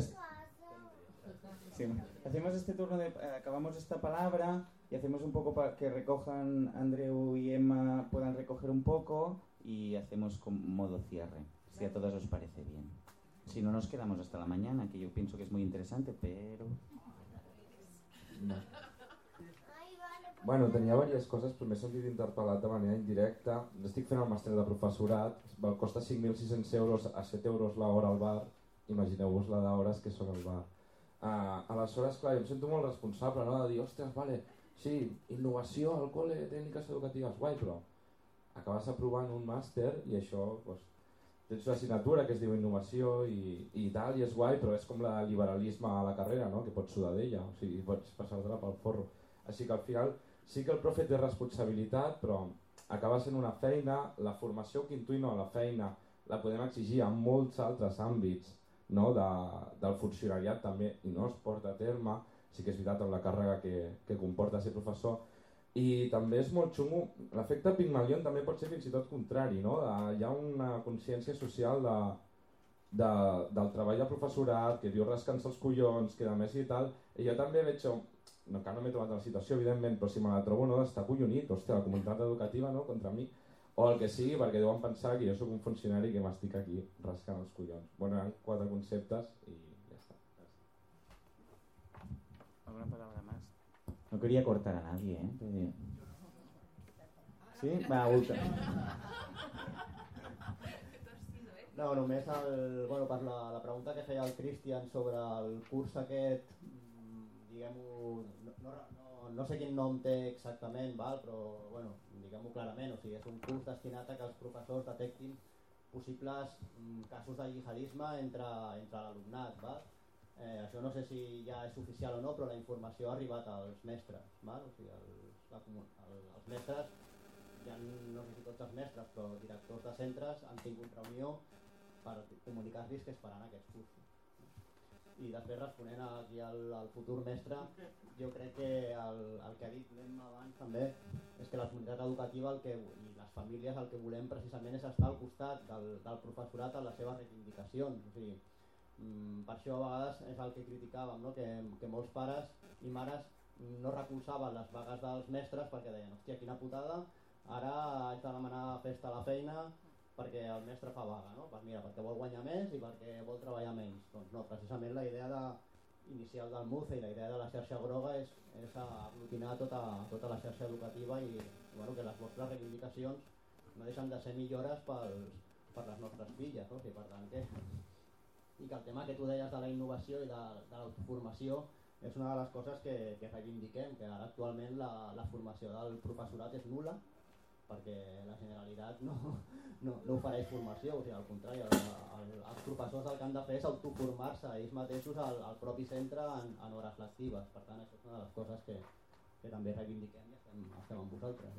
hacemos este turno acabamos esta palabra y hacemos un poco para que recojan Andreu y Emma, puedan recoger un poco y hacemos con modo cierre, si a todas os parece bien. Si no, nos quedamos hasta la mañana, que yo pienso que es muy interesante, pero... No. Bueno, tenia diverses coses, però m'he sentit interpel·lat de manera indirecta. Estic fent el màster de professorat, costa 5.600 euros a 7 euros l'hora al bar. Imagineu-vos la d'hores que són al bar. Aleshores, clar, jo em sento molt responsable, no? De dir, ostres, vale, sí, innovació al col·le, tècniques educatives, guai, però acabes aprovant un màster i això, doncs, tens una assignatura que es diu innovació i tal, i és guai, però és com el liberalisme a la carrera, no? Que pots sudar d'ella, o sigui, pots passar-te-la pel forro. Així que al final sí que el profe té responsabilitat, però acaba sent una feina, la formació que intuïm a la feina la podem exigir en molts altres àmbits, no? Del funcionariat també, i no es porta a terme, sí que és veritat amb la càrrega que comporta ser professor. I també és molt xungo, l'efecte Pygmalion també pot ser fins i tot contrari, no? Hi ha una consciència social del treball de professorat, que diu rascant-se els collons, que a més i tal, i jo també veig, encara no m'he trobat la situació evidentment, però si me la trobo no, d'estar collonit, hòstia, la comunitat educativa no, contra mi, o el que sigui, perquè deuen pensar que jo sóc un funcionari que m'estic aquí rascant els collons. Bueno, eren 4 conceptes i ja està. ¿Alguna palabra más? No quería cortar a nadie, ¿eh? Pero... ¿Sí? Va, ultra. No, només per la pregunta que feia el Cristian sobre el curs aquest, diguem-ho, no sé quin nom té exactament, però bueno, diguem-ho clarament, o sigui, és un curs destinat a que els professors detectin possibles casos de jihadisme entre l'alumnat. Això no sé si ja és oficial o no, però la informació ha arribat als mestres. O sigui, els mestres, ja no sé si tots els mestres, però directors de centres han tingut reunió per comunicar-los que es faran aquests cursos. I després, responent aquí al futur mestre, jo crec que el que ha dit l'Emma abans també és que la comunitat educativa i les famílies el que volem precisament és estar al costat del professorat en les seves reivindicacions. O sigui, per això a vegades és el que criticàvem, no? Que molts pares i mares no recolzaven les vagues dels mestres perquè deien, hòstia, quina putada, ara haig de demanar festa a la feina perquè el mestre fa vaga, no? Pues mira, perquè vol guanyar més i perquè vol treballar menys. Doncs no, precisament la idea inicial del MUCE i la idea de la xarxa groga és aglutinar tota la xarxa educativa i bueno, que les vostres reivindicacions no deixen de ser millores per les nostres filles, no? O sigui, per tant i que el tema que tu deies de la innovació i de l'autoformació és una de les coses que reivindiquem, que ara actualment la formació del professorat és nul·la perquè la Generalitat no ofereix formació, o sigui, al contrari, els professors el que han de fer és autoformar-se ells mateixos al propi centre en hores lectives. Per tant, això és una de les coses que també reivindiquem i estem amb vosaltres.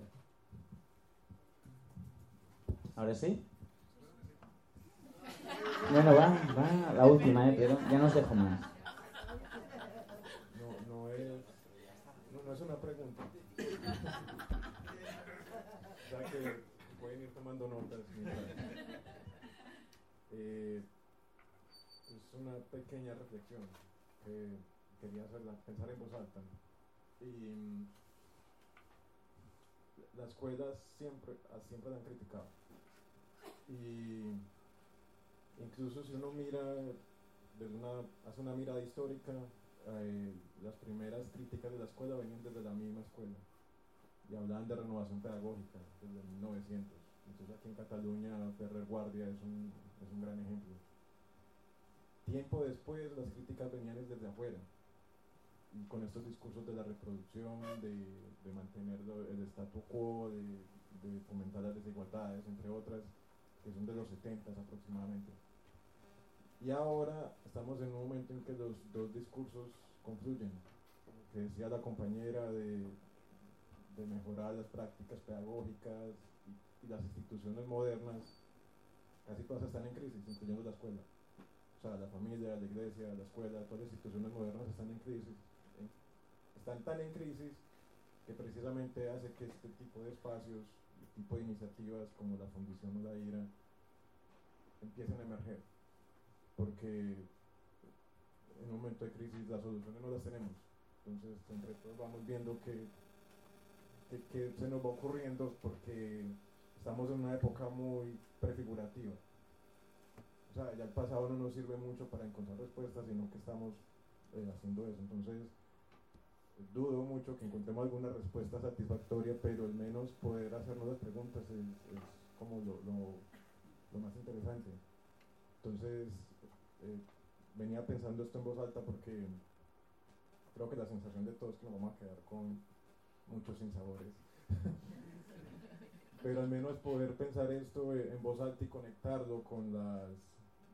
¿Ahora sí? Bueno, va la última, pero ya no os dejo más. No es una pregunta. O sea que pueden ir tomando notas. Es una pequeña reflexión que quería hacerla, pensar en voz alta. Y las escuelas siempre la han criticado. Y incluso si uno mira, hace una mirada histórica, las primeras críticas de la escuela venían desde la misma escuela y hablaban de renovación pedagógica desde 1900. Entonces aquí en Cataluña Ferrer Guardia es un gran ejemplo. Tiempo después las críticas venían desde afuera y con estos discursos de la reproducción, de mantener el statu quo, de fomentar las desigualdades, entre otras, que son de los 70 aproximadamente. Y ahora estamos en un momento en que los dos discursos confluyen, que decía la compañera de mejorar las prácticas pedagógicas y las instituciones modernas, casi todas están en crisis, incluyendo la escuela. O sea, la familia, la iglesia, la escuela, todas las instituciones modernas están en crisis. Están tan en crisis que precisamente hace que este tipo de espacios, este tipo de iniciativas como la Fundición o la IRA empiecen a emerger. Porque en un momento de crisis las soluciones no las tenemos. Entonces, entre todos vamos viendo que se nos va ocurriendo porque estamos en una época muy prefigurativa. O sea, ya el pasado no nos sirve mucho para encontrar respuestas, sino que estamos haciendo eso. Entonces, dudo mucho que encontremos alguna respuesta satisfactoria, pero al menos poder hacernos las preguntas es como lo más interesante. Entonces, venía pensando esto en voz alta porque creo que la sensación de todos es que nos vamos a quedar con muchos sinsabores. Pero al menos poder pensar esto en voz alta y conectarlo con las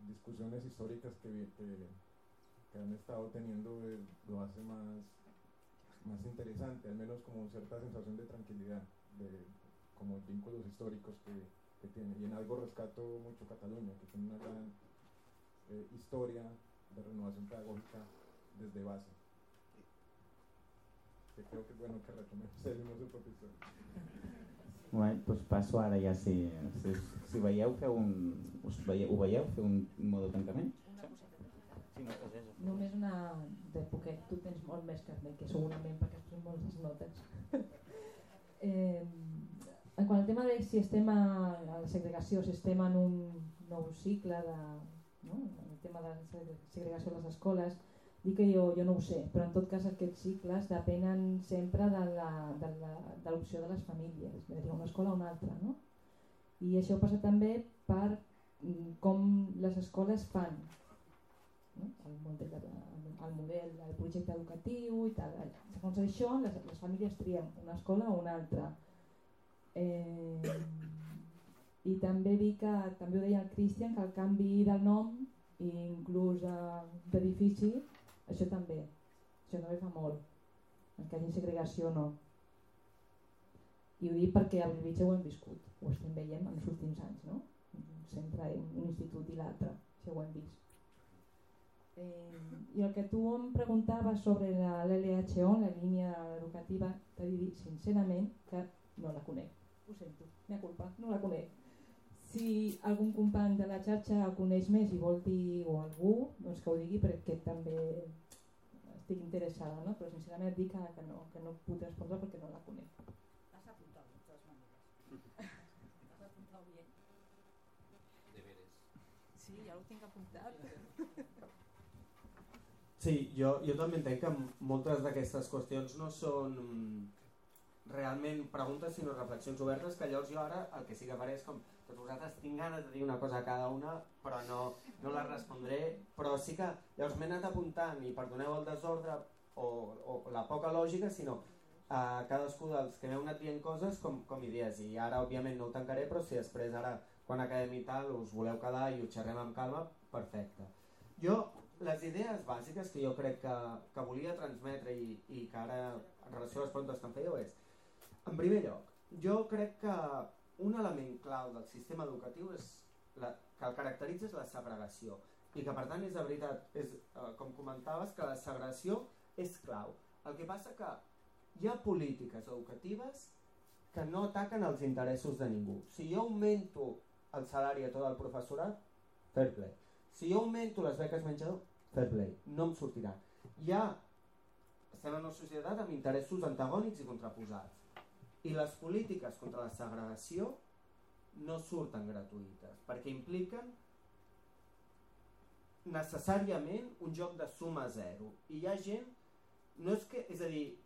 discusiones históricas que han estado teniendo lo hace más interesante, al menos como cierta sensación de tranquilidad, de como vínculos históricos que tiene. Y en algo rescato mucho Cataluña, que tiene una gran historia de renovación pedagógica desde base. Que creo que és bueno que retomem la seva pròpia història. Right, doncs passo ara ja, si veieu, ho veieu, fer un modo tancament? Sí, no, és això. Només una de poquet, tu tens molt més que mi, que segurament perquè has pres moltes notes. En quant al tema de si estem a la segregació, si estem en un nou cicle el tema de la segregació a les escoles, dic que jo no ho sé, però en tot cas aquests cicles depenen sempre de l'opció de les famílies, és a dir, una escola o una altra, no? I això passa també per com les escoles fan el model, el projecte educatiu i tal. Segons això, les famílies trien una escola o una altra. I també dic que, també ho deia el Cristian, que el canvi del nom i inclús d'edifici, això també fa molt, que hi hagi segregació o no. I ho dic perquè a Bellvitge ho hem viscut, ho estem veient en els últims anys, no? Sempre un institut i l'altre, això ho hem vist. I el que tu em preguntaves sobre l'LHO, la línia educativa, t'he de dir sincerament que no la conec. Ho sento, mea culpa, no la conec. Si algun company de la xarxa ho coneix més i vol dir o algú, doncs que ho digui perquè també estic interessada, no? Però sincerament et dic que no puc respondre perquè no la conec. T'has apuntat, de totes maneres. T'has apuntat bé. Deberes. Sí, ja ho tinc apuntat. Sí, jo també entenc que moltes d'aquestes qüestions no són realment preguntes sinó reflexions obertes, que llavors jo ara el que sí que faré és com tots vosaltres tinc ganes de dir una cosa a cada una però no la respondré, però sí que llavors m'he anat apuntant i perdoneu el desordre o la poca lògica, sinó a cadascú dels que m'heu anat dient coses com idees, i ara òbviament no ho tancaré, però si després ara quan acabem i tal us voleu quedar i ho xerrem amb calma, perfecte. Jo les idees bàsiques que jo crec que volia transmetre i que ara en relació a les preguntes que em fèieu és, en primer lloc, jo crec que un element clau del sistema educatiu que el caracteritza és la segregació i que per tant és de veritat, com comentaves, que la segregació és clau. El que passa que hi ha polítiques educatives que no ataquen els interessos de ningú. Si jo augmento el salari a tot el professorat, fair play. Si jo augmento les beques menjador, fair play, no em sortirà. Estem en una societat amb interessos antagònics i contraposats. I les polítiques contra la segregació no surten gratuïtes, perquè impliquen necessàriament un joc de suma zero. I hi ha gent, és a dir,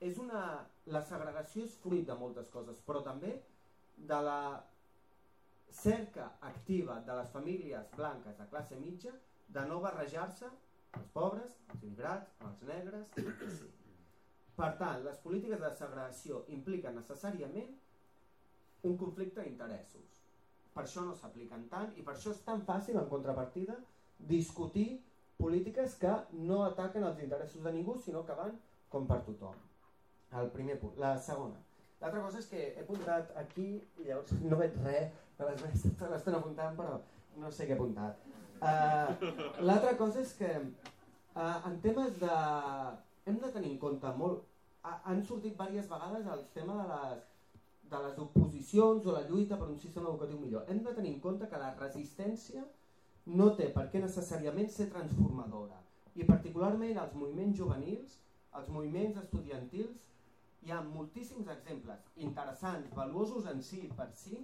la segregació és fruit de moltes coses, però també de la cerca activa de les famílies blanques de classe mitja de no barrejar-se els pobres, els immigrats, els negres, etc. Per tant, les polítiques de segregació impliquen necessàriament un conflicte d'interessos. Per això no s'apliquen tant i per això és tan fàcil, en contrapartida, discutir polítiques que no ataquen els interessos de ningú, sinó que van com per tothom. El primer punt. La segona. L'altra cosa és que he apuntat aquí i llavors no veig res, l'estan apuntant però no sé què he apuntat. L'altra cosa és que en temes de... hem de tenir en compte molt... Han sortit diverses vegades el tema de les oposicions o la lluita per un sistema educatiu millor. Hem de tenir en compte que la resistència no té per què necessàriament ser transformadora. I particularment els moviments juvenils, els moviments estudiantils, hi ha moltíssims exemples interessants, valuosos en si per si,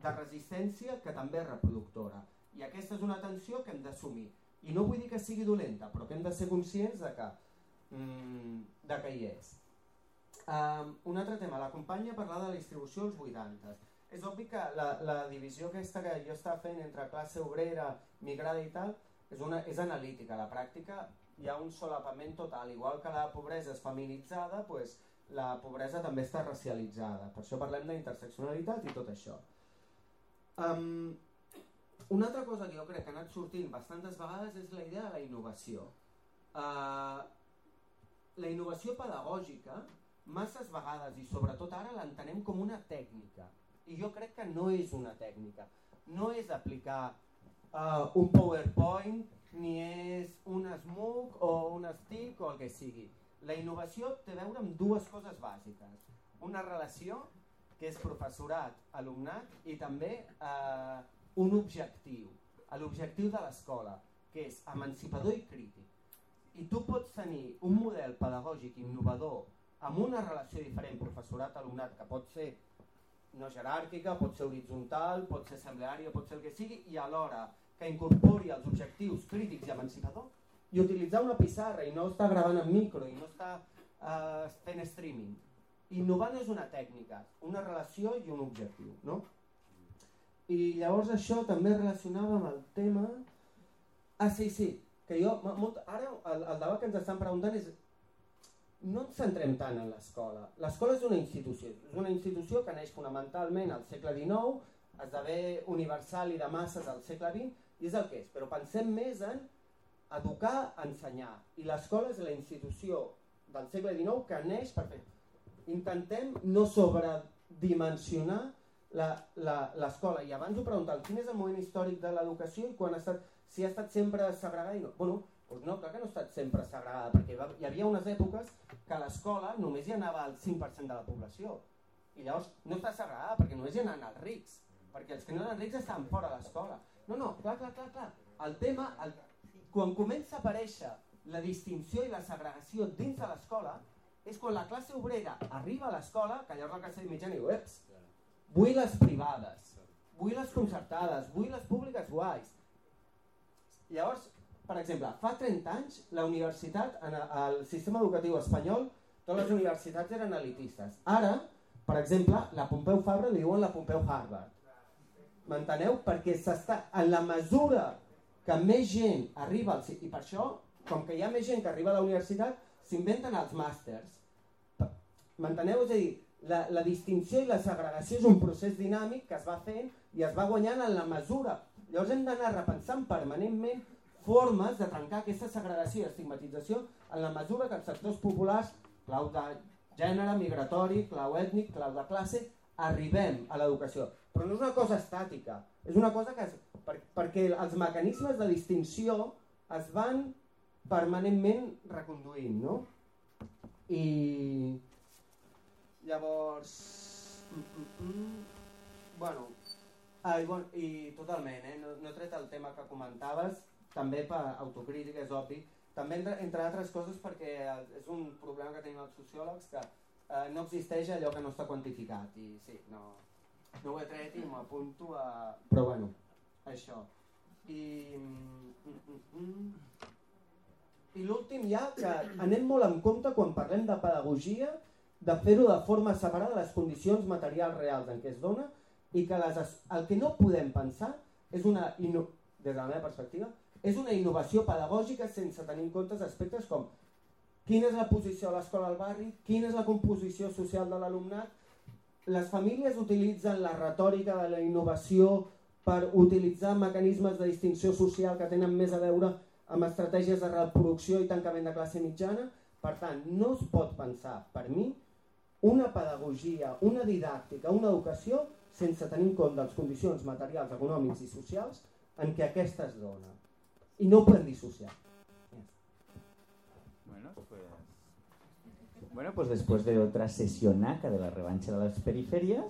de resistència que també és reproductora. I aquesta és una tensió que hem d'assumir. I no vull dir que sigui dolenta, però que hem de ser conscients de que hi és. Un altre tema, la companya parlava de la distribució als 80. És obvi que la divisió aquesta que jo estava fent entre classe obrera, migrada i tal, és analítica. A la pràctica hi ha un solapament total. Igual que la pobresa és feminitzada, doncs la pobresa també està racialitzada. Per això parlem d'interseccionalitat i tot això. Una altra cosa que jo crec que ha anat sortint bastantes vegades és la idea de la innovació. la innovació pedagògica masses vegades i sobretot ara l'entenem com una tècnica i jo crec que no és una tècnica, no és aplicar un PowerPoint ni és un SMOOC o un STIC o el que sigui. La innovació té a veure amb dues coses bàsiques, una relació que és professorat-alumnat i també un objectiu, l'objectiu de l'escola, que és emancipador i crític. I tu pots tenir un model pedagògic innovador amb una relació diferent professorat-alumnat que pot ser no jeràrquica, pot ser horitzontal, pot ser assembleària, pot ser el que sigui, i alhora que incorpori els objectius crítics i emancipador i utilitzar una pissarra i no està gravant en micro i no està fent streaming. Innovar no és una tècnica, una relació i un objectiu, no? I llavors això també relacionava amb el tema... sí, que jo... Ara el debat que ens estan preguntant és... No ens centrem tant en l'escola. L'escola és una institució que neix fonamentalment al segle XIX, esdevé universal i de masses al segle XX, i és el que és, però pensem més en educar, ensenyar, i l'escola és la institució del segle XIX que neix per fer... Intentem no sobredimensionar l'escola, i abans ho preguntàvem, quin és el moment històric de l'educació i quan ha estat, si ha estat sempre segregada i no? Bueno, doncs no, clar que no ha estat sempre segregada, perquè hi havia unes èpoques que a l'escola només hi anava el 5% de la població, i llavors no està segregada perquè només hi anaven els rics, perquè els que no eren rics estaven fora de l'escola. No, clar. El tema, quan comença a aparèixer la distinció i la segregació dins de l'escola, és quan la classe obrera arriba a l'escola, que llavors la classe mitjana diu, vull les privades, vull les concertades, vull les públiques guais. Llavors, per exemple, fa 30 anys la universitat, el sistema educatiu espanyol, totes les universitats eren elitistes. Ara, per exemple, la Pompeu Fabra li diuen la Pompeu Harvard. M'enteneu? Perquè en la mesura que més gent arriba al... I per això, com que hi ha més gent que arriba a la universitat, s'inventen els màsters. M'enteneu? És a dir, la distinció i la segregació és un procés dinàmic que es va fent i es va guanyant en la mesura. Llavors hem d'anar repensant permanentment formes de trencar aquesta segregació i estigmatització en la mesura que els sectors populars, clau de gènere, migratori, clau ètnic, clau de classe, arribem a l'educació. Però no és una cosa estàtica, és una cosa que perquè els mecanismes de distinció es van permanentment reconduint, no? I llavors... I totalment, no he tret el tema que comentaves, també per autocrítica, és obvi, també entre altres coses perquè és un problema que tenim els sociòlegs que no existeix allò que no està quantificat i sí, no ho he tret i m'apunto a... Però bueno, això. I l'últim ja, que anem molt en compte quan parlem de pedagogia, de fer-ho de forma separada de les condicions materials reals en què es dona i que el que no podem pensar és una, des de la meva perspectiva, és una innovació pedagògica sense tenir en compte aspectes com quina és la posició de l'escola al barri, quina és la composició social de l'alumnat. Les famílies utilitzen la retòrica de la innovació per utilitzar mecanismes de distinció social que tenen més a veure amb estratègies de reproducció i tancament de classe mitjana. Per tant, no es pot pensar, per mi, una pedagogia, una didàctica, una educació sense tenir en compte les condicions materials, econòmics i socials en què aquesta es dona. I no ho podem dissociar. Bueno, pues después de otra sesionaca de la revancha de las periferias,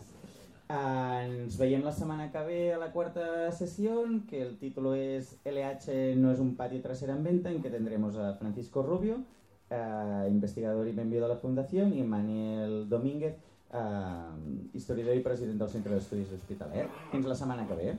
ens veiem la setmana que ve a la cuarta sesión, que el título es LH no es un patio trasero en venta, en que tendremos a Francisco Rubio, investigador y miembro de la Fundación, y Manuel Domínguez, historiador y president del Centre d'Estudis Hospitalet. Fins la setmana que ve.